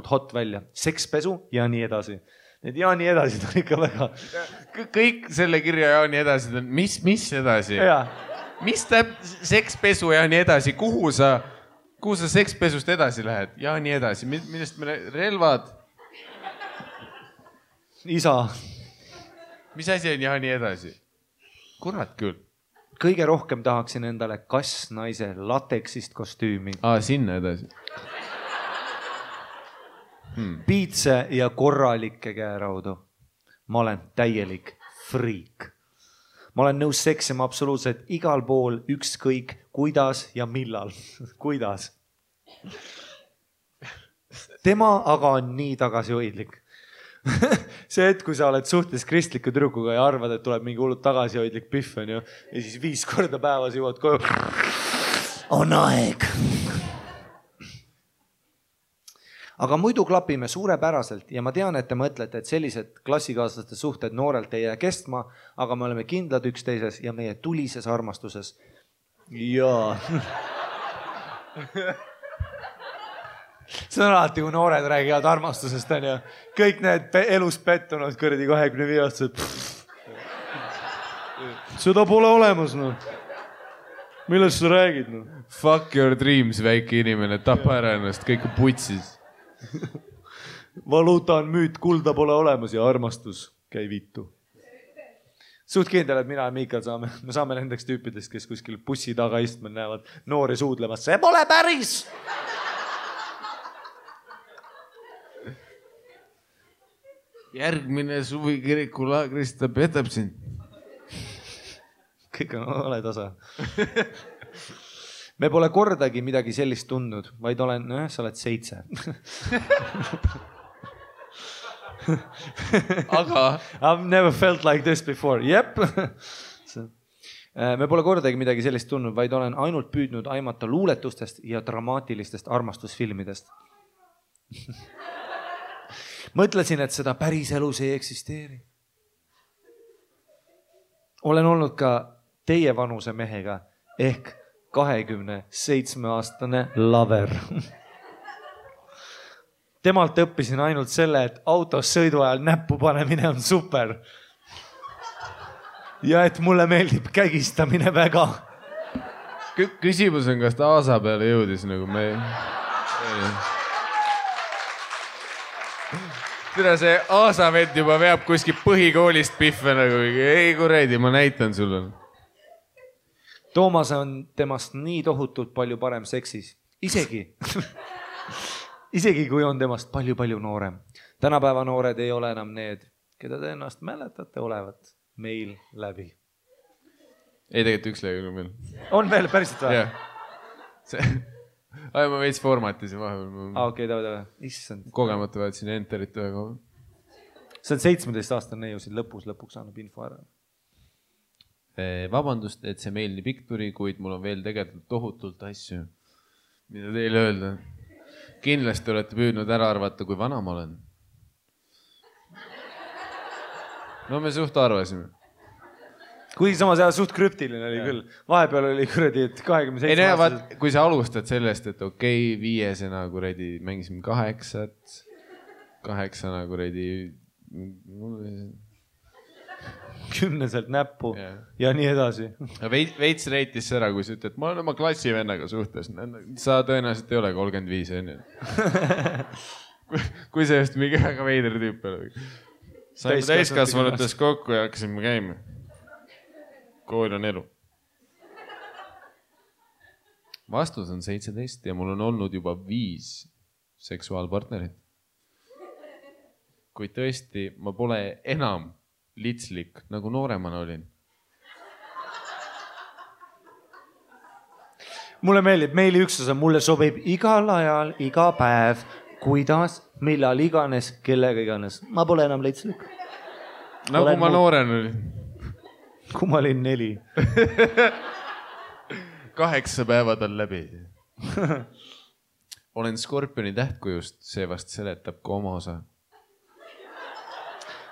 hot välja. Sekspesu ja nii edasi. Need ja nii edasi on ikka väga... Kõik selle kirja ja nii edasi on. Mis edasi? Mis täp sekspesu ja nii edasi? Kuhu sa sekspesust edasi lähed? Ja nii edasi. Millest me relvad? Isa. Mis asi on ja nii edasi? Kurat küll. Kõige rohkem tahaksin endale kassnaise lateksist kostüümi. Sinna edasi. Piitse ja korralikke käeraudu. Ma olen täielik friik. Ma olen nõus seksima absoluutselt igal pool, ükskõik, kuidas ja millal. Kuidas? Tema aga on nii tagasihoidlik. See, et kui sa oled suhtes kristliku tüdrukuga ja arvad, et tuleb mingi hullult tagasihoidlik pihv on ju, ja siis 5 korda päevas jõuad koju. On aeg. Aga muidu klapime suurepäraselt ja ma tean, et te mõtlete, et sellised klassikaaslaste suhted noorelt ei jää kestma, aga me oleme kindlad üksteises ja meie tulises armastuses. Jaa. See on alati, kui noored räägivad armastusest, on ju. Kõik need elus pettunud kõrdi 25-aastased. Seda pole olemas, no. Millest sa räägid, no? Fuck your dreams, väike inimene. Tapa ära ennast, kõik on putsis. Valuuta on müüt, kulda pole olemas ja armastus käi vittu. Suht kindel, et mina ja Miikal me saame nendeks tüüpidest, kes kuskil bussi taga istma näevad noori suudlemas. See pole päris! Järgmine suvi kirikulaagris ta petab sind. Kõik on ole tasa. me pole kordagi midagi sellist tundnud, vaid olen, sa oled 7. Aga I've never felt like this before. Jep. Me pole kordagi midagi sellist tundnud, vaid olen ainult püüdnud aimata luuletustest ja dramaatilistest armastusfilmidest. Mõtlesin, et seda päris elus ei eksisteeri. Olen olnud ka teie vanuse mehega ehk 27-aastane lover. Temalt õppisin ainult selle, et autos sõidu ajal näppu panemine on super. Ja et mulle meeldib kägistamine väga. Küsimus on, kas ta aasa peale jõudis nagu me... Tere, see aasavend juba veab kuskil põhikoolist pihve nagu, ei kuredi, ma näitan sulle. Toomas on temast nii tohutult palju parem seksis. Isegi kui on temast palju noorem. Tänapäeva noored ei ole enam need, keda te ennast mäletate olevat meil läbi. Ei, tegelikult üks lõi veel. On veel päriselt või? Jah. Ma veits formatis ja vahepeal. Okei, tava. Issand. Kogemata vaatasin enterit ühe koha. See on 17-aastane neiu siin lõpuks annab info ära. Vabandust, et see meil nii pikk tuli, kuid mul on veel tegelikult tohutult asju, mida teile öelda. Kindlasti olete püüdnud ära arvata, kui vana ma olen. No me suht arvasime. Kuigi samas suht krüptiline oli küll. Vahepeal oli kuradi, et 27 ei näe, vaat, kui sa alustad sellest, et okei, 5 kuradi mängisime 8 kuradi 10 näppu ja nii edasi. Veits reitis ära, kui sa ütled, ma olen oma klassivennaga suhtes. Sa tõenäoliselt ei ole 35, on ju. Kui see just mingi väga veider tüüp oli. Saime täiskasvanutes kokku ja hakkasime käima. Kool on elu. Vastus on 17 ja mul on olnud juba 5 seksuaalpartnerit. Kuid tõesti, ma pole enam litslik, nagu nooremana olin. Mulle meeldib, meili üksus on, mulle sobib igal ajal, iga päev, kuidas, millal iganes, kellega iganes. Ma pole enam litslik. Nagu ma nooren olin. Kui ma olin 4. 8 päevad on läbi. Olen Skorpioni tähtkujust, see vast seletab ka oma osa.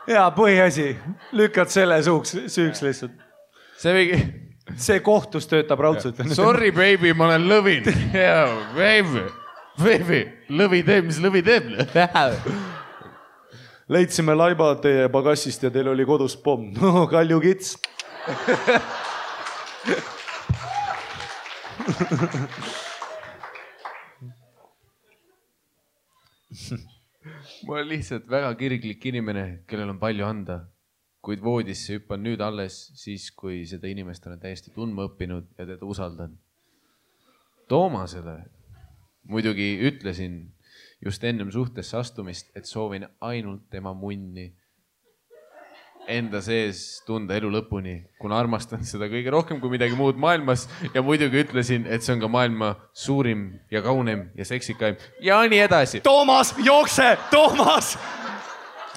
Jaa, põhiasi. Lükkad selle süüks lihtsalt. See kohtus töötab raudselt. Sorry, baby, ma olen lõvin. Baby, lõvi teeb, mis lõvi teeb. Leidsime laiba teie pagassist ja teil oli kodus pomm. No, Kalju kits. Ma olen lihtsalt väga kirglik inimene, kellel on palju anda, kuid voodisse hüppan nüüd alles siis, kui seda inimest olen täiesti tundma õppinud ja teda usaldan. Toomasele muidugi ütlesin just ennem suhtesse astumist, et soovin ainult tema munni enda sees tunda elu lõpuni, kuna armastan seda kõige rohkem kui midagi muud maailmas ja muidugi ütlesin, et see on ka maailma suurim ja kaunem ja seksikaim ja nii edasi. Toomas, jookse!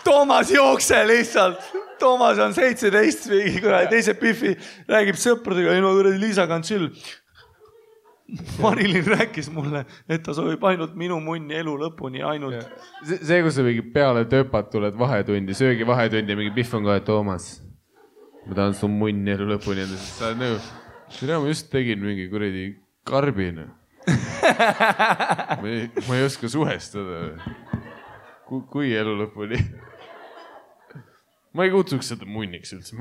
Toomas, jookse lihtsalt! Toomas on 17, teise piffi räägib sõpradega, ei no kuradi Liisaga on chill. Marilyn rääkis mulle, et ta soovib ainult minu munni elu lõpuni, ainult. See, kus sa mingi peale töpad tuled vahetundi, söögi vahetundi ja mingi pihv on kohe, Toomas, ma tahan su munni elu lõpuni. Sa oled nagu, ma just tegin mingi kuradi karbina. Ma ei oska suhestada. Kui elu lõpuni? Ma ei kutsuks seda munniks üldse.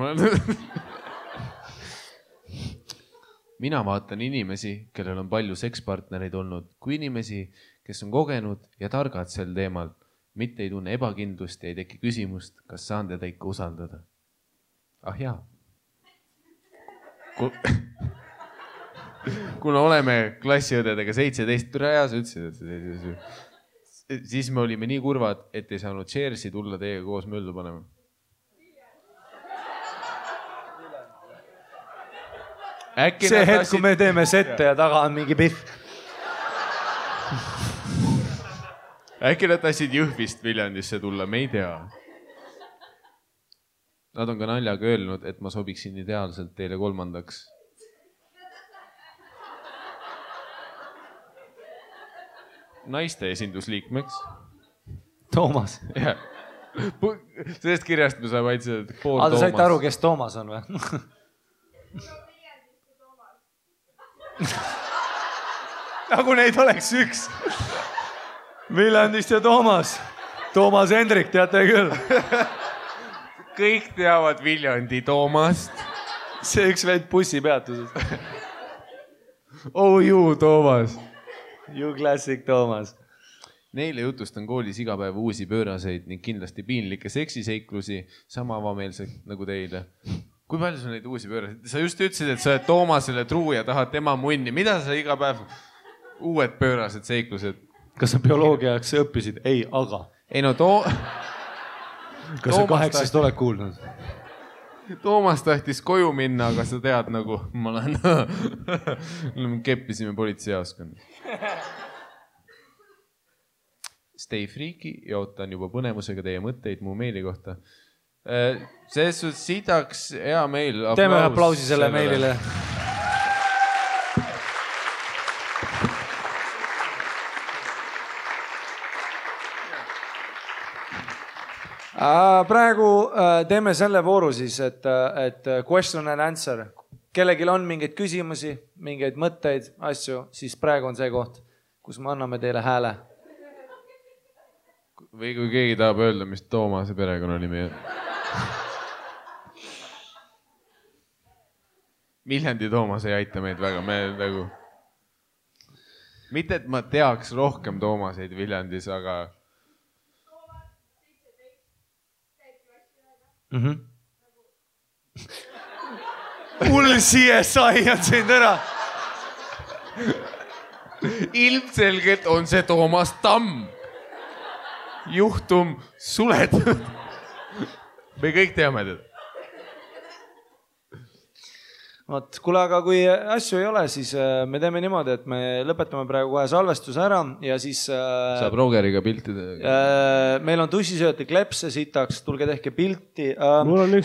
Mina vaatan inimesi, kellel on palju sekspartnereid olnud, kui inimesi, kes on kogenud ja targad sel teemal, mitte ei tunne ebakindlust ja ei teki küsimust, kas saan teda ikka usaldada. Ah jaa. Kuna oleme klassiõdedega 17 türa ja sa ütlesid, siis me olime nii kurvad, et ei saanud Chersi tulla teiega koos möllu panema. see hetk, kui me teeme sette ja taga on mingi pihv. Äkki nad tahtsid Jõhvist Viljandisse tulla, me ei tea. Nad on ka naljaga öelnud, et ma sobiksin ideaalselt teile 3. naiste esindusliikmeks. Toomas. Sellest kirjast me saame ainult seda pool Toomas. Te saite aru, kes Toomas on või? Nagu neid oleks üks. Viljandist ja Toomas. Toomas Hendrik, teate küll. Kõik teavad Viljandi Toomast. See üks veid bussipeatuses. Oh you, Toomas. You classic Toomas. Neile jutustan koolis iga päev uusi pööraseid ning kindlasti piinlikke seksiseiklusi, sama avameelselt nagu teile. Kui palju sul neid uusi pööraseid? Sa just ütlesid, et sa oled Toomasele truu ja tahad tema munni. Mida sa iga päev uued pöörased seiklused? Kas sa bioloogiaks õppisid? Ei, aga. Ei no Kas sa 8 oled kuulnud? Toomas tahtis koju minna, aga sa tead nagu, ma olen keppisime politseijaoskonnas. Stay freaky ja ootan juba põnevusega teie mõtteid mu meili kohta. Selles suhtes sidaks hea meil. Teeme aplausi selle meilile. Praegu teeme selle vooru siis, et question and answer. Kellegil on mingeid küsimusi, mingeid mõtteid, asju, siis praegu on see koht, kus me anname teile hääle. Või kui keegi tahab öelda, mis Toomase perekonnanimi on. Viljandi Toomas ei aita meid väga, me nagu... Mitte, et ma teaks rohkem Toomaseid Viljandis, aga... Hull CSI on sind ära. Ilmselgelt on see Toomas Tamm. Juhtum suletud. Me kõik teame teda. Võt, kuule, aga kui asju ei ole, siis me teeme niimoodi, et me lõpetame praegu kohe salvestuse ära ja siis... Saab Rogeriga piltida. Meil on tussisööti klepse sitaks, tulge tehke pilti.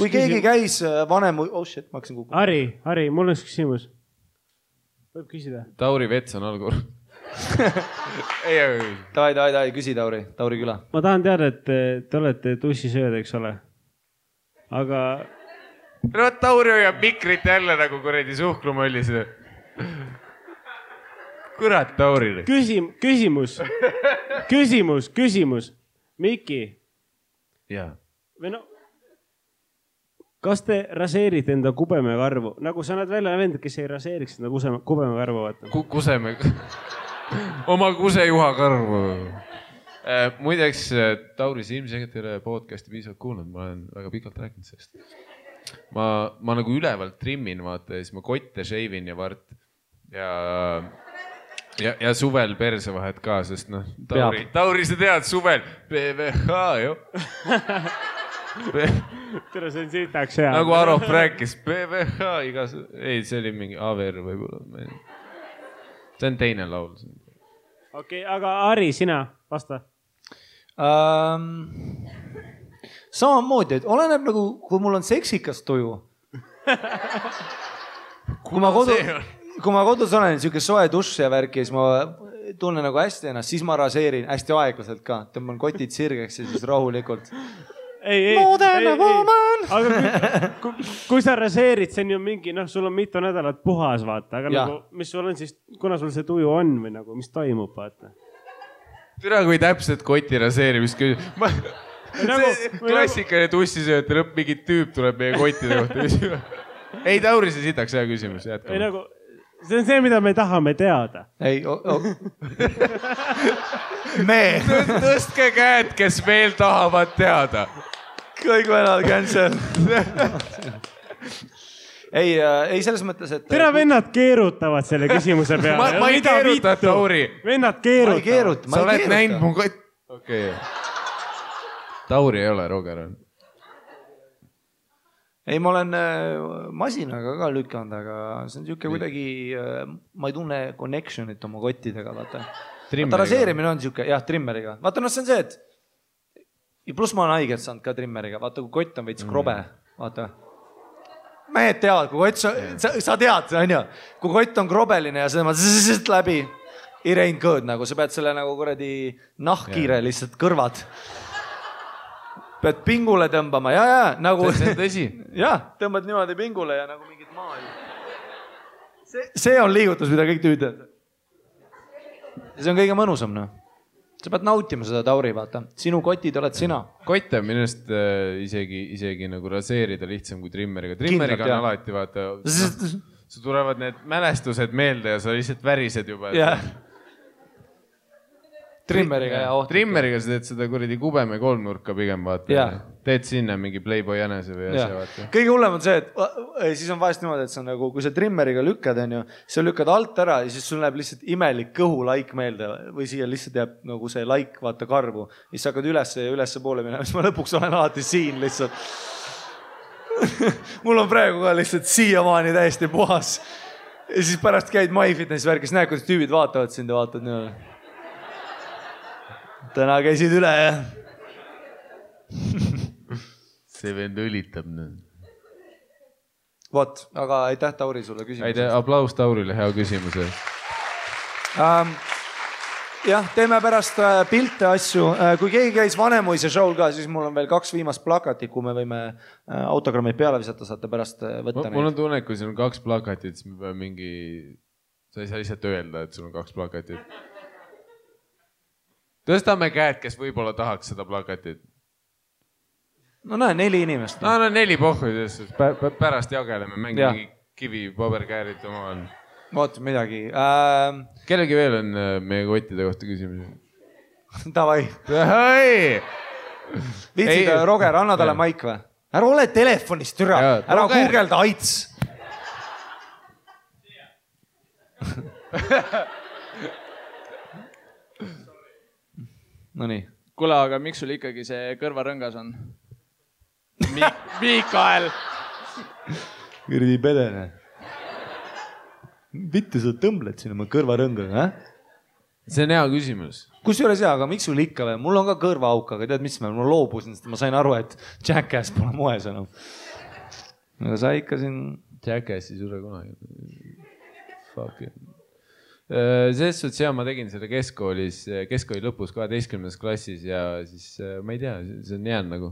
Kui keegi käis vanem... Oh shit, ma hakkasin kukuma. Harri, mul on üks küsimus. Võib küsida? Tauri Vets on algur. Davai, küsi Tauri küla. Ma tahan teada, et te olete tussisööd, eks ole. Aga... No Tauri hoiab mikrit jälle nagu kuredi suhkrumõllis. Kurat, Tauri. Küsimus. Miki. Jaa. Või no, kas te raseerite enda kubemekarvu? Nagu sa näed välja vend, kes ei raseeriks enda kubemekarvu. Kuseme. Oma kusejuha karvu. Muideks, Tauri, sa ilmselgelt ei ole podcasti piisavalt kuulnud. Ma olen väga pikalt rääkinud sellest. Ma nagu ülevalt trimmin, vaata, ja siis ma kotte sheivin ja vart. Ja suvel perse vahet ka, sest noh, Tauri, sa tead, suvel PVH, jo. Tere, see on sitaks hea. Nagu Arop rääkis, PVH igas... Ei, see oli mingi AVR võib-olla. See on teine laul. Okei, aga Harri, sina vasta. Samamoodi, et oleneb nagu, kui mul on seksikas tuju. Kui ma kodus olen, niisugune soe dušš ja värk ja siis ma tunnen nagu hästi ennast, siis ma raseerin hästi aeglaselt ka. Tõmban kotid sirgeks ja siis rahulikult. Aga kui sa raseerid, see on ju mingi, noh, sul on mitu nädalat puhas, vaata. Aga nagu, mis sul on siis, kuna sul see tuju on või nagu, mis toimub, vaata? Türa, kui täpselt koti raseerimist küsib. Klassikaline tussisööte lõpp, mingi tüüp tuleb meie kottide kohta. Ei, Tauri, see sitaks hea küsimus. Ei, nagu, see on see, mida me tahame teada. Ei, Tõstke käed, kes veel tahavad teada. Kõik venad cancel. Ei, selles mõttes, et... Tere, vennad keerutavad selle küsimuse peale. Ma ei keeruta, Tauri. Vennad keerutavad. Sa oled näinud mu kott... Okei. Tauri ei ole, Roger on. ei, ma olen masinaga ka lükanud, aga see on siuke kuidagi, ma ei tunne connection'it oma kottidega, vaata. Vaata raseerimine on siuke, jah, trimmeriga. Vaata, see on see, et ja pluss ma olen haiget saanud ka trimmeriga. Vaata, kui kott on veits krobe, vaata. Mehed teavad, kui kott, sa tead, on ju, kui kott on krobeline ja seda ma läbi, it ain't good, nagu sa pead selle nagu kuradi nahkkiire lihtsalt kõrvad. Pead pingule tõmbama, ja, nagu... See on tõsi. Jah, tõmbad niimoodi pingule ja nagu mingit maal. See on liigutus, mida kõik tüüd. See on kõige mõnusam, noh. Sa pead nautima seda, Tauri, vaata. Sinu kotid oled sina. Kott on minust isegi nagu raseerida lihtsam kui trimmeriga. Trimmeriga on alati, vaata, su tulevad need mälestused meelde ja sa lihtsalt värised juba. Jah. Trimmeriga ja ohtlik. Trimmeriga sa teed seda kuradi kubeme kolmnurka pigem, vaata. Teed sinna mingi Playboy jänese või asja, vaata. Kõige hullem on see, et siis on vahest niimoodi, et sa nagu, kui sa trimmeriga lükkad, on ju, sa lükkad alt ära ja siis sul näeb lihtsalt imelik kõhulaik meelde või siia lihtsalt jääb nagu see laik, vaata, karvu. Siis sa hakkad ülesse poole minema, siis ma lõpuks olen alati siin lihtsalt. Mul on praegu ka lihtsalt siiamaani täiesti puhas. Ja siis pärast käid MyFitnessi värkis, näed, kuidas tüübid vaatavad sind ja vaatavad niimoodi. Täna käisid üle, jah? See vend õlitab nüüd. Vot, aga aitäh, Tauri, sulle küsimus. Aitäh, aplaus Taurile, hea küsimuse. Jah, teeme pärast pilte asju. Kui keegi käis Vanemuise show'l ka, siis mul on veel 2 viimast plakatit, kui me võime autogrammid peale visata, saate pärast võtta neid. Mul on tunne, kui sul on 2 plakatit, siis me peame mingi... Sa ei saa lihtsalt öelda, et sul on 2 plakatit. Tõstame käed, kes võib-olla tahaks seda plakatit. No näe, 4 inimest. No 4 pohvid, pärast jageleme, mängi kivi, paberkäärid omavahel. Oot, midagi. Kellegi veel on meie kottide kohta küsimusi? Davai. Viitsid, Roger, anna talle maik või? Ära ole telefonist, türa. Ära guugelda AIDS. No nii. Kuule, aga miks sul ikkagi see kõrvarõngas on? Miikael! Kõrdi pedene. Vittu sa tõmbled sinna oma kõrvarõnga, See on hea küsimus. Kusjuures aga miks sul ikka või? Mul on ka kõrvaauk, aga tead, mis ma loobusin, sest ma sain aru, et Jackass pole moes enam. Aga sa ikka siin... Jackass ei sure kunagi. Fuck it. Selles suhtes ma tegin seda keskkooli lõpus 12. klassis ja siis ma ei tea, see on jäänud nagu.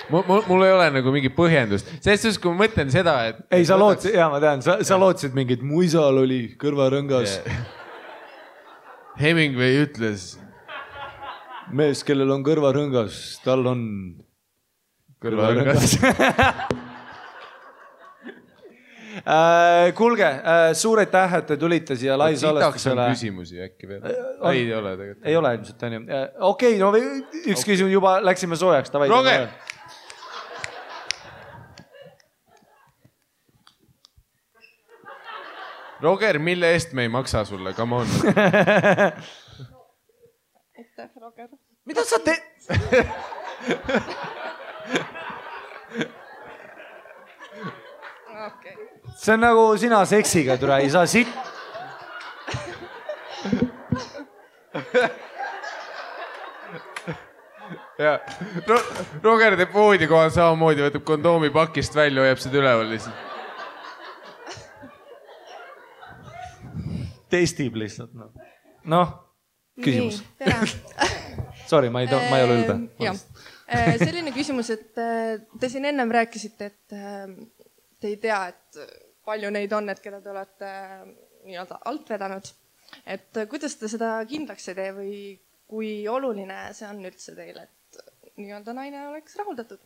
Mul ei ole nagu mingi põhjendust. Selles suhtes, kui ma mõtlen seda, et... Ei, sa lootsid, ma tean, sa lootsid mingit mu isal oli kõrvarõngas. Hemingway ütles... Mees, kellel on kõrvarõngas, tal on... Kõrvarõngas. Kuulge, suur aitäh, et te tulite siia live-salestusele. Sitaks on küsimusi äkki veel? Ei ole tegelikult. Ei ole ilmselt, on ju. Okei, no üks küsimus juba läksime soojaks. Roger! Roger, mille eest me ei maksa sulle? Come on. Aitäh, Roger. Mida sa teed? Okay. See on nagu sina seksiga, türa, ei saa sitt. Roger teeb voodi kohal samamoodi, võtab kondoomi pakist välja, hoiab seda üleval lihtsalt. Testib lihtsalt. Noh, küsimus. Sorry, ma ei ole ülbe. Selline küsimus, et te siin ennem rääkisite, et te ei tea, et palju neid on, et keda te olete nii-öelda alt vedanud. Et kuidas te seda kindlaks ei tee või kui oluline see on üldse teile, et nii-öelda naine oleks rahuldatud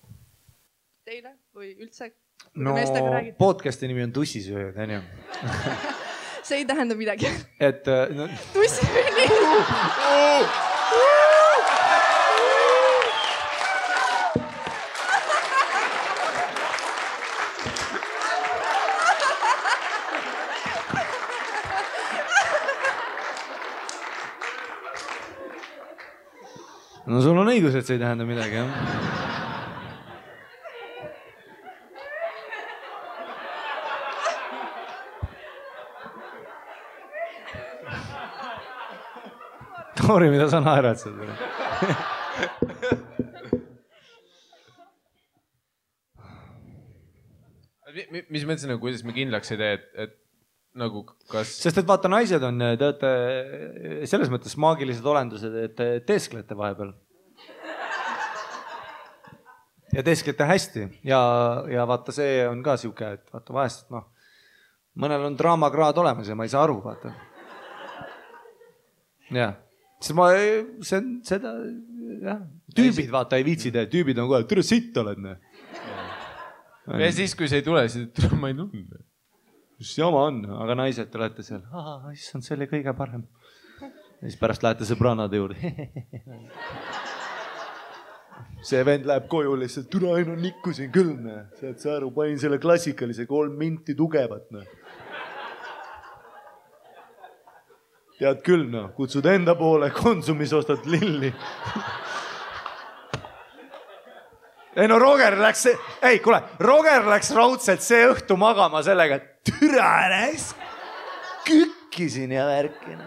teile või üldse? No, podcasti nimi on Tussisööjad, on ju? See ei tähenda midagi. Et... Tussisööjad! No sul on õigus, et see ei tähenda midagi, jah. Toori, mida sa naerad seal? Mis mõttes nagu, kuidas me kindlaks ei tee, et nagu kas... Sest et vaata, naised on, te olete selles mõttes maagilised olendused, et teesklete vahepeal. Ja teesklete hästi. Ja vaata, see on ka siuke, et vaata vahest, noh, mõnel on draamakraad olemas ja ma ei saa aru, vaata. Jah. Seda, jah. Tüübid, vaata, ei viitsi teha. Tüübid on kohe, türa sitt oled, ne. Ja siis, kui see ei tule, siis ma ei tunne. Mis jama on, aga naised olete seal. Issand, see oli kõige parem. Ja siis pärast lähete sõbranade juurde. See vend läheb koju lihtsalt, türa ainu nikkusin küll, ne. Saad sa aru, panin selle klassikalise 3 minti tugevat, ne. Tead küll, no, kutsud enda poole, Konsumis ostad lilli. Ei no Roger läks raudselt see õhtu magama sellega, et türa näis, kükkisin ja värkina.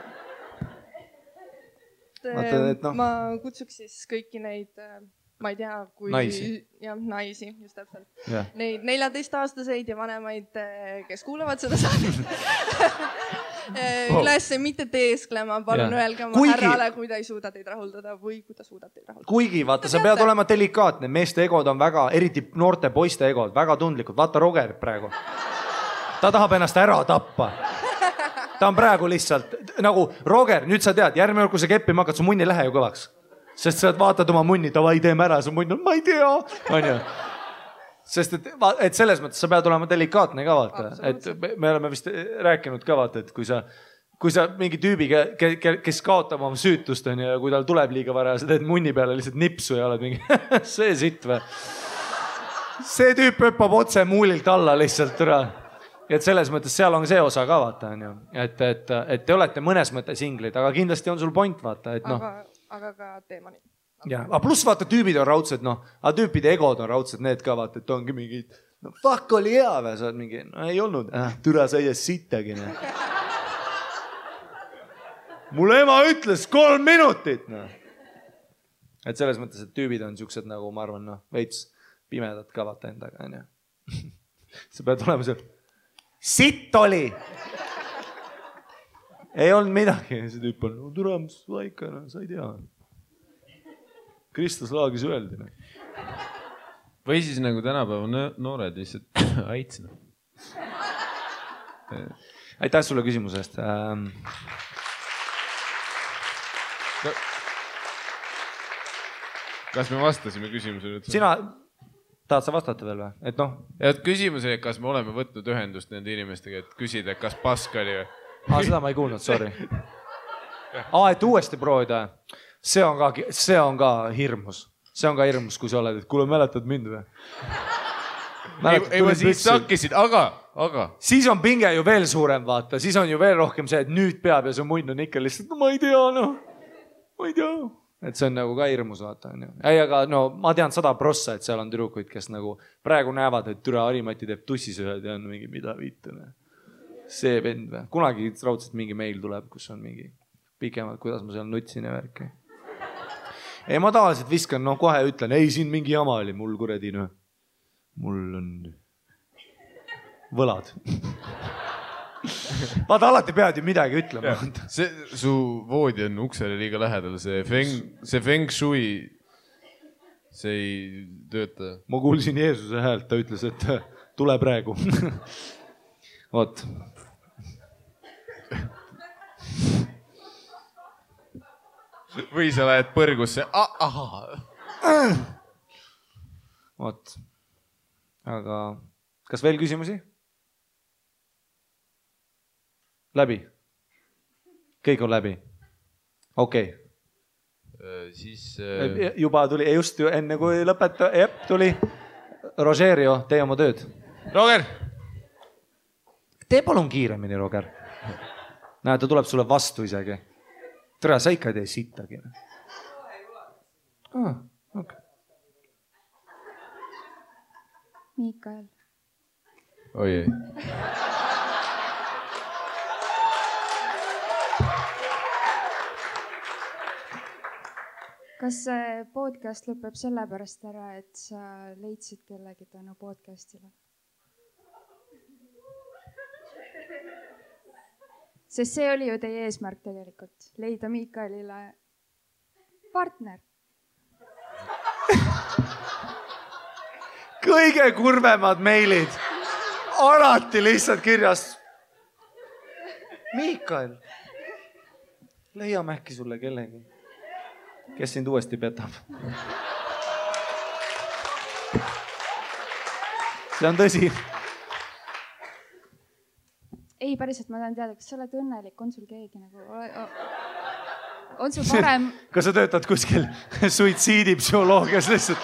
Ma kutsuks siis kõiki neid, ma ei tea, kui... Naisi. Jah, naisi, just täpselt. Ja. Neid 14-aastaseid ja vanemaid, kes kuulavad seda saadet. Üles mitte teesklema, palun öelge oma härrale, kui ta ei suuda teid rahuldada või kui ta suudab teid rahuldada. Kuigi, vaata, sa pead olema delikaatne. Meeste egod on väga, eriti noorte poiste egod, väga tundlikud. Vaata Roger praegu. Ta tahab ennast ära tappa. Ta on praegu lihtsalt, nagu Roger, nüüd sa tead, järgmine kui sa keppima hakkad, su munni lähe ju kõvaks. Sest sa vaatad oma munni, davai, teeme ära, su munn on, ma ei tea. On ju? Sest et selles mõttes sa pead olema delikaatne ka, vaata. Et me oleme vist rääkinud ka, vaata, et kui sa mingi tüübi, kes kaotab oma süütust on ja kui tal tuleb liiga vara, sa teed munni peale lihtsalt nipsu ja oled mingi see sitt või. See tüüp hüppab otse muulilt alla lihtsalt üle. Et selles mõttes seal on see osa ka, vaata, on ju. Et te olete mõnes mõttes inglid, aga kindlasti on sul point, vaata, et noh. Aga ka teemani. Ja, aga pluss vaata, tüübid on raudsed, noh, aga tüüpide egod on raudsed, need ka vaata, et ongi mingid, no fuck oli hea või, sa oled mingi, no ei olnud, türa sa ei sittagi, noh. Mul ema ütles 3 minutit, noh. Et selles mõttes, et tüübid on siuksed nagu, ma arvan, noh, veits pimedad ka vaata endaga, on ju. Sa pead olema seal, sitt oli! Ei olnud midagi, see tüüp on, no türa, mis vaika, no sa ei tea. Kristus laagis öeldi. Või siis nagu tänapäeva noored lihtsalt aitsina. Aitäh sulle küsimuse eest. Kas me vastasime küsimusele? Sina, tahad sa vastata veel või? Et noh. Ja küsimus oli, kas me oleme võtnud ühendust nende inimestega, et küsida, kas pask oli või? Seda ma ei kuulnud, sorry. Et uuesti proovida. See on ka hirmus. See on ka hirmus, kui sa oled, et kuule, mäletad mind või? Ei, ma siis sakkisid, aga. Siis on pinge ju veel suurem, vaata. Siis on ju veel rohkem see, et nüüd peab ja su munn on ikka lihtsalt, no ma ei tea, noh. Ma ei tea. Et see on nagu ka hirmus, vaata. Ei, aga no ma tean 100%, et seal on tüdrukuid, kes nagu praegu näevad, et türa Harimati teeb tussisööd ja on mingi mida viitune. See vend või? Kunagi raudselt mingi meil tuleb, kus on mingi pikemalt, kuidas ma seal nutsin ja värki. Ei, ma tavaliselt viskan, noh kohe ütlen, ei, siin mingi jama oli, mul kuredi, noh. Mul on võlad. Vaata, alati pead ju midagi ütlema. Su voodi on uksele liiga lähedal, see feng shui, see ei tööta. Ma kuulsin Jeesuse häält, ta ütles, et tule praegu. Oot. Või sa lähed põrgusse. Oot. Aga kas veel küsimusi? Läbi? Kõik on läbi? Okei. Siis... Juba tuli, just enne kui lõpeta, tuli. Rogerio, tee oma tööd. Roger! Tee palun kiiremini, Roger. Näe, ta tuleb sulle vastu isegi. Tere, sa ikka ei tee sittagi. Okay. Miikael. Oi ei. Kas see podcast lõpeb sellepärast ära, et sa leidsid kellegi tänu podcastile? Sest see oli ju teie eesmärk tegelikult, leida Miikaelile partner. Kõige kurvemad meilid. Alati lihtsalt kirjas. Miikael, leiame äkki sulle kellegi, kes sind uuesti petab. See on tõsi. Ei, päriselt ma tahan teada, kas sa oled õnnelik, on sul keegi nagu... On sul parem... Kas sa töötad kuskil suitsiidipsühholoogias lihtsalt?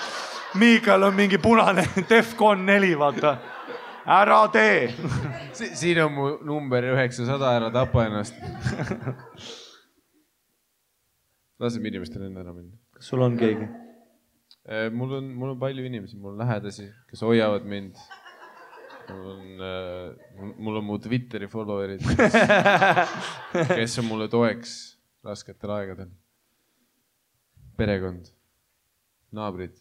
Miikael on mingi punane Defcon 4, vaata. Ära tee. Siin on mu number 900, ära tapa ennast. Laseme inimestel enne ära minna. Kas sul on keegi? Mul on palju inimesi, mul on lähedasi, kes hoiavad mind. Mul on mu Twitteri followerid, kes on mulle toeks rasketel aegadel. Perekond, naabrid.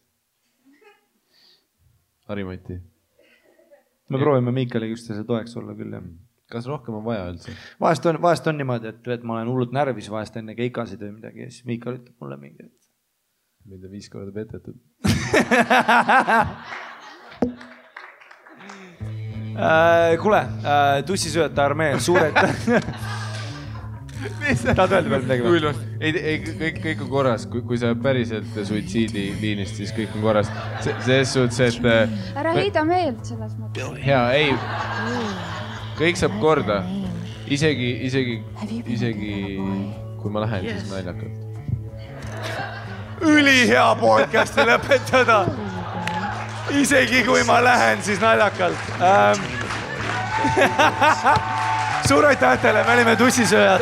Harimati. Me proovime Miikaliga üksteise toeks olla küll. Kas rohkem on vaja üldse? Vahest on niimoodi, et ma olen hullult närvis vahest enne keikasid või midagi ja siis Miikal ütleb mulle mingi, et... Mida 5 korda petetud. Kuule, tussisööjate armee, suured... Tahad öelda veel midagi või? Kõik on korras, kui sa päriselt suitsiidiliinist, siis kõik on korras. Selles suhtes, et... Ära heida meelt selles mõttes. Hea, ei. Kõik saab korda. Isegi kui ma lähen, siis naljakalt. Ülihea podcasti lõpetada. Isegi kui ma lähen, siis naljakalt. Suur aitäh teile, me olime tussisööjad.